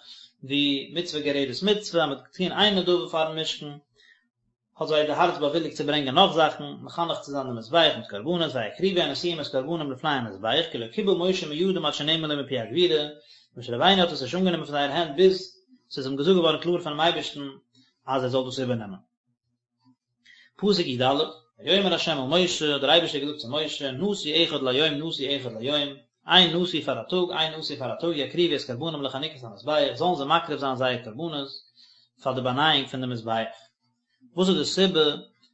ווי מצוה גוררת מצוה, אז מען האט געטון איין נדבה פארן משכן, האט זיי די הארץ באוויליגט צו ברענגען נאך זאכן, מחנך צו זיין די מזבח מיט קרבנות, ויקריבו הנשיאים את קרבנם לפני המזבח, כי לא קיבל משה מידם עד שנאמר לו מפי הגבורה, משה רבינו האט עס נישט אנגענומען פון זייערע הענט ביז ס'איז אים געזאגט געווארן קלאר פונעם אייבערשטן אז ער זאל דאס איבערנעמען. פסוק י א, ויאמר ה' אל משה, האט דער אייבערשטער געזאגט צו משה, נשיא אחד ליום נשיא אחד ליום, איין נשיא פאר א טאג, איין נשיא פאר א טאג, יקריבו את קרבנם לחנוכת המזבח, זאלן זיי מקריב זיין זייער קרבנות פאר די באנייאונג פון די מזבח. וואס איז די סיבה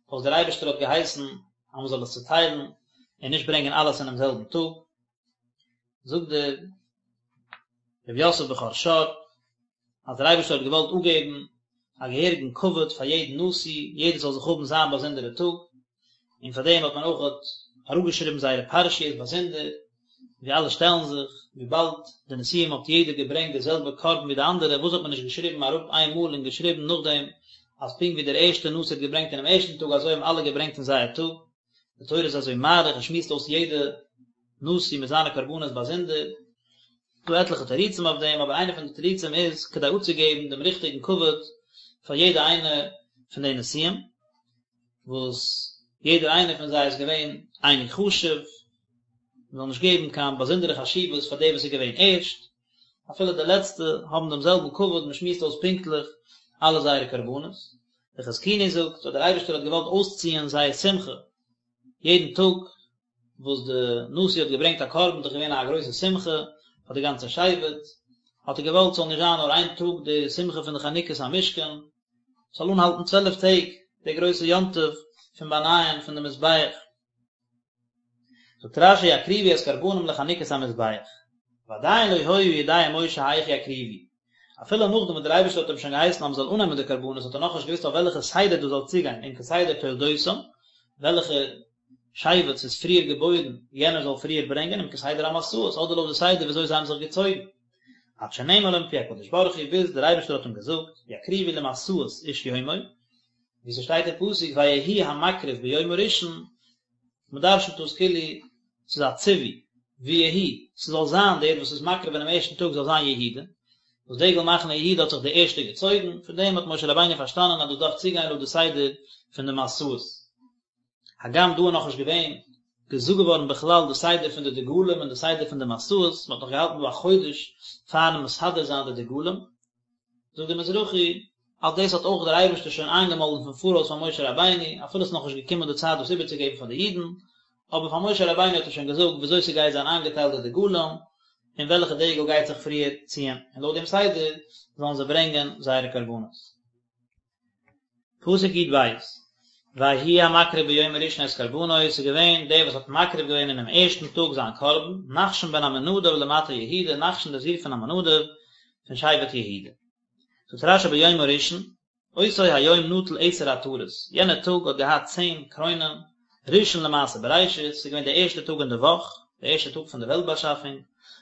פארוואס דער אייבערשטער האט געהייסן אז מען זאל עס צוטיילן און נישט ברענגען אלעס אינעם זעלבן טאג? זאגט דער רבי יוסף בכור שור, אז דער אייבערשטער האט געוואלט אפגעבן א געהעריגן כבוד פאר יעדן נשיא, יעדער זאל זיך האבן זיין באזונדערע טאג, און פאר דעם האט מען אויך אראפגעשריבן זייערע פרשיות באזונדער, ווי אלע שטעלן זיך, וויבאלד די נשיאים האט יעדער געברענגט די זעלבע קרבן ווי די אנדערע, וואס האט מען נישט געשריבן אראפ איין מאל און געשריבן נאכדעם אז פונקט ווי דער ערשטער נשיא האט געברענגט אינעם ערשטן טאג אזוי האבן אלע געברענגט אין זייער טאג, די תורה איז אזוי מאריך און שמועסט אויס יעדע נשיא מיט זיינע קרבנות באזונדער. ס'דא עטליכע תירוצים אויף דעם, אבער איינע פון די תירוצים איז כדי אפצוגעבן דעם ריכטיגן כבוד פאר יעדע איינע פון די נשיאים, וואס יעדער איינער פון זיי איז געווען אייניג חשוב, מען זאל נישט געבן קיין באזונדערע חשיבות פאר דער וואס איז געווען ערשט, אפילו די לעצטע האבן דעם זעלבן כבוד, מען שמועסט אויס פונקטליך אלע זייערע קרבנות. דער חזקוני זאגט אז דער אייבערשטער האט געוואלט אויסציען זייער שמחה יעדן טאג וואס די נשיא האט געברענגט א קרבן איז דאך געווען א גרויסע שמחה פאר די גאנצע שבט, האט ער געוואלט ס'זאל נישט זיין נאר איין טאג די שמחה פון די חנוכת המשכן, ס'זאל אנהאלטן צוועלף טעג די גרויסע יום טוב פון באנייען פון די מזבח. זאגט רשי יקריבו את קרבנם לחנוכת המזבח, ועדיין לא היה יודע משה היאך יקריבו, אפילו נאכדעם וואס דער אייבערשטער האט אים שוין געהייסן אז מען זאל אננעמען די קרבנות האט ער נאכנישט געוואוסט אויף וועלכע סדר דאס זאל צוגיין אם כסדר תולדותם, וועלכע שבט ס'איז פריער געבוירן יענער זאל פריער ברענגען אם כסדר המסעות אדער לויט די סדר וויאזוי זיי האבן זיך געצויגן עד שנאמר לו מפי הקדוש ברוך הוא ביז דער אייבערשטער האט אים געזאגט יקריבו למסעות איש יומו ווי ס'שטייט אין פסוק ויהי המקריב ביום הראשון מ'דרש'נט דאס כאילו ס'איז א ציווי, ויהי, ס'זאל זיין דער וואס איז מקריב אינעם ערשטן טאג זאל זיין יהודה, וואס דגל מחנה יהודה האט זיך די ערשטע געצויגן, פון דעם האט משה רבינו פארשטאנען אז דאס דארף צוגיין לויט די סדר פון די מסעות. הגם דא איז נאכנישט געווען געזאגט געווארן בכלל די סדר פון די דגלים און די סדר פון די מסעות, מ'האט נאך געהאלטן דא א חודש פארן מסדר זיין די דגלים, זאגט דער מזרחי, אז דאס האט אויך דער אייבערשטער שוין איינגעמאלדן פון פאראויס פאר משה רבינו, אפילו עס איז נאכנישט געקומען די צייט דאס איבערצוגעבן פאר די אידן, אבער פאר משה רבינו האט ער שוין געזאגט וויאזוי ס'גייט זיין איינגעטיילט די דגלים, און וועלכע דגל גייט זיך פריער ציען, און לויט דעם סדר זאלן זיי ברענגען זייערע קרבנות. פסוק י ב, ויהי המקריב ביום הראשון את קרבנו, עס איז געווען דער וואס האט מקריב געווען אינעם ערשטן טאג זיין קרבן, נחשון בן עמינדב למטה יהודה, נחשון דער זון פון עמינדב, פון שבט יהודה. זאגט רשי ביום הראשון, אותו היום נטל עשר עטרות, יענער טאג האט געהאט צען קרוינען, ראשון למעשה בראשית, ס'איז געווען דער ערשטער טאג אין די וואך, דער ערשטער טאג פון די וועלט באשאפונג,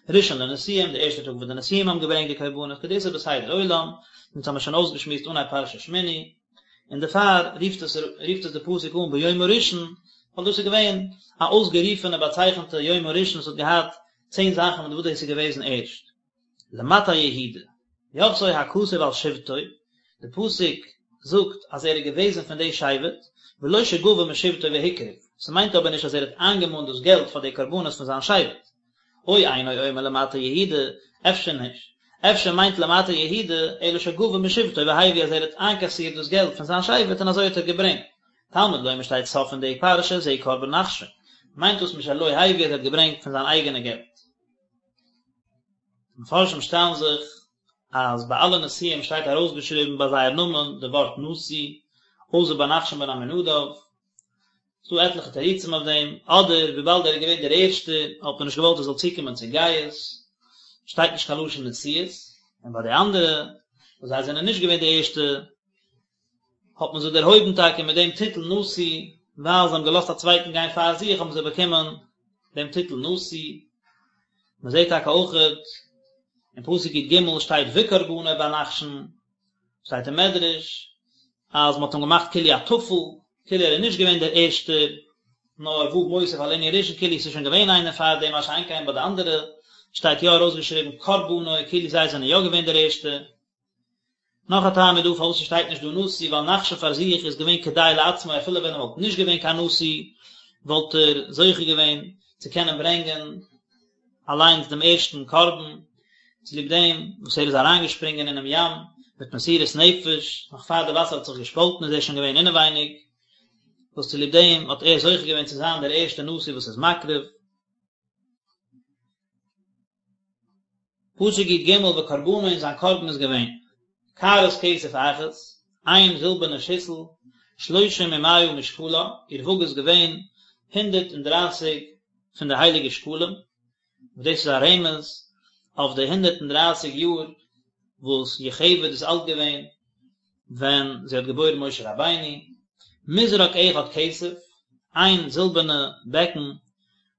ראשון לנשיאים, דער ערשטער טאג וואס די נשיאים האבן געברענגט די קרבנות, כדאיתא בסדר עולם, אונז האמיר שוין אויסגעשמועסט אנהייב פרשת שמיני, און דערפאר רופט עס רופט עס די פסוק אן ביום הראשון, ווייל דאס איז געווען א אויסגערופענע באצייכענטע יום הראשון וואס האט געהאט צען זאכן מיט וואס דאס איז געוועזן ערשט. למטה יהודה, יחתו הכתוב על שבטו, די פסוק זאגט אז ער איז געוועזן פון די שבט, ולא שגבה משבטו והקריב, ס'מיינט אבער נישט אז ער האט איינגעמאנט דאס געלט פאר די קרבנות פון זיין שבט. או אינו אומר למטה יהודה, אפשר נישט, אפשר מיינט למטה יהודה, אלא שגבה משבטו והביא אז ער האט איינקאסירט דאס געלט פון זיין שבט און אזוי האט ער געברענגט. תלמוד לומר שטייט סוף פון די פרשה זה קרבן נחשון, מיינט דאס משלו הביא אז ער האט געברענגט פון זיין אייגענע געלט. די מפרשים שטעלן זיך אז ביי אלע נשיאים שטייט ארויסגעשריבן ביי זייער נאמען די ווארט נשיא, אויסער ביי נחשון בן עמינדב. ס'דא עטליכע תירוצים אויף דעם, אדער וויבאלד ער איז געווען דער ערשטער האט מען נישט געוואלט ער זאל צוקומען צו גאות, שטייט נישט קיין לשון נשיאות, און ביי די אנדערע וואס זיי זענען נישט געווען די ערשטע האט מען זיי דערהויבן טאקע מיט דעם טיטל נשיא, ווייל זיי האבן געלאזט א צווייטן גיין פאר זיך האבן זיי באקומען דעם טיטל נשיא. מען זעט טאקע אויכעט אין פסוק י ג שטייט וקרבנו ביי נחשון. שטייט אין מדרש אז מען האט אים געמאכט כאילו א טפל, כאילו ער איז נישט געווען דער ערשטער, נאר ו' מוסיף על ענין ראשון כאילו עס איז שוין געווען איינער פאר דעם, מה שאין כן ביי די אנדערע שטייט יא ארויסגעשריבן קרבנו כאילו זיי זענען יא געווען דער ערשטער. נאך א טעם איז דא פארוואס ס'שטייט נישט דא נשיא, ווייל נחשון פאר זיך איז געווען כדאי לעצמו אפילו ווען ער וואלט נישט געווען קיין נשיא וואלט ער זוכה געווען צו קענען ברענגען אליינס דעם ערשטן קרבן, צוליב דעם וואס ער איז אריינגעשפרינגען אינעם ים מיט מסירות נפש, נאך פאר די וואסער האט זיך געשפאלטן איז ער שוין געווען אינעווייניג, וואס צוליב דעם האט ער זוכה געווען צו זיין דער ערשטער נשיא וואס איז מקריב. פסוק י ג וקרבנו און זיין קרבן איז געווען, קערת כסף אחת, איין זילבערנע שיסל, שלושים ומאה משקלה, איר וואג איז געווען 130 פון די הייליגע שקלים, וואס דאס איז א רמז אויף די 130 יאר וואס יוכבד איז אלט געווען ווען זי האט געבוירן משה רבינו, מזרק אחד כסף, איין זילבערנע בעקן,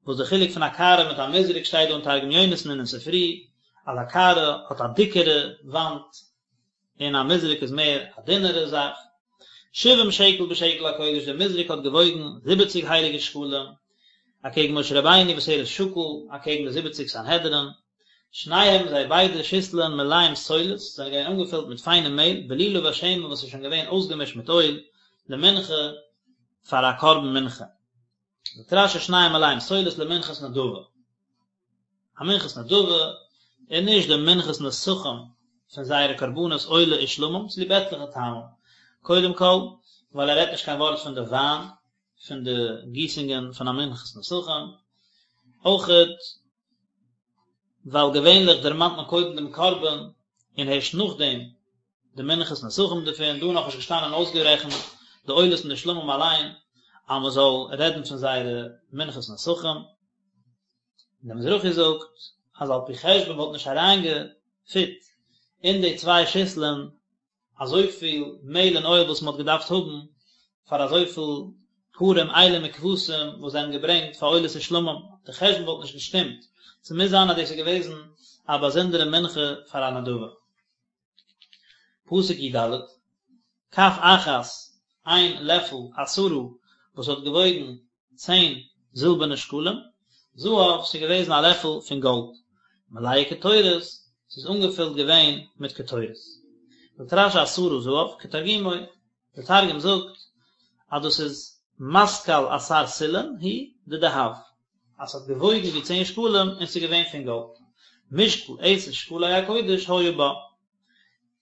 וואס די חילוק פון א קערה מיט א מזרק שטייט דא אין תרגום יונתן און אין ספרי, אז א קערה האט א דיקערע וואנט און א מזרק איז מער א דינערע זאך. שבעים שקל בשקל הקודש, דער מזרק האט געוואויגן זיבעציג הייליגע שקלים, אקעגן משה רבינו וואס ער איז שקול אקעגן די זיבעציג סנהדרין, שניהם זיי ביידע שיסלען מלאים סולת, זענען געווען אנגעפילט מיט פיינע מעהל, בלולה בשמן וואס איז שוין געווען אויסגעמישט מיט אויל, למנחה, פאר א קרבן מנחה. זאגט רשי שניהם מלאים סולת למנחת נדבה. א מנחת נדבה און נישט די מנחת נסכים פון זייערע קרבנות עולה ושלמים צוליב עטליכע טעמים. קודם כל ווייל ער רעדט נישט קיין ווארט פון די וויין פון די גיסונגען פון א מנחת נסכים, אויכעט ווייל געווענליך דערמאנט מען קודם דעם קרבן און הערשט נאכדעם די מנחת נסכים דערפון, דא נאכנישט געשטאנען אויסגערעכנט די עולות און די שלמים אליין אז מען זאל רעדן פון זייערע מנחת נסכים. און דער מזרחי זאגט אז על פי חשבון וואלט נישט אריינגעפיט אין די צוויי שיסלען אזויפיל מעהל און אויל וואס מען האט געדארפט האבן פאר אזויפיל פרים אילים וכבשים וואס זיי האבן געברענגט פאר עולות ושלמים, די חשבון וואלט נישט געשטימט, ס'מוז זיין אז דאס איז געוועזן א באזונדערע מנחה פאר א נדבה. פסוק י ד, כף אחת, איין לעפל, עשרה, וואס האט געוואויגן צען זילבערנע שקלים, זהב, ס'איז געוועזן א לעפל פון גאלד, מלאה קטורת, ס'איז אנגעפילט געווען מיט קטורת. זאגט רשי עשרה זהב, כתרגומו, דער תרגום זאגט אז דאס איז מתקל עשר סילין הוא דדהב, אז ס'האט געוואויגן ווי צען שקלים און ס'איז געווען פון גאלד. משקל עשר שקלי הקודש היה בה.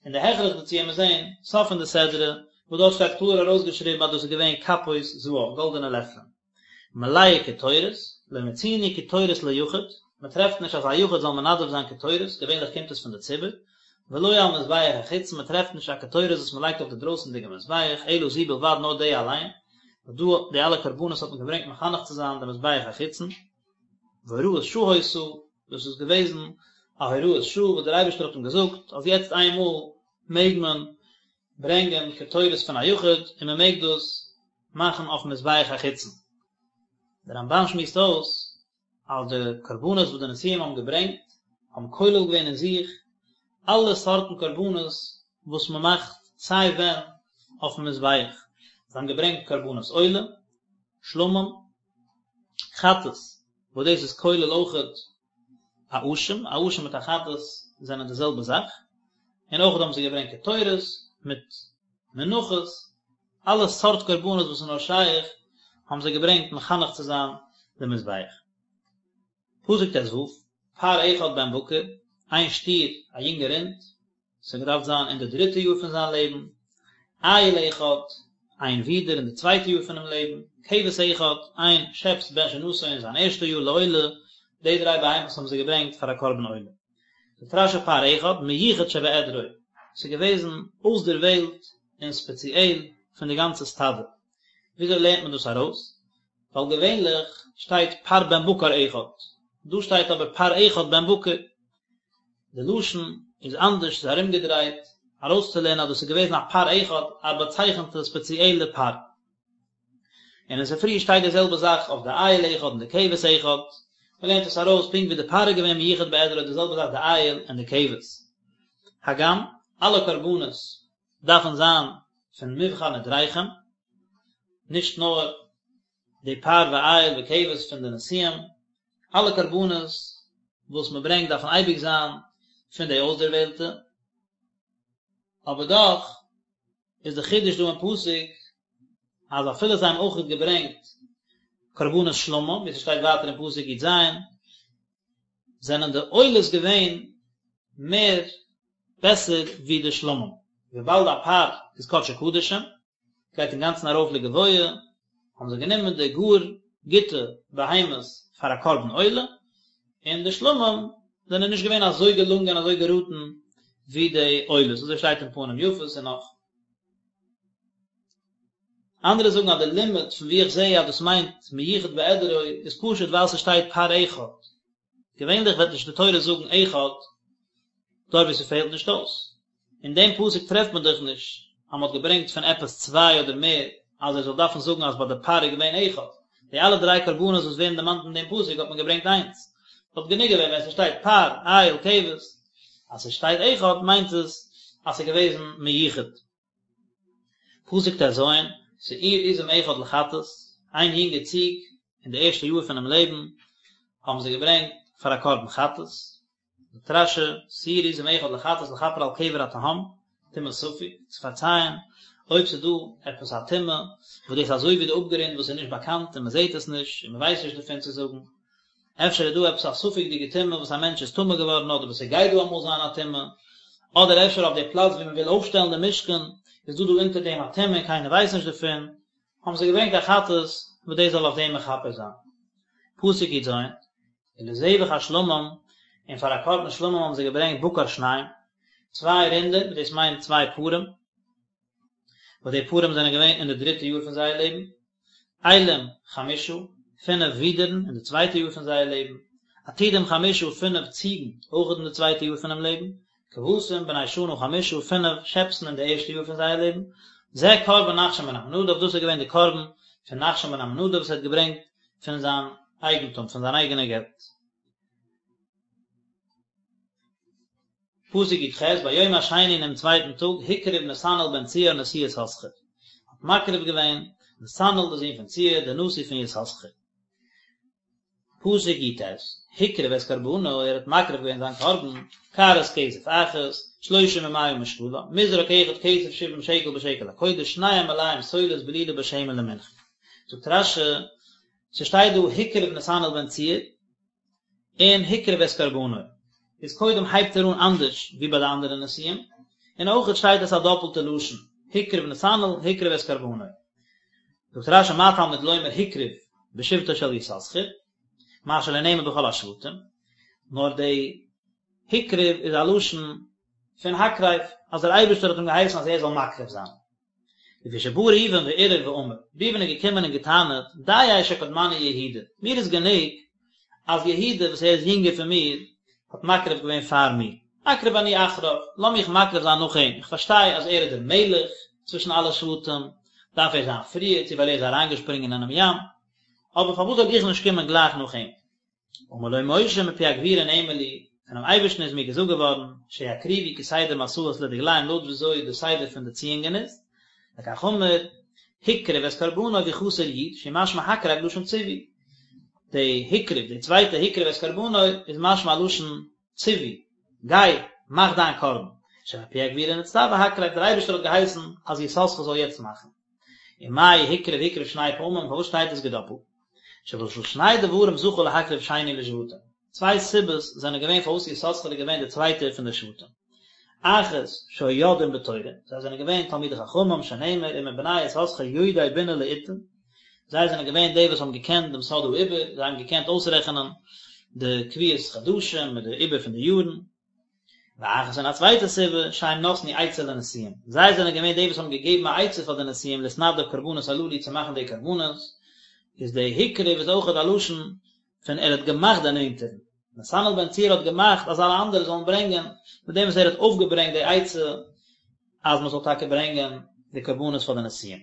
און די הכרח דערצו וועט מען זען סוף פון די סדרה, וואס דארט שטייט קלאר ארויסגעשריבן אז דאס איז געווען כפות זהב, גאלדענע לעפלען. מלאה קטורת, לא מצינו קטורת ליחיד, מען טרעפט נישט אז א יחיד זאל מנדב זיין קטורת, געווענליך קומט עס פון די ציבור, ולא על מזבח החיצון, מען טרעפט נישט א קטורת וואס מען לייגט אויף די דרויסענדיגע מזבח, אלא זו בלבד נאר די אליין, ווייל דא די אלע קרבנות האט מען געברענגט מחנך צו זיין די מזבח החיצון. והוראת שעה היתה, דאס איז געוועזן א הוראת שעה וואס דער אייבערשטער האט אים געזאגט אז יעצט איינמאל מעג מען ברענגען קטורת פון א יחיד און מען מעג דאס מאכן אויפן מזבח החיצון. דער רמבן שמועסט אויס אז די קרבנות וואס די נשיאים האבן געברענגט האבן כולל געווען אין זיך אלע סארטן קרבנות וואס מען מאכט סיי ווען אויפן מזבח, זיי האבן געברענגט קרבנות עולה, שלמים, חטאת, וואס דאס איז כולל אויכעט א אשם, א אשם מיט א חטאת זענען די זעלבע זאך, און אויכעט האבן זיי געברענגט קטורת מיט מנחות, אלע סארט קרבנות וואס איז נאר שייך האבן זיי געברענגט מחנך צו זיין די מזבח. פסוק ט ו, פר אחד בן בקר, איין שטיר, א יונגע רינד, ס'האט געדארפט זיין אין די דריטע יאר פון זיין לעבן, איל אחד, איין ווידער אין די צווייטע יאר פונעם לעבן, כבש אחד, איין שעפס בן שנתו אין זיין ערשטע יאר לעולה, די דריי בהמות האבן זיי געברענגט פאר א קרבן עולה. זאגט רשי פר אחד, מיוחד שבעדרו, ס'איז געוועזן אויסדערוועלט און ספעציעל פון די גאנצע סטאדע. וויאזוי לערנט מען דאס ארויס? ווייל געווענליך שטייט פר בן בקר אחד, דא שטייט אבער פר אחד בן בקר. די לשון איז אנדערש, ס'איז ארומגעדרייט, ארויסצולערנען אז דאס איז געוועזן א פר אחד, א באצייכענטע ספעציעלע פר. און אין ספרי שטייט די זעלבע זאך אויף די איל אחד און די כבש אחד, מען לערנט עס ארויס פונקט ווי די פר איז געווען מיוחד בעדרו די זעלבע זאך די איל און די כבש. הגם, אלע קרבנות. דארפן זיין פון מבחר נדריכם, נישט נאר די פר ואיל וכבש פון די נשיאים, אלע קרבנות וואס מען ברענגט דארפן אייביג זיין פון די אויסדערוועלטע, אבער דאך איז די חידוש דא אין פסוק אז אפילו זיי האבן אויכעט געברענגט קרבנות שלמים, ווי ס'שטייט ווייטער אין פסוק י"ז, זענען די עולות געווען מער בעסער ווי די שלמים, וויבאלד א פר איז קדשי קדשים, גייט אינגאנצן ארויף לגבוה, האבן זיי גענומען די גאר גוטע בהמות פאר א קרבן עולה, און די שלמים זענען נישט געווען אזוי געלונגען אזוי געראטן ווי די עולות, אזוי שטייט אין פנים יפות און נאך. אנדערע זאגן אז די לימוד פון וואו איך זעה אז דאס מיינט מיוחד בעדרו איז פשוט ווייל ס'שטייט פר אחד, געווענליך וועט נישט די תורה זאגן אחד דארט וואו ס'פעלט נישט אויס. אין דעם פסוק טרעפט מען דאך נישט אז מ'האט געברענגט פון עפעס צוויי אדער מער אז ער זאל דארפן זאגן אז ביי די פר איז געווען אחד. די אלע דריי קרבנות וואס ווערן דערמאנט אין דעם פסוק האט מען געברענגט איינס. וואלט גענוג געווען ווען ס'שטייט פר, איל, כבש. אז ס'שטייט אחד מיינט עס אז ס'איז געוועזן מיוחד. פסוק ט"ז, שעיר עזים אחד לחטאת, איין יונגע ציג אין די ערשטע יאר פונעם לעבן האבן זיי געברענגט פאר א קרבן חטאת, זאגט רש"י, שעיר עזים אחד לחטאת לכפר על קבר התהום, טומאת ספק, צו פארצייען אויב ס'איז דא עפעס א טומאה וואס דאס איז אזוי ווי די אפגרונד וואס איז נישט באקאנט און מ'זעט עס נישט און מ'ווייסט נישט דערפון צו זאגן. אפשר איז דא עפעס א ספק'דיגע טומאה וואס א מענטש איז טמא געווארן אדער וואס ס'גייט דא אמאל זיין א טומאה, אדער אפשר אויף די פלאץ ווי מ'וויל אויפשטעלן די משכן איז דא דא אונטער דעם א טומאה און קיינער ווייסט נישט דערפון, האבן זיי געברענגט א חטאת וואס דאס זאל אויף דעם מכפר זיין. פסוק י"ז, ולזבח השלמים, און פאר א קרבן שלמים האבן זיי געברענגט בקר שניים, צוויי רינדער, וואס דאס מיינט צוויי פרים, וואס די פרים זענען געווען אין די דריטע יאר פון זייער לעבן, אילים חמשה, פינף ווידערן אין די צווייטע יאר פון זייער לעבן, עתודים חמשה, פינף ציגן, אויך אין די צווייטע יאר פונעם לעבן, כבשים בני שנה חמשה, פינף שעפסן אין די ערשטע יאר פון זייער לעבן, זה קרבן נחשון בן עמינדב, דאס איז געווען די קרבן פון נחשון בן עמינדב וואס ער האט געברענגט פון זיין אייגנטום, פון זיין אייגענע געלט. פסוק י"ח, ביום השני אינעם צווייטן טאג, הקריב נתנאל בן צוער נשיא יששכר, האט מקריב געווען נתנאל דער זון פון צוער, דער נשיא פון יששכר. פסוק י"ט, הקריב את קרבנו, ער האט מקריב געווען זיין קרבן, קערת כסף אחת, שלושים ומאה משקלה, מזרק אחד כסף שבעים שקל בשקל הקודש, שניהם מלאים סולת בלולה בשמן למנחה. זאגט רש"י, ס'שטייט דא הקריב נתנאל בן צוער, און הקריב את קרבנו, איז קודם הייבט ער אן אנדערש ווי ביי די אנדערע נשיאים, און אויכעט שטייט עס א דאפלטע לשון, הקריב נתנאל, הקריב את קרבנו. זאגט רש"י מה תלמוד לומר הקריב בשבטו של יששכר, מה שלא נאמר בכל השבטים, נאר די הקריב איז א לשון פון הקרב, אז דער אייבערשטער האט אים געהייסן אז ער זאל מקריב זיין. לפי שבא ראובן וערער ואמר, ראובן איז געקומען און געטענה'ט, דיי שקדמני יהודה, מיר איז גענוג אז יהודה וואס ער איז יונגער פון מיר האט מקריב געווען פאר מיר, אקריב אני אחריו, לאמיך מקריב זיין נאך אים, איך פארשטיי אז ער איז דער מלך צווישן אלע שבטים, דארף ער זיין פריער, צו ווייל ער איז אריינגעשפרינגען אינעם ים, אבער פארוואס זאל איך נישט קומען גלייך נאך אים? אמר לו משה מפי הגבורה נאמר לי, פונעם אייבערשטן איז מיר געזאגט געווארן, שיקריבו כסדר מסעות לדגליהם לויט וויאזוי די סדר פון די ציאונגען איז, לכך אמר, הקריב את קרבנו והוא חסר יוד, שהוא משמע הקרב לשון ציווי. די הקריב, די צווייטע הקריב את קרבנו, איז משמע א לשון ציווי, גיי, מאך דיין קרבן. שמפי הגבורה נצטווה הקרב, דער אייבערשטער האט געהייסן אז יששכר זאל יעצט מאכן. ומאי הקריב הקריב שני פעמים, פארוואס שטייט עס געדאפלט? שבשביל שני דברים זכה להקריב שני לשבטים. צוויי סיבות זענען געווען פארוואס יששכר איז געווען דער צווייטער פון די שבטים. אחת, שהיו יודעים בתורה, זיי זענען געווען תלמידי חכמים, שנאמר ומבני יששכר יודעי בינה לעתים, זיי זענען געווען די וואס האבן געקענט דעם סוד העיבור, זיי האבן געקענט אויסרעכענען די קביעות חדשים מיט די עיבור פון די יארן. ואחת און א צווייטע סיבה, שהם נתנו עצה לנשיאים, זיי זענען געווען די וואס האבן געגעבן א עצה פאר די נשיאים להתנדב קרבנות הללו צו מאכן די קרבנות, איז די הקריב איז אויכעט א לשון פון ער האט געמאכט דערנענטערן, נתנאל בן צוער האט געמאכט אז אלע אנדערע זאלן ברענגען, מיט דעם וואס ער האט אויפגעברענגט די עצה אז מען זאל טאקע ברענגען די קרבנות פאר די נשיאים.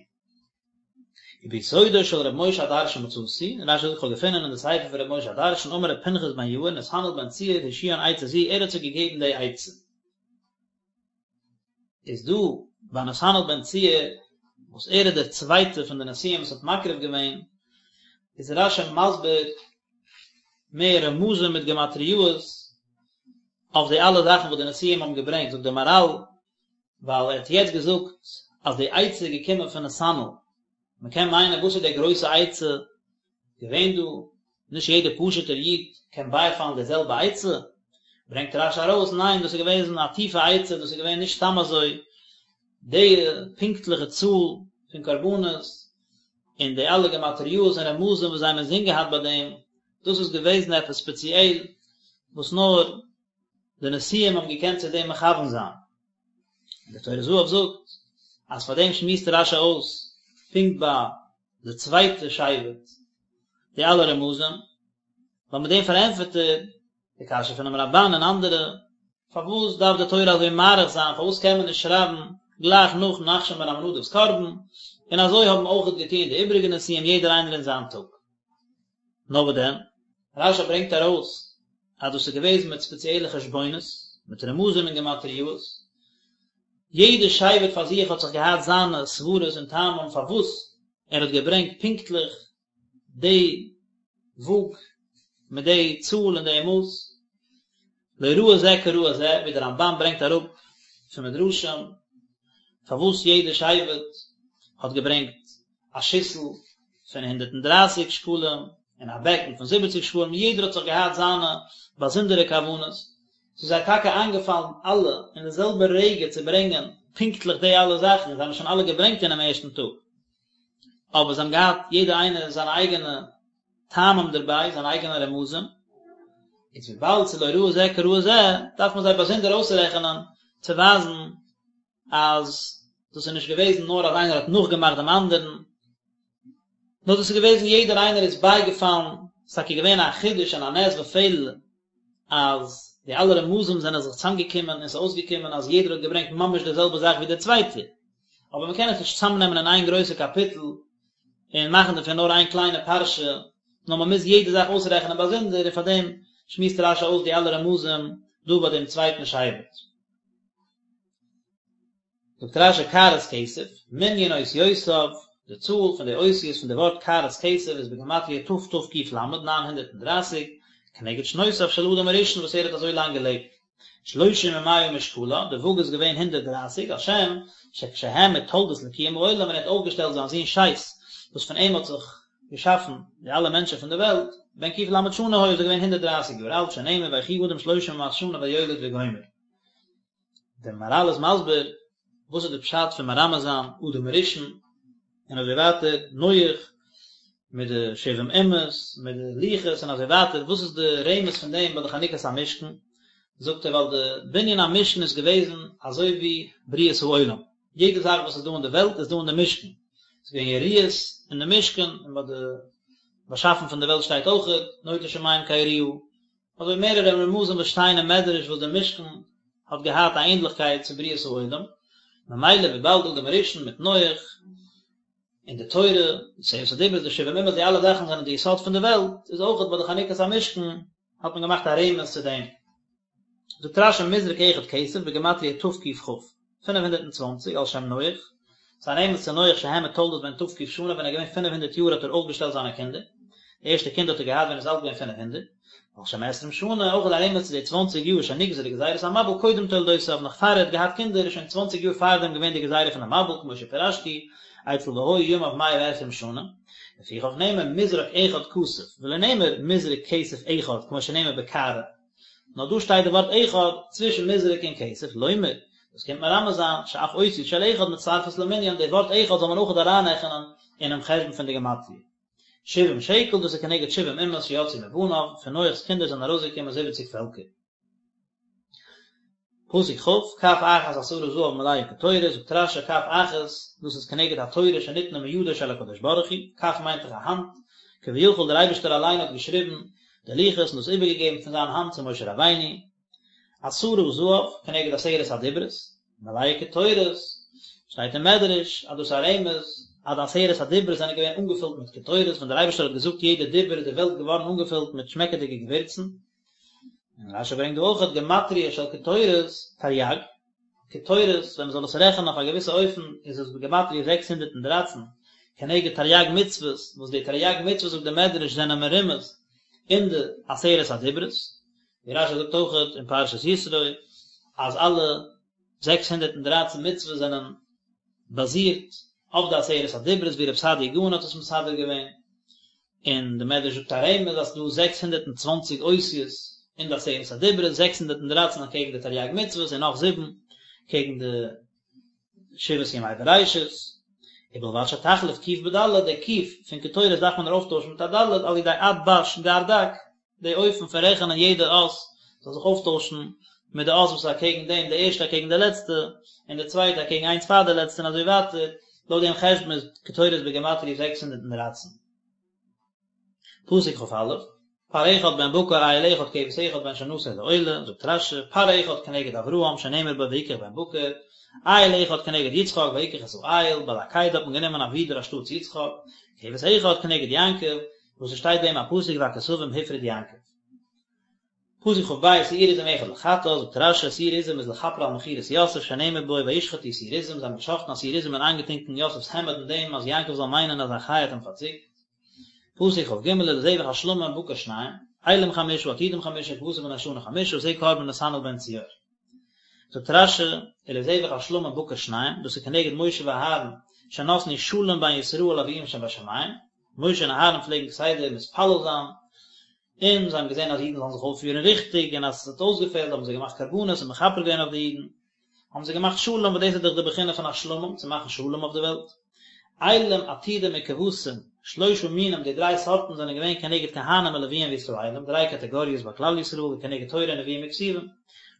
וביסודו של ר' משה הדרשן מצאתי, רש"י זאגט כ'האב געפונען אין די ספר פון ר' משה הדרשן אמר ר' פנחס בן יאיר נתנאל בן צוער השיאן עצה זו ער האט זיי געגעבן די עצה. איז דא. ביי נתנאל בן צוער וואס ער איז דער צווייטער פון די נשיאים וואס האט מקריב געווען, איז רש"י מסביר מער רמזים מיט גמטריאות אויף די אלע זאכן וואס די נשיאים האבן געברענגט, זאגט דער מהר"ל, ווייל ער האט יעצט געזאגט אז די עצה איז געקומען פון נתנאל, מען קען מיינען וואס איז די גרויסע עצה געווען דא, נישט יעדער פשוט'ער איד קען בייפאלן די זעלבע עצה, ברענגט רש"י ארויס, ניין דאס איז געוועזן א טיפע עצה, דאס איז געווען נישט סתם אזוי, די פונקטליכע צאל פון קרבנות, און די אלע גמטריאות און רמזים וואס זיי האבן אינזין געהאט ביי דעם, דאס איז געוועזן עפעס ספעציעל וואס נאר די נשיאים האבן געקענט צו דעם מכוון זיין. און דער טורי זהב זאגט אז פאר דעם שמועסט רש"י אויס פונקט ביי די צווייטע שבט די אלע רמזים, ווייל מיט דעם פארענטפערט ער די קשיא פונעם רמב"ן און אנדערע, פארוואס דארף די תורה אזוי מאריך זיין, פארוואס קען מען נישט שרייבן גלייך נאך נחשון בן עמינדב'ס קרבן, און אזוי האבן אויכעט געטון די איבריגע נשיאים יעדער איינער אין זיין טאג. נאר וואס דען? רש"י ברענגט ארויס אז דאס איז געוועזן מיט ספעציעלע חשבונות, מיט רמזים און גמטריאות, יעדע שבט פאר זיך האט זיך געהאט זיינע סברות און טעמים פארוואס ער האט געברענגט פונקטליך די וואג מיט די צאל און די מאס, לא ראי זה כראי זה, ווי דער רמב"ן ברענגט אראפ פון מדרשים פארוואס יעדע שבט האט געברענגט א שיסל פון 130 שקלים און א בעקן פון 70 שקלים, יעדער האט זיך געהאט זיינע באזונדערע כוונות, ס'איז זיי טאקע איינגעפאלן אלע אין די זעלבע רגע צו ברענגען פונקטליך די אלע זאכן, זיי האבן שוין אלע געברענגט אינעם ערשטן טאג, אבער זיי האבן געהאט יעדער איינער זיינע אייגענע טעמים דערביי, זיינע אייגענע רמזים, איז וויבאלד ס'איז לא ראי זה כראי זה, דארף מען זיי באזונדער אויסרעכענען צו ווייזן אז דאס איז נישט געוועזן נאר אז איינער האט נאכגעמאכט דעם אנדערן, נאר דאס איז געוועזן יעדער איינער איז בייגעפאלן, ס'איז טאקע געווען א חידוש און א נס ופלא אז די אלע רמזים זענען זיך צוזאמגעקומען און ס'איז אויסגעקומען אז יעדער האט געברענגט ממש די זעלבע זאך ווי דער צווייטער, אבער מ'קען עס נישט צוזאמנעמען אין איין גרויסע קאפיטל און מאכן דערפון נאר איין קליינע פרשה, נאר מ'מוז יעדע זאך אויסרעכענען באזונדער, און פארדעם שמועסט רש"י אויס די אלע רמזים דא ביי דעם צווייטן שבט. זאגט רש"י קערת כסף, מנין אותיותיו, די צאל פון די אותיות פון די ווארט קערת כסף איז בגימטריא תתק"ל, 930, כנגד שנותיו של אדם הראשון וואס ער האט אזוי לאנג געלעבט, שלושים ומאה משקלה, די וואג איז געווען 130, על שם שכשהעמיד תולדות לקיום העולם ווען ער האט אויפגעשטעלט זיין זון שת וואס פון אים האט זיך געשאפן די אלע מענטשן פון די וועלט, בן ק"ל שנה היה איז ער געווען 130 יאר אלט, שנאמר ויחי אדם שלושים ומאת שנה ויולד וגומר. דער מהר"ל איז מסביר וואס איז די פשט פון מרמז זיין אדם הראשון און אזוי ווייטער נח מיט די שבעים אומות מיט די לוחות און אזוי ווייטער וואס איז די רמז פון דעם ביי די חנוכת המשכן זאגט ער ווייל די בנין המשכן איז געוועזן אזוי ווי בריאת העולם יעדע זאך וואס איז דא אין די וועלט איז דא אין די משכן ס'איז געווען יריעות אין די משכן און ביי די באשאפן פון די וועלט שטייט אויכעט נוטה שמים כיריעה אזוי מערערע רמזים וואס שטייען אין מדרש וואס דער משכן האט געהאט א ענדליכקייט צו בריאת העולם, ממילא וויבאלד אדם הראשון מיט נח און די תורה, עשרת הדיברות, די שבעים אומות, די אלע זאכן זענען די יסוד פון די וועלט, איז אויכעט ביי די חנוכת המשכן האט מען געמאכט א רמז צו דעם. זאגט רש"י מזרק אחד כסף בגימטריא תק"כ. 520, על שם נח, ס'איז א רמז צו נח שהעמיד תולדות בן ת"ק שנה ווען ער איז געווען 500 יאר האט ער אויפגעשטעלט זיינע קינדער, די ערשטע קינד האט ער געהאט ווען ער איז אלט געווען 500, ועל שם עשרים שנה, אויך איז א רמז צו די צוואנציג יאר שנגזרה גזירת המבול קודם תולדותיו נאך פאר ער האט געהאט קינדער איז שוין צוואנציג יאר פארדעם געווען די גזירה פון די מבול כמו שפירשתי אצל והיו ימיו מאה ועשרים שנה, לפיכך נאמר מזרק אחד כסף ולא נאמר מזרק כסף אחד כמו שנאמר בקערה. נאר דא שטייט די ווארט אחד צווישן מזרק און כסף, לומר, דאס קומט מרמז זיין, שאף אותיות של אחד מצטרפות למנין, די ווארט אחד זאל מען אויכעט אריינרעכענען אינעם חשבון פון די גמטריא. שבעים שקל, דאס איז כנגד שבעים אומות שיצאו מבניו, פון נח'ס קינדער זענען ארויסגעקומען זיבעציג פעלקער. פסוק כ', כף אחת עשרה זהב מלאה קטורת, זאגט רש"י כף אחת, דאס איז כנגד התורה שניתנה מידו של הקדוש ברוך הוא, כף מיינט דאך א האנט, כביכול דער אייבערשטער אליין האט געשריבן די לוחות און דאס איבערגעגעבן פון זיין האנט צו משה רבינו, עשרה זהב כנגד עשרת הדיברות, מלאה קטורת, שטייט אין מדרש אז דאס איז א רמז אז די עשרת הדיברות זענען געווען אנגעפילט מיט קטורת, ווען דער אייבערשטער האט געזאגט יעדע דיבור איז די וועלט געווארן אנגעפילט מיט שמעקעדיגע געווירצן, און רש"י ברענגט דא אויכעט גמטריא של קטורת תרי"ג. קטורת, ווען מען זאל עס רעכענען אויף א געוויסע אופן איז עס בגימטריא 613, כנגד תריג מצוות, וואס די תריג מצוות זאגט די מדרש זענען מרומז אין די עשרת הדיברות, ווי רשי זאגט אויכעט אין פרשת יתרו אז אלע 613 מצוות זענען באזירט אויף די עשרת הדיברות ווי רב סעדיה גאון האט עס מסדר געווען, און די מדרש זאגט א רמז אז ס'דא 620 אותיות אין די עשרת הדיברות, 613 אקעגן די תריג מצוות און נאך זיבן קעגן די שבעת ימי בראשית, ובלבד שתחליף ק' בד', די ק' פון קטורת דארף מען אויפטוישן מיט א ד', על ידי עד בש גר דק, די אופן פון רעכענען יעדע אות זאל זיך אויפטוישן מיט די אות וואס איז אקעגן דעם, די ערשטע אקעגן די לעצטע, און די צווייטע אקעגן איינס פאר די לעצטע און אזוי ווייטער, לויט דעם חשבון איז קטורת בגימטריא 613. פסוק כא, פר אחד בן בקר איל אחד כבש אחד בן שנתו לעולה, זאגט רשי, פר אחד כנגד אברהם שנאמר בו ויקח בן בקר, איל אחד כנגד יצחק ויקח את האיל, ביי די עקידה האט מען גענומען א ווידער אנשטאטס יצחק, כבש אחד כנגד יעקב, וואס עס שטייט ביי אים א פסוק והכשבים הפריד יעקב. פסוק כב, שעיר עזים אחד לחטאת, זאגט רשי, שעיר עזים איז לכפר על מכירת יוסף שנאמר בו וישחטו שעיר עזים, זיי האבן געשחטן א שעיר עזים און איינגעטונקען יוסף'ס העמד אין דעם אז יעקב זאל מיינען אז א חיה האט אים פארציקט. פסוק כג, ולזבח השלמים בקר שניים, אילים חמשה עתודים חמשה כבשים בני שנה חמשה זה קרבן נתנאל בן צוער. זאגט רשי, ולזבח השלמים בקר שניים, דאס איז כנגד משה ואהרן שנתנו שלום בין ישראל לאביהם שבשמים, משה און אהרן פלעגן כסדר מתפלל זיין, און זיי האבן געזען אז אידן זאלן זיך אויפפירן ריכטיג, און אז עס האט אויסגעפעלט האבן זיי געמאכט קרבנות און מכפר געווען אויף די אידן, האבן זיי געמאכט שלום, וואס דאס איז דאך די בחינה פון א שלמים, צו מאכן שלום אויף די וועלט. אילים, עתודים וכבשים, שלושה מינים, די דריי סארטן זענען געווען כנגד כהנים ולוויים וישראלים, דריי קאטעגאריעס ביי כלל ישראל, וכנגד תורה נביאים וכתובים.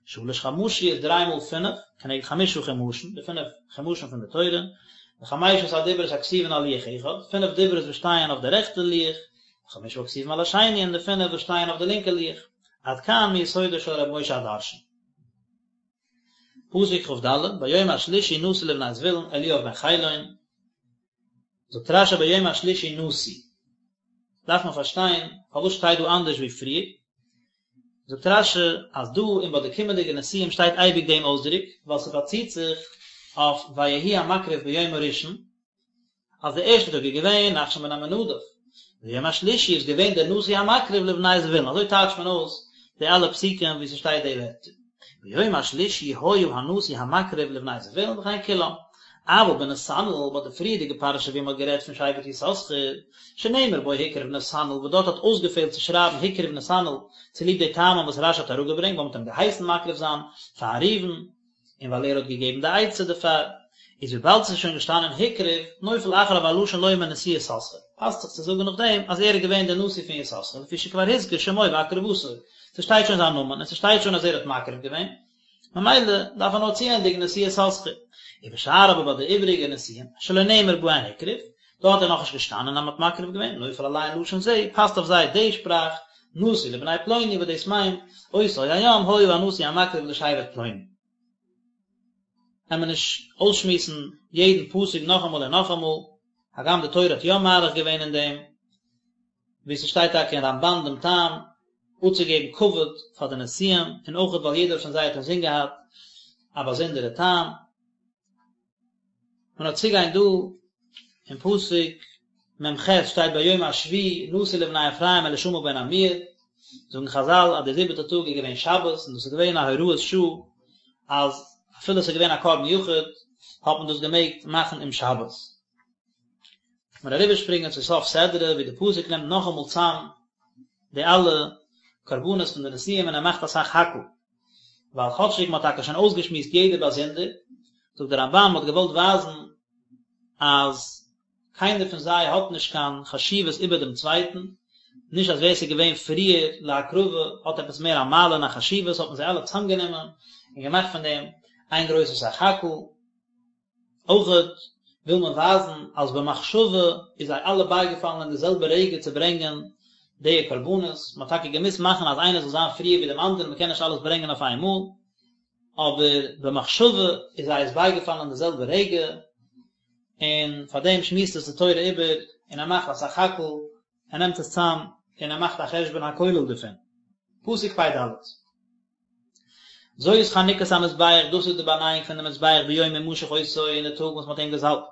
שלש חמשיות, דריי מאל פינף, כנגד חמשה חומשים, די פינף חומשים פון די תורה, וחמשת הדיברות הכתובין על לוח אחד, פינף דיברות וואס שטייען אויף די רעכטע לוח, וחמשה הכתובים על השני, און די פינף וואס שטייען אויף די לינקע לוח. עד כאן מיסודו של רבי משה הדרשן. פסוק כד, ביום השלישי נשיא לבני זבולון אליאב בן חילון, זאגט רשי ביום השלישי נשיא, דארף מען פארשטיין פארוואס שטייט דא אנדערש ווי פריער, זאגט רשי אז דא און ביי די קומענדיגע נשיאים שטייט אייביג דעם אויסדרוק, ווייל ס'באציט זיך אויף ויהי המקריב ביום הראשון, אז די ערשטע טאג איז געווען נחשון בן עמינדב, ביום השלישי איז געווען דער נשיא המקריב לבני זבולון, אזוי טייטשט מען אויס די אלע פסוקים וואו ס'שטייט די ווערטער, ביום השלישי היה הנשיא המקריב לבני זבולון וכן כולם, אבל בנתנאל ביי די פריערדיגע פרשה ווי מ'האט גערעדט פון שבט יששכר, שנאמר בו הקריב נתנאל וואס דארט האט אויסגעפעלט צו שרייבן הקריב נתנאל צוליב די טעמים וואס רשי האט אראפגעברענגט ווייל מ'האט אים געהייסן מקריב זיין פאר ראובן, און ווייל ער האט געגעבן די עצה דערפאר, איז וויבאלד ס'איז שוין געשטאנען הקריב, נופל אחריו הלשון לומר נשיא יששכר, פאסט זיך צו זאגן נאכדעם אז ער איז געווען דער נשיא פון יששכר, לפי שכבר הזכיר שמו והקרבתו, ס'שטייט שוין זיין נאמען און ס'שטייט שוין אז ער האט מקריב געווען, ממילא דארף מען נאר צוענדיגן נשיא יששכר. ובשאר אבער ביי די איבעריגע נשיאים, שלא נאמר בהן הקריב, דארט איז נאכנישט געשטאנען אז מ'האט מקריב געווען, נופל עליהן לשון זה, פאסט אויף זיי די שפראך, נשיא לבני פלוני וואס דאס מיינט, אותו היום היה הנשיא המקריב לשבט פלוני. קען מען נישט אויסשמועסן יעדן פסוק נאכאמאל און נאכאמאל, הגם די תורה האט יא מאריך געווען אין דעם, ווי ס'שטייט טאקע אין רמבן דעם טעם, אפצוגעבן כבוד פאר די נשיאים, און אויכעט ווייל יעדער פון זיי האט אינזין געהאט א באזונדערע טעם. מען וועט צוגיין דא אין פסוק מ ח שטייט ביום השביעי נשיא לבני אפרים אלישמע בן עמיהוד, זאגן חזל אז דער זיבעטע טאג איז געווען שבת און דאס איז געווען א הוראת שעה אז אפילו עס איז געווען א קרבן יחיד האט מען דאס געמעגט מאכן אום שבת. מיר אריבערשפרינגען צו סוף סדרה ווי די פסוק נעמט נאכאמאל צאם די אלע קרבנות פון די נשיאים און ער מאכט א סך הכל. ווייל כאטשיג מ'האט טאקע שוין אויסגעשמועסט יעדער באזונדער, זאגט דער רמבן מ'האט געוואלט ווייזן אז קיינער פון זיי האט נישט קיין חשיבות איבער דעם צווייטן, נישט אז ווער ס'איז געווען פריער להקרבה האט עפעס מער א מעלה און א חשיבות, האט מען זיי אלע צאמגענומען און געמאכט פון דעם איין גרויסע סך הכל. אויכעט וויל מען ווייזן אז במחשבה איז זיי אלע בייגעפאלן אין די זעלבע רגע צו ברענגען די קרבנות, מען האט טאקע געמוזט מאכן אז איינער זאל זיין פריער ווי דעם אנדערן, מען קען נישט אלעס ברענגען אויף איין מאל, אבער במחשבה איז זיי עס בייגעפאלן אין די זעלבע רגע, און פאר דעם שמועסט עס די תורה איבער און ער מאכט א סך הכל, ער נעמט עס צאם און ער מאכט א חשבון הכולל דערפון. פסוק פ ד. זאת חנוכת המזבח, דאס איז די באנייאונג פון די מזבח ביום המשח אותו אין די טאג וואס מען האט אים געזאלבט.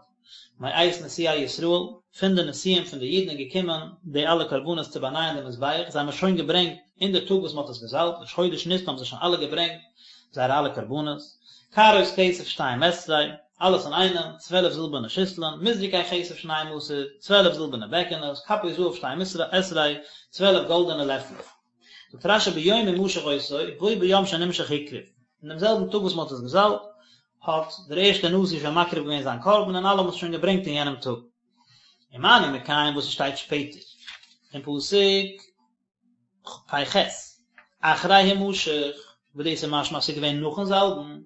מאת נשיאי ישראל, פון די נשיאים פון די אידן איז געקומען די אלע קרבנות צו באנייען די מזבח, זיי האבן עס שוין געברענגט אין די טאג וואס מען האט עס געזאלבט, ראש חודש ניסן האבן זיי שוין אלע געברענגט זייערע אלע קרבנות. קערות כסף שתים עשרה, אלעס אינאיינעם, 12 זילבערנע שיסלען, מזרקי כסף שנים עשר, 12 זילבערנע בעקענעס, כפות זהב שתים עשרה, 12 גאלדענע לעפלעך. זאגט רש"י ביום המשח אותו, בו ביום שנמשח הקריב, אין דעם זעלבן טאג וואס מען האט עס געזאלבט, האט דער ערשטער נשיא שוין מקריב געווען זיין קרבן און אלע האבן עס שוין געברענגט אין יענעם טאג. ומה אני מקיים וואס עס שטייט שפעטער אין פסוק פ"ח, אחרי המשח, וואס דאס איז משמע אז עס איז געווען נאכן זאלבן,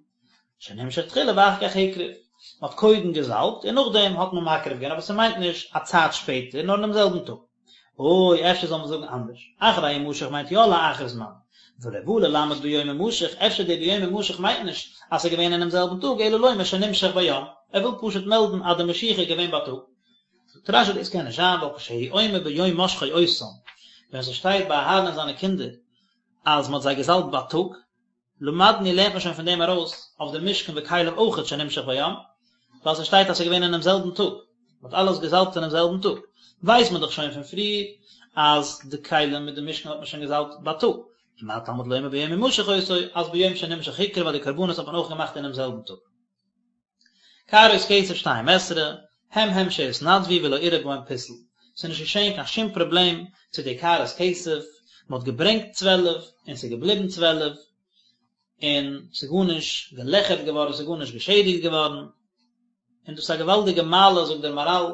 שנמשח תחילה ואחר כך הקריב, מען האט קודם געזאלבט און נאכדעם האט מען מקריב געווען, אבער ס'מיינט נישט א צייט שפעטער, נאר אינעם זעלבן טאג. או אפשר זאל מען זאגן אנדערש, אחרי המשח מיינט יא לאחר זמן, ולא בא ללמד ביום המשח, אפשר די ביום המשח מיינט נישט אז ס'איז געווען אינעם זעלבן טאג, אלא לומר שנמשח ביום, ער וויל פשוט מעלדן אז די משיחה איז געווען בייטאג. זאגט רש"י דאס קען נישט זיין ווייל כשהוא אומר ביום משחו אותם, ווען ס'שטייט ביי אהרן און זיינע קינדער אז מ'האט זיי געזאלבט בייטאג, למדנו לערנט מען שוין פון דעם ארויס אויף די משכן וכליו אויכעט שנמשח ביום, ווייל ס'שטייט אז ס'איז געווען אינעם זעלבן טאג, מ'האט אלעס געזאלבט אינעם זעלבן טאג, ווייסט מען דאך שוין פון פריער אז די כלים מיט די משכן האט מען שוין געזאלבט בייטאג, ומה תלמוד לומר ביום המשח אותו, אז ביום שנמשח הקריב ווייל די קרבנות האט מען אויך געמאכט אינעם זעלבן טאג. קערות כסף שתים עשרה, הם הם שהתנדבו ולא אירע בהם פסול, ס'איז נישט געשען קיין שום פראבלעם צו די קערות כסף, מ'האט געברענגט צוועלף און ס'איז געבליבן צוועלף, און ס'איז גארנישט געלעכערט געווארן, ס'איז גארנישט געשעדיגט געווארן, און דאס איז א געוואלדיגע מעלה זאגט דער מהר"ל,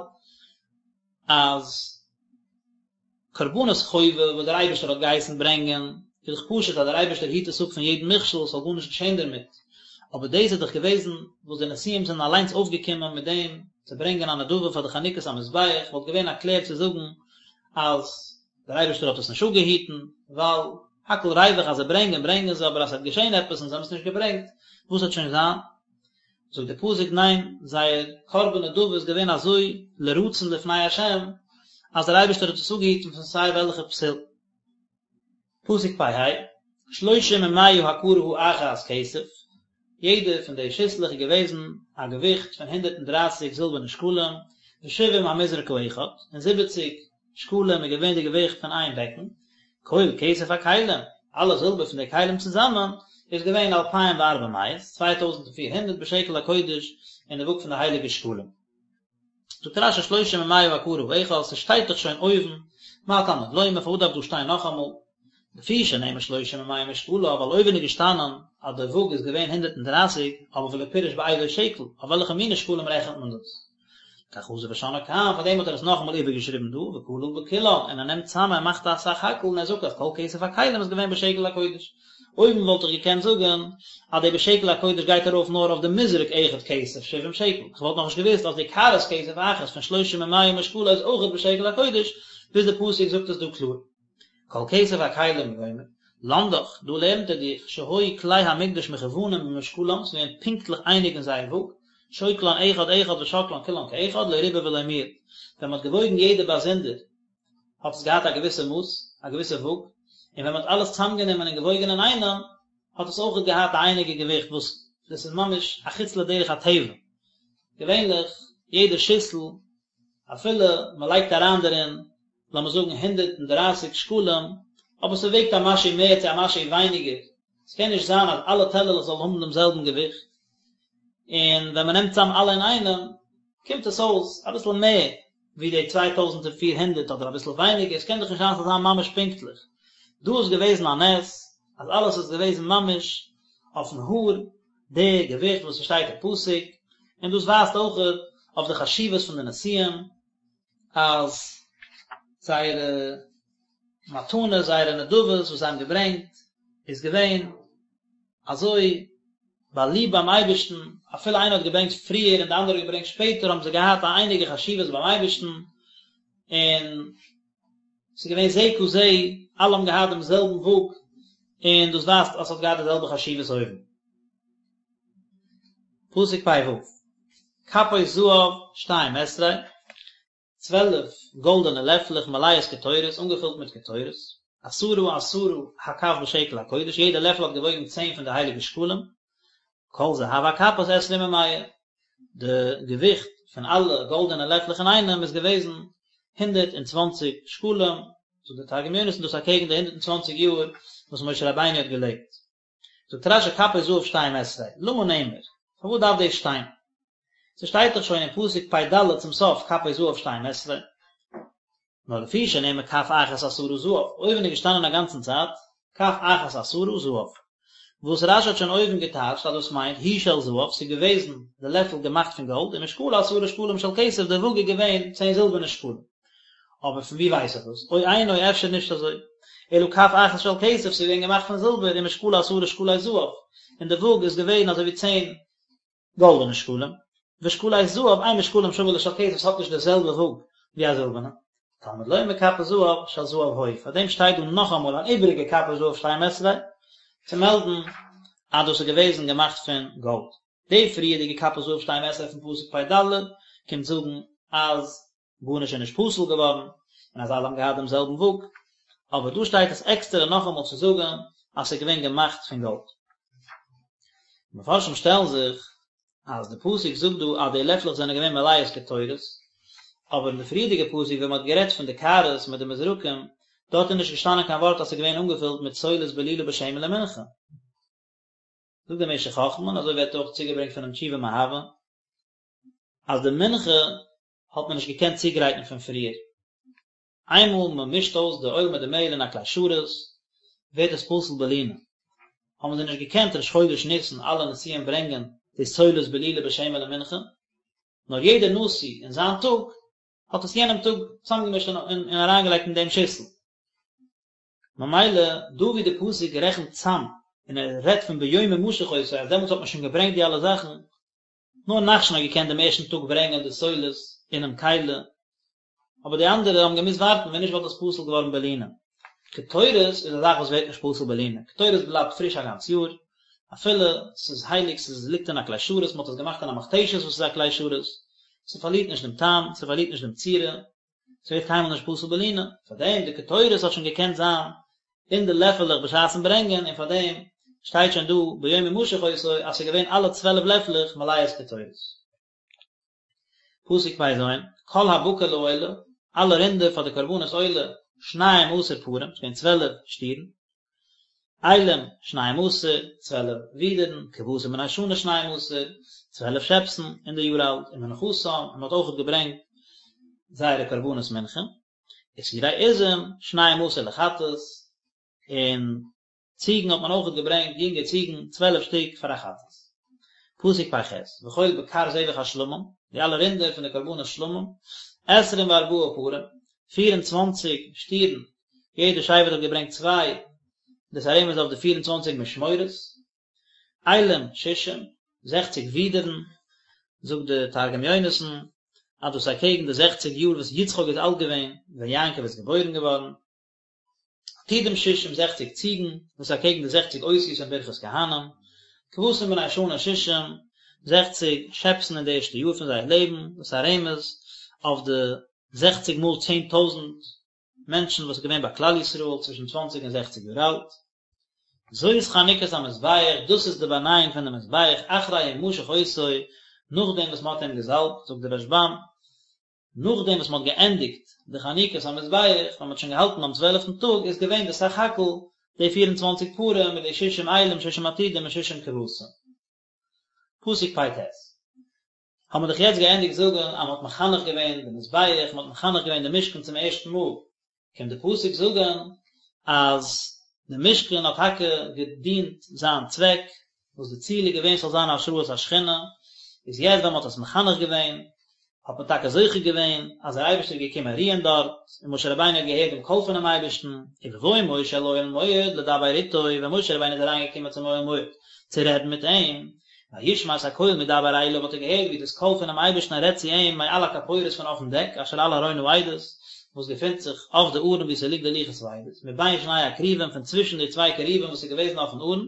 אז קרבנות חובה וואס דער אייבערשטער האט געהייסן ברענגען, איז דאך פשוט אז דער אייבערשטער היט עס אפ פון יעדן מכשול, עס זאל גארנישט געשען דערמיט, אבער דאס איז דאך געוועזן וואס די נשיאים זענען אליינס אויפגעקומען מיט דעם צו ברענגען א נדבה פאר די חנוכת המזבח, וואלט געווען א קלער צו זאגן אז דער אייבערשטער האט עס נישט אפגעהיטן, ווייל הכל ריווח אז זיי ברענגען ברענגען זיי, אבער אז עס וועט געשען עפעס און זיי האבן עס נישט געברענגט, וואס וועט שוין זיין? זאגט דער פסוק ניין, זייער קרבן נדבה איז געווען אזוי לרצון לפני השם, אז דער אייבערשטער האט עס אפגעהיטן פון סיי וועלכע פסול. פסוק פ"ה, שלושים ומאה הקערה האחת כסף, יעדע פון די שיסלעך איז געוועזן א געוויכט פון הונדערט און דרייסיג זילבערנע שקלים, ושבעים המזרק האחד, און זיבעציג שקלים איז געווען די געוויכט פון איין בעקן, כל כסף הכלים, אלע זילבער פון די כלים צוזאמען, איז געווען אלפים וארבע מאות, 2400 בשקל הקודש, אין די וואג פון די הייליגע שקלים. זאגט רש"י שלושים ומאה הקערה האחת, ס'שטייט דאך שוין אויבן, מה תלמוד לומר, פארוואס דארף דא שטיין נאכאמאל? לפי שנאמר שלושים ומאה משקלה, ווייל אויבן איז געשטאנען אז די וואג איז געווען 130, אבער ולא פירש באיזו שקל, אויף וועלכע מיני שקלים רעכנט מען דאס? לכך חזר ושנאה כאן, פאר דעם האט ער עס נאכאמאל איבערגעשריבן דא, וכלל בכולן, און ער נעמט צאם ער מאכט א סך הכל און ער זאגט אז כל כסף הכלים איז געווען בשקל הקודש. אויבן וואלט איך געקענט זאגן אז די בשקל הקודש גייט ארויף נאר אויף די מזרק אחד כסף שבעים שקל, איך וואלט נאכנישט געוואוסט אז די קערת כסף אחת פון שלושים ומאה משקלה איז אויכעט בשקל הקודש, ביז די פסוק זאגט עס דא קלאר. כל כסף הכלים וגומר, למדך, דא לערנט ער דיך, שהיו כלי המקדש מכוונים במשקלם, ס'איז געווען פונקטליך אייניג אין זייער וואג, שוקלן אחד אחד ושוקלן כולן כאחד, לא ריבה ולא מיעט. ווען מ'האט געוואויגן יעדע באזונדער, האט עס געהאט א געוויסע מאס, א געוויסע וואג, און ווען מ'האט אלעס צוזאמגענומען און געוואויגן אינאיינעם, האט עס אויכעט געהאט א אייניגע געוויכט וואס דאס איז ממש א חוץ לדרך הטבע. געווענליך, יעדע שיסל, אפילו מ'לייגט אריין דערין לאמיר זאגן 130 שקלים, אבער ס'וועגט א משהו מער צו א משהו ווייניגער, ס'קען נישט זיין אז אלע טעלערלעך זאלן האבן דעם זעלבן געוויכט, און ווען מ'נעמט צאם אלע אינאיינעם קומט עס אויס אביסל מער ווי די 2400 אדער אביסל ווייניגער, ס'קען דאך נישט זיין ס'זאל זיין ממש פונקטליך. דא איז געוועזן א נס אז אלעס איז געוועזן ממש אויפן האר די געוויכט וואס ס'שטייט אין פסוק, און דאס ווייזט אויכעט אויף די חשיבות פון די נשיאים, אז זייערע מתנות, זייערע נדבות וואס זיי האבן געברענגט, איז געווען אזוי באליבט ביים אייבערשטן, אפילו איינער האט געברענגט פריער און די אנדערע האט געברענגט שפעטער, האבן זיי געהאט א אייניגע חשיבות ביים אייבערשטן, און ס'איז געווען זה כזה, אלע האבן געהאט דעם זעלבן וואג, און דאס ווייזט אז ס'האט געהאט די זעלבע חשיבות אויבן. פסוק פ"ו, כפות זהב שתים עשרה, 12 גאלדענע לעפלעך מלאות קטורת, אנגעפילט מיט קטורת. עשרה עשרה הכף בשקל הקודש, יעדע לעפל האט געוואויגן צען פון די הייליגע שקלים, כל זהב הכפות עשרים ומאה, די געוויכט פון אלע גאלדענע לעפלעך אינאיינעם איז געוועזן 120 שקלים, זאגט דער תרגום יונתן דאס אקעגן די 120 יאר וואס משה רבינו האט געלעבט. זאגט רש"י כפות זהב שתים עשרה, למה נאמר? פארוואס דארף דאס שטיין? ס'שטייט דאך שוין אין פסוק פ"ד צום סוף כפות זהב שתים עשרה. נאר לפי שנאמר כף אחת עשרה זהב, אויבן איז געשטאנען א גאנצן צייט כף אחת עשרה זהב, וואס רש"י האט שוין אויבן געטייטשט אז דאס מיינט היא של זהב, ס'איז געוועזן די לעפל געמאכט פון גאלד, ומשקלה עשרה שקלים של כסף, די וואג איז געווען צען זילבערנע שקלים. אבער פון ווי ווייס איך דאס? או אינו, אפשר נישט אזוי. אלא כף אחת של כסף, ס'איז געווען געמאכט פון זילבער, ומשקלה עשרה שקלי זהב, און די וואג איז געווען אזוי ווי צען גאלדענע שקלים, ושקלי זהב אין משקלם שווה לשל כסף, ס'האט נישט די זעלבע וואג ווי א זילבערנע. תלמוד לומר כפות זהב של זהב היו, פאר דעם שטייט דא נאכאמאל אן איבעריגע כפות זהב שתים עשרה, צו מעלדן אז דאס איז געוועזן געמאכט פון גאלד. די פריערדיגע כפות זהב שתים עשרה פון פסוק פ"ד קומט זאגן אז גארנישט איז נישט פסול געווארן און אז אלע האבן געהאט דעם זעלבן וואג, אבער דא שטייט עס עקסטערע נאכאמאל צו זאגן אז ס'איז געווען געמאכט פון גאלד. מפרשים שטעלן זיך אז די פסוק זאגט דא אז די לעפלעך זענען געווען מלאות קטורת, אבער אין די פריערדיגע פסוק ווען מ'האט גערעדט פון די קערות מיט די מזרקים, דארט איז נישט געשטאנען קיין ווארט אז ס'איז געווען אנגעפילט מיט סולת בלולה בשמן למנחה. זאגט דער משך חכמה, און אזוי ווערט אויך צוגעברענגט פונעם תשובה מאהבה, אז די מנחה האט מען נישט געקענט צוגרייטן פון פריער. איינמאל מען מישט אויס די אויל מיט די מעהל אין א כלי שרת, ווערט עס פסול בלינה. האבן זיי נישט געקענט ראש חודש ניסן אלע נשיאים ברענגען די סולת בלולה בשמן למנחה, נאר יעדער נשיא אין זיין טאג האט עס יענעם טאג צוזאמגעמישט און אריינגעלייגט אין דעם שיסל. ממילא דא ווי די פסוק רעכנט צאם און ער רעדט פון ביום המשח אותו אז דעמאלטס האט מען שוין געברענגט די אלע זאכן, נאר נחשון האט געקענט דעם ערשטן טאג ברענגען די סולת אינעם כלי, אבער די אנדערע האבן געמוזט ווארטן ווען נישט וואלט עס פסול געווארן בלינה. קטורת איז א זאך וואס ווערט נישט פסול בלינה, קטורת בלייבט פריש א גאנץ יאר, אפילו ס'איז הייליג, ס'איז ליגט אין א כלי שרת, מ'האט עס געמאכט אין א מכתשת וואס איז א כלי שרת, ס'פארלירט נישט דעם טעם, ס'פארלירט נישט דעם צורה, ס'ווערט קיינמאל נישט פסול בלינה, פארדעם די קטורת האט שוין געקענט זיין אין די לעפעלעך בשעת'ן ברענגען, און פארדעם שטייט שוין דא ביום המשח אותו אז ס'איז געווען אלע צוועלף לעפלעך מלאות קטורת. פסוק פ"ז, כל הבקר לעולה, אלע רינדער פאר די קרבנות עולה, שנים עשר פרים, ס'איז געווען צוועלף שטירן, אילים, שנים עשר, צוועלף ווידערן, כבשים בני שנה שנים עשר, צוועלף שעפסן אין די יאר אלט, ומנחתם, און מ'האט אויכעט געברענגט זייערע קרבנות מנחה, ושעירי עזים, שנים עשר לחטאת, און ציגן האט מען אויכעט געברענגט, יונגע ציגן, צוועלף שטיק פאר א חטאת. פסוק פ"ח, וכל בקר זבח השלמים, די אלע רינדער פון די קרבנות שלמים, עשרים וארבעה פרים, פיר און צוואנציג שטירן, יעדע שבט האט געברענגט צוויי, דאס א רמז אויף די פיר און צוואנציג משמורות, אילים שישים, זעכציג ווידערן, זאגט די תרגום יונתן, אז דאס איז אקעגן די זעכציג יאר וואס יצחק איז אלט געווען ווען יעקב איז געבוירן געווארן, עתודים שישים, זעכציג ציגן, דאס איז אקעגן די זעכציג אותיות אין ברכת כהנים, כבשים בני שנה שישים, זעכציג שעפסן אין די ערשטע יאר פון זייער לעבן, דאס איז א רמז אויף די זעכציג מאל 10,000 מענטשן וואס איז געווען ביי כלל ישראל צווישן צוואנציג און זעכציג יאר אלט. זאת חנוכת המזבח, דאס איז די באנייאונג פון די מזבח, אחרי המשח אותו, נאכדעם וואס מען האט אים געזאלבט, זאגט דער רשב"ם, נאכדעם וואס מען האט געענדיגט די חנוכת המזבח, ווען מען האט שוין געהאלטן ביים צוועלפטן טאג, איז געווען די סך הכל די פיר און צוואנציג פרים מיט די שישים אילים, שישים עתודים און שישים כבשים. פסוק פ"ט. האבן מיר דאך יעצט געענדיגט זאגן אז מען האט מחנך געווען די מזבח, מען האט מחנך געווען די משכן צום ערשטן מאל, קומט די פסוק זאגן אז די משכן האט טאקע געדינט זיין צוועק, וואס די ציל איז געווען ס'זאל זיין השראת השכינה, איז יעצט ווען מען האט עס מחנך געווען, האט מען טאקע זוכה געווען אז דער אייבערשטער איז געקומען רוען דארט, און משה רבינו האט געהערט דעם קול פונעם אייבערשטן, ובבוא משה אל אוהל מועד לדבר איתו, ווען משה רבינו איז אריינגעקומען צום אוהל מועד צו רעדן מיט אים, וישמע את הקול מדבר אליו האט ער געהערט ווי דאס קול פונעם אייבערשטן רעדט צו אים מעל הכפורת פון אויפן דעק אשר על ארון העדות, וואס געפינט זיך אויף די ארון וואו ס'ליגט די לוחות העדות, מבין שני הכרובים פון צווישן די צוויי כרובים וואס איז געוועזן אויפן ארון,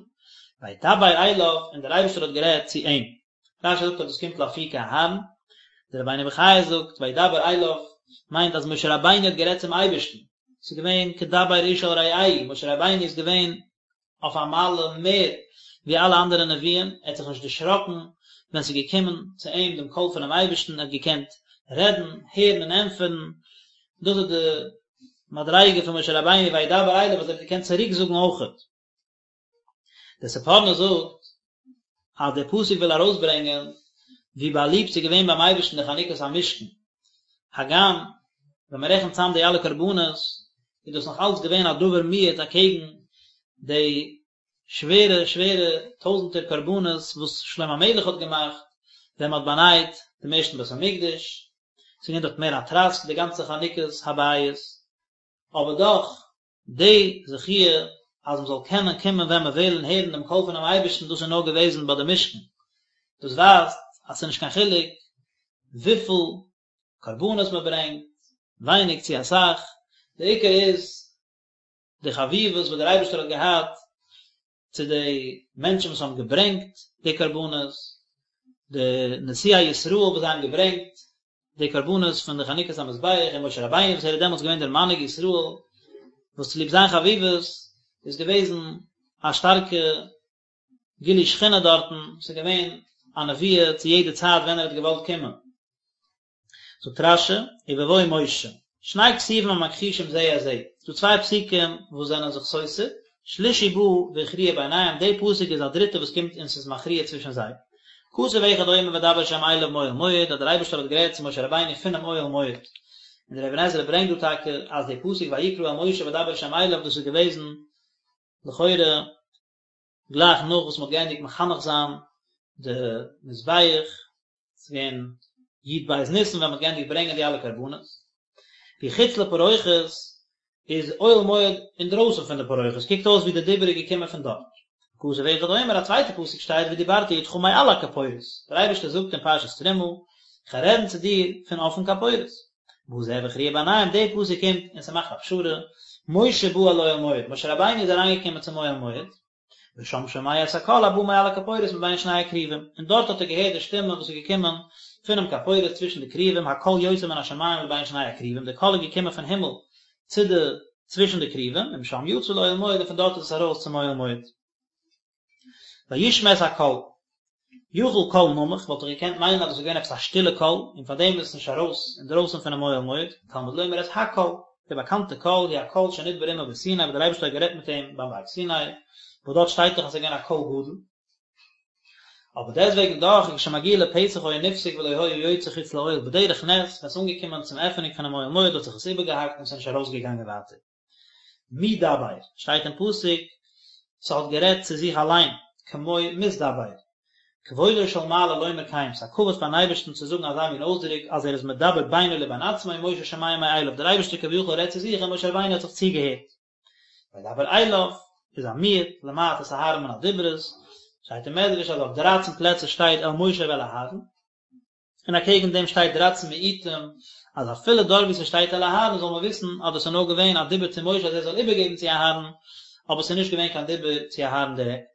וידבר אליו, און דער אייבערשטער האט גערעדט צו אים. רש"י זאגט אז דאס קומט לאפוקי אהרן, דער רבינו בחיי זאגט וידבר אליו מיינט אז משה רבינו האט גערעדט צום אייבערשטן. ס'איז געווען כדבר איש אל רעהו, משה רבינו איז געווען אויף א מעלה מער ווי אלע אנדערע נביאים, ער האט זיך נישט דערשראקן ווען ס'איז געקומען צו אים דעם קול פונעם אייבערשטן, ער האט געקענט רעדן, הערן און ענטפערן, דאס איז די מדריגה פון משה רבינו וידבר אליו וואס ער האט געקענט צוריק זאגן אויכעט. דער ספורנו זאגט אז דער פסוק וויל ארויסברענגען ווי באליבט ס'איז געווען ביים אייבערשטן די חנוכת המשכן, הגם ווען מען רעכנט צאם די אלע קרבנות איז דאס נאך אלץ געווען א דבר מועט אקעגן די שווערע שווערע טויזנטער קרבנות וואס שלמה המלך האט געמאכט ווען מען האט באנייט דעם ערשטן בית המקדש, ס'איז געווען דארט מער א טראסק די גאנצע חנוכת הבית, אבער דאך די זכיה אז מען זאל קענען קומען ווען מען וויל און הערן דעם קול פונעם אייבערשטן דאס איז נאר געוועזן ביי די משכן, דאס ווייזט אז ס'איז נישט קיין חילוק וויפיל קרבנות מען ברענגט, ווייניג צו אסאך, דער עיקר איז די חביבות וואס דער אייבערשטער האט געהאט צו די מענטשן וואס האבן געברענגט די קרבנות, די נשיאי ישראל וואס זיי האבן געברענגט די קרבנות פון די חנוכת המזבח, און משה רבינו וואס ער איז דעמאלטס געווען דער מנהיג ישראל, וואס צוליב זיין חביבות איז געוועזן א שטארקע גילוי שכינה דארטן, ס'איז געווען א נבואה צו יעדע צייט ווען ער האט געוואלט קומען. זאגט רש"י, ובבוא משה, שני כתובים המכחישים זה את זה, ס'דא צוויי פסוקים וואס זענען זיך סותר, שלישי בא והכריע ביניהם, די פסוק איז א דריטע וואס קומט און ס'איז מכריע צווישן זיי. כתוב אחד אומר וידבר השם אליו מאוהל מועד, אז דער אייבערשטער האט גערעדט צו משה רבינו פונעם אוהל מועד. און דער אבן עזרא ברענגט דא טאקע אז די פסוק ויקרא אל משה וידבר השם אליו דאס איז געוועזן לכאורה גלייך נאך וואס מ'האט געענדיגט מחנך זיין די מזבח, ס'איז געווען י"ב ניסן ווען מ'האט געענדיגט ברענגען די אלע קרבנות. והוא חוץ לפרוכת איז אוהל מועד אינדרויסן פון די פרוכת, קוקט אויס ווי די דיבור איז געקומען פון דארט. וכתוב אחד אומר, א צווייטע פסוק שטייט ודיברתי אתך מעל הכפורת, דער אייבערשטער זאגט אין פרשת תרומה, איך וועל רעדן צו דיר פון אויפן כפורת. בא זה והכריע ביניהם, די פסוק קומט און ס'מאכט א פשרה, משה בא אל אוהל מועד, משה רבינו איז אריינגעקומען צום אוהל מועד, ושם שומע את הקול הבא מעל הכפורת מבין שני הכרובים, און דארט האט ער געהערט די שטימע וואס איז געקומען פונעם כפורת צווישן די כרובים, הקול יוצא מן השמים לבין שני הכרובים, די קול איז געקומען פון הימל צו די צווישן די כרובים, ומשם יצא לאוהל מועד און פון דארט איז עס ארויס צום אוהל מועד. וישמע את הקול. יכול קול נמוך, וואלט איך געקענט מיינען אז דאס איז געווען עפעס א שטילע קול, און פאר דעם איז עס נישט ארויס אינדרויסן פונעם אוהל מועד, תלמוד לומר את הקול, די באקאנטע קול, הוא הקול שנדבר עמו בסיני, וואס דער אייבערשטער האט גערעדט מיט אים ביים בארג סיני, וואס דארט שטייט דאך אז עס איז געווען א קול גדול. אבער דעסטוועגן דאך, וכשמגיע לפתח היה נפסק ולא היה יוצא חוץ לאוהל, בדרך נס, ווען עס איז אנגעקומען צום עפענונג פונעם אוהל מועד האט זיך עס איבערגעהאקט און עס איז נישט ארויסגעגאנגען ווייטער. מי דבר, שטייט אין פסוק, ס'האט גערעדט צו זיך אליין, כמו מתדבר. כבודו של מעלה לומר כן, ס'איז א כבוד פארן אייבערשטן צו זאגן אזא מין אויסדרוק אז ער איז מדבר בינו לבין עצמו ומשה שומע מאליו, דער אייבערשטער כביכול רעדט צו זיך און משה רבינו האט זיך צוגעהערט. וידבר אליו, איז א מיעוט, למעט את אהרן מן הדיברות, שטייט אין מדרש אז אויף דרייצן פלעצער שטייט אל משה ואל אהרן, און אקעגן דעם שטייט דרייצן מיעוטים, אז אפילו דארט וואו ס'שטייט אל אהרן זאל מען וויסן אז דאס איז נאר געווען א דיבור צו משה אז ער זאל איבערגעבן צו אהרן, אבער ס'איז נישט געווען קיין דיבור צו אהרן דירעקט.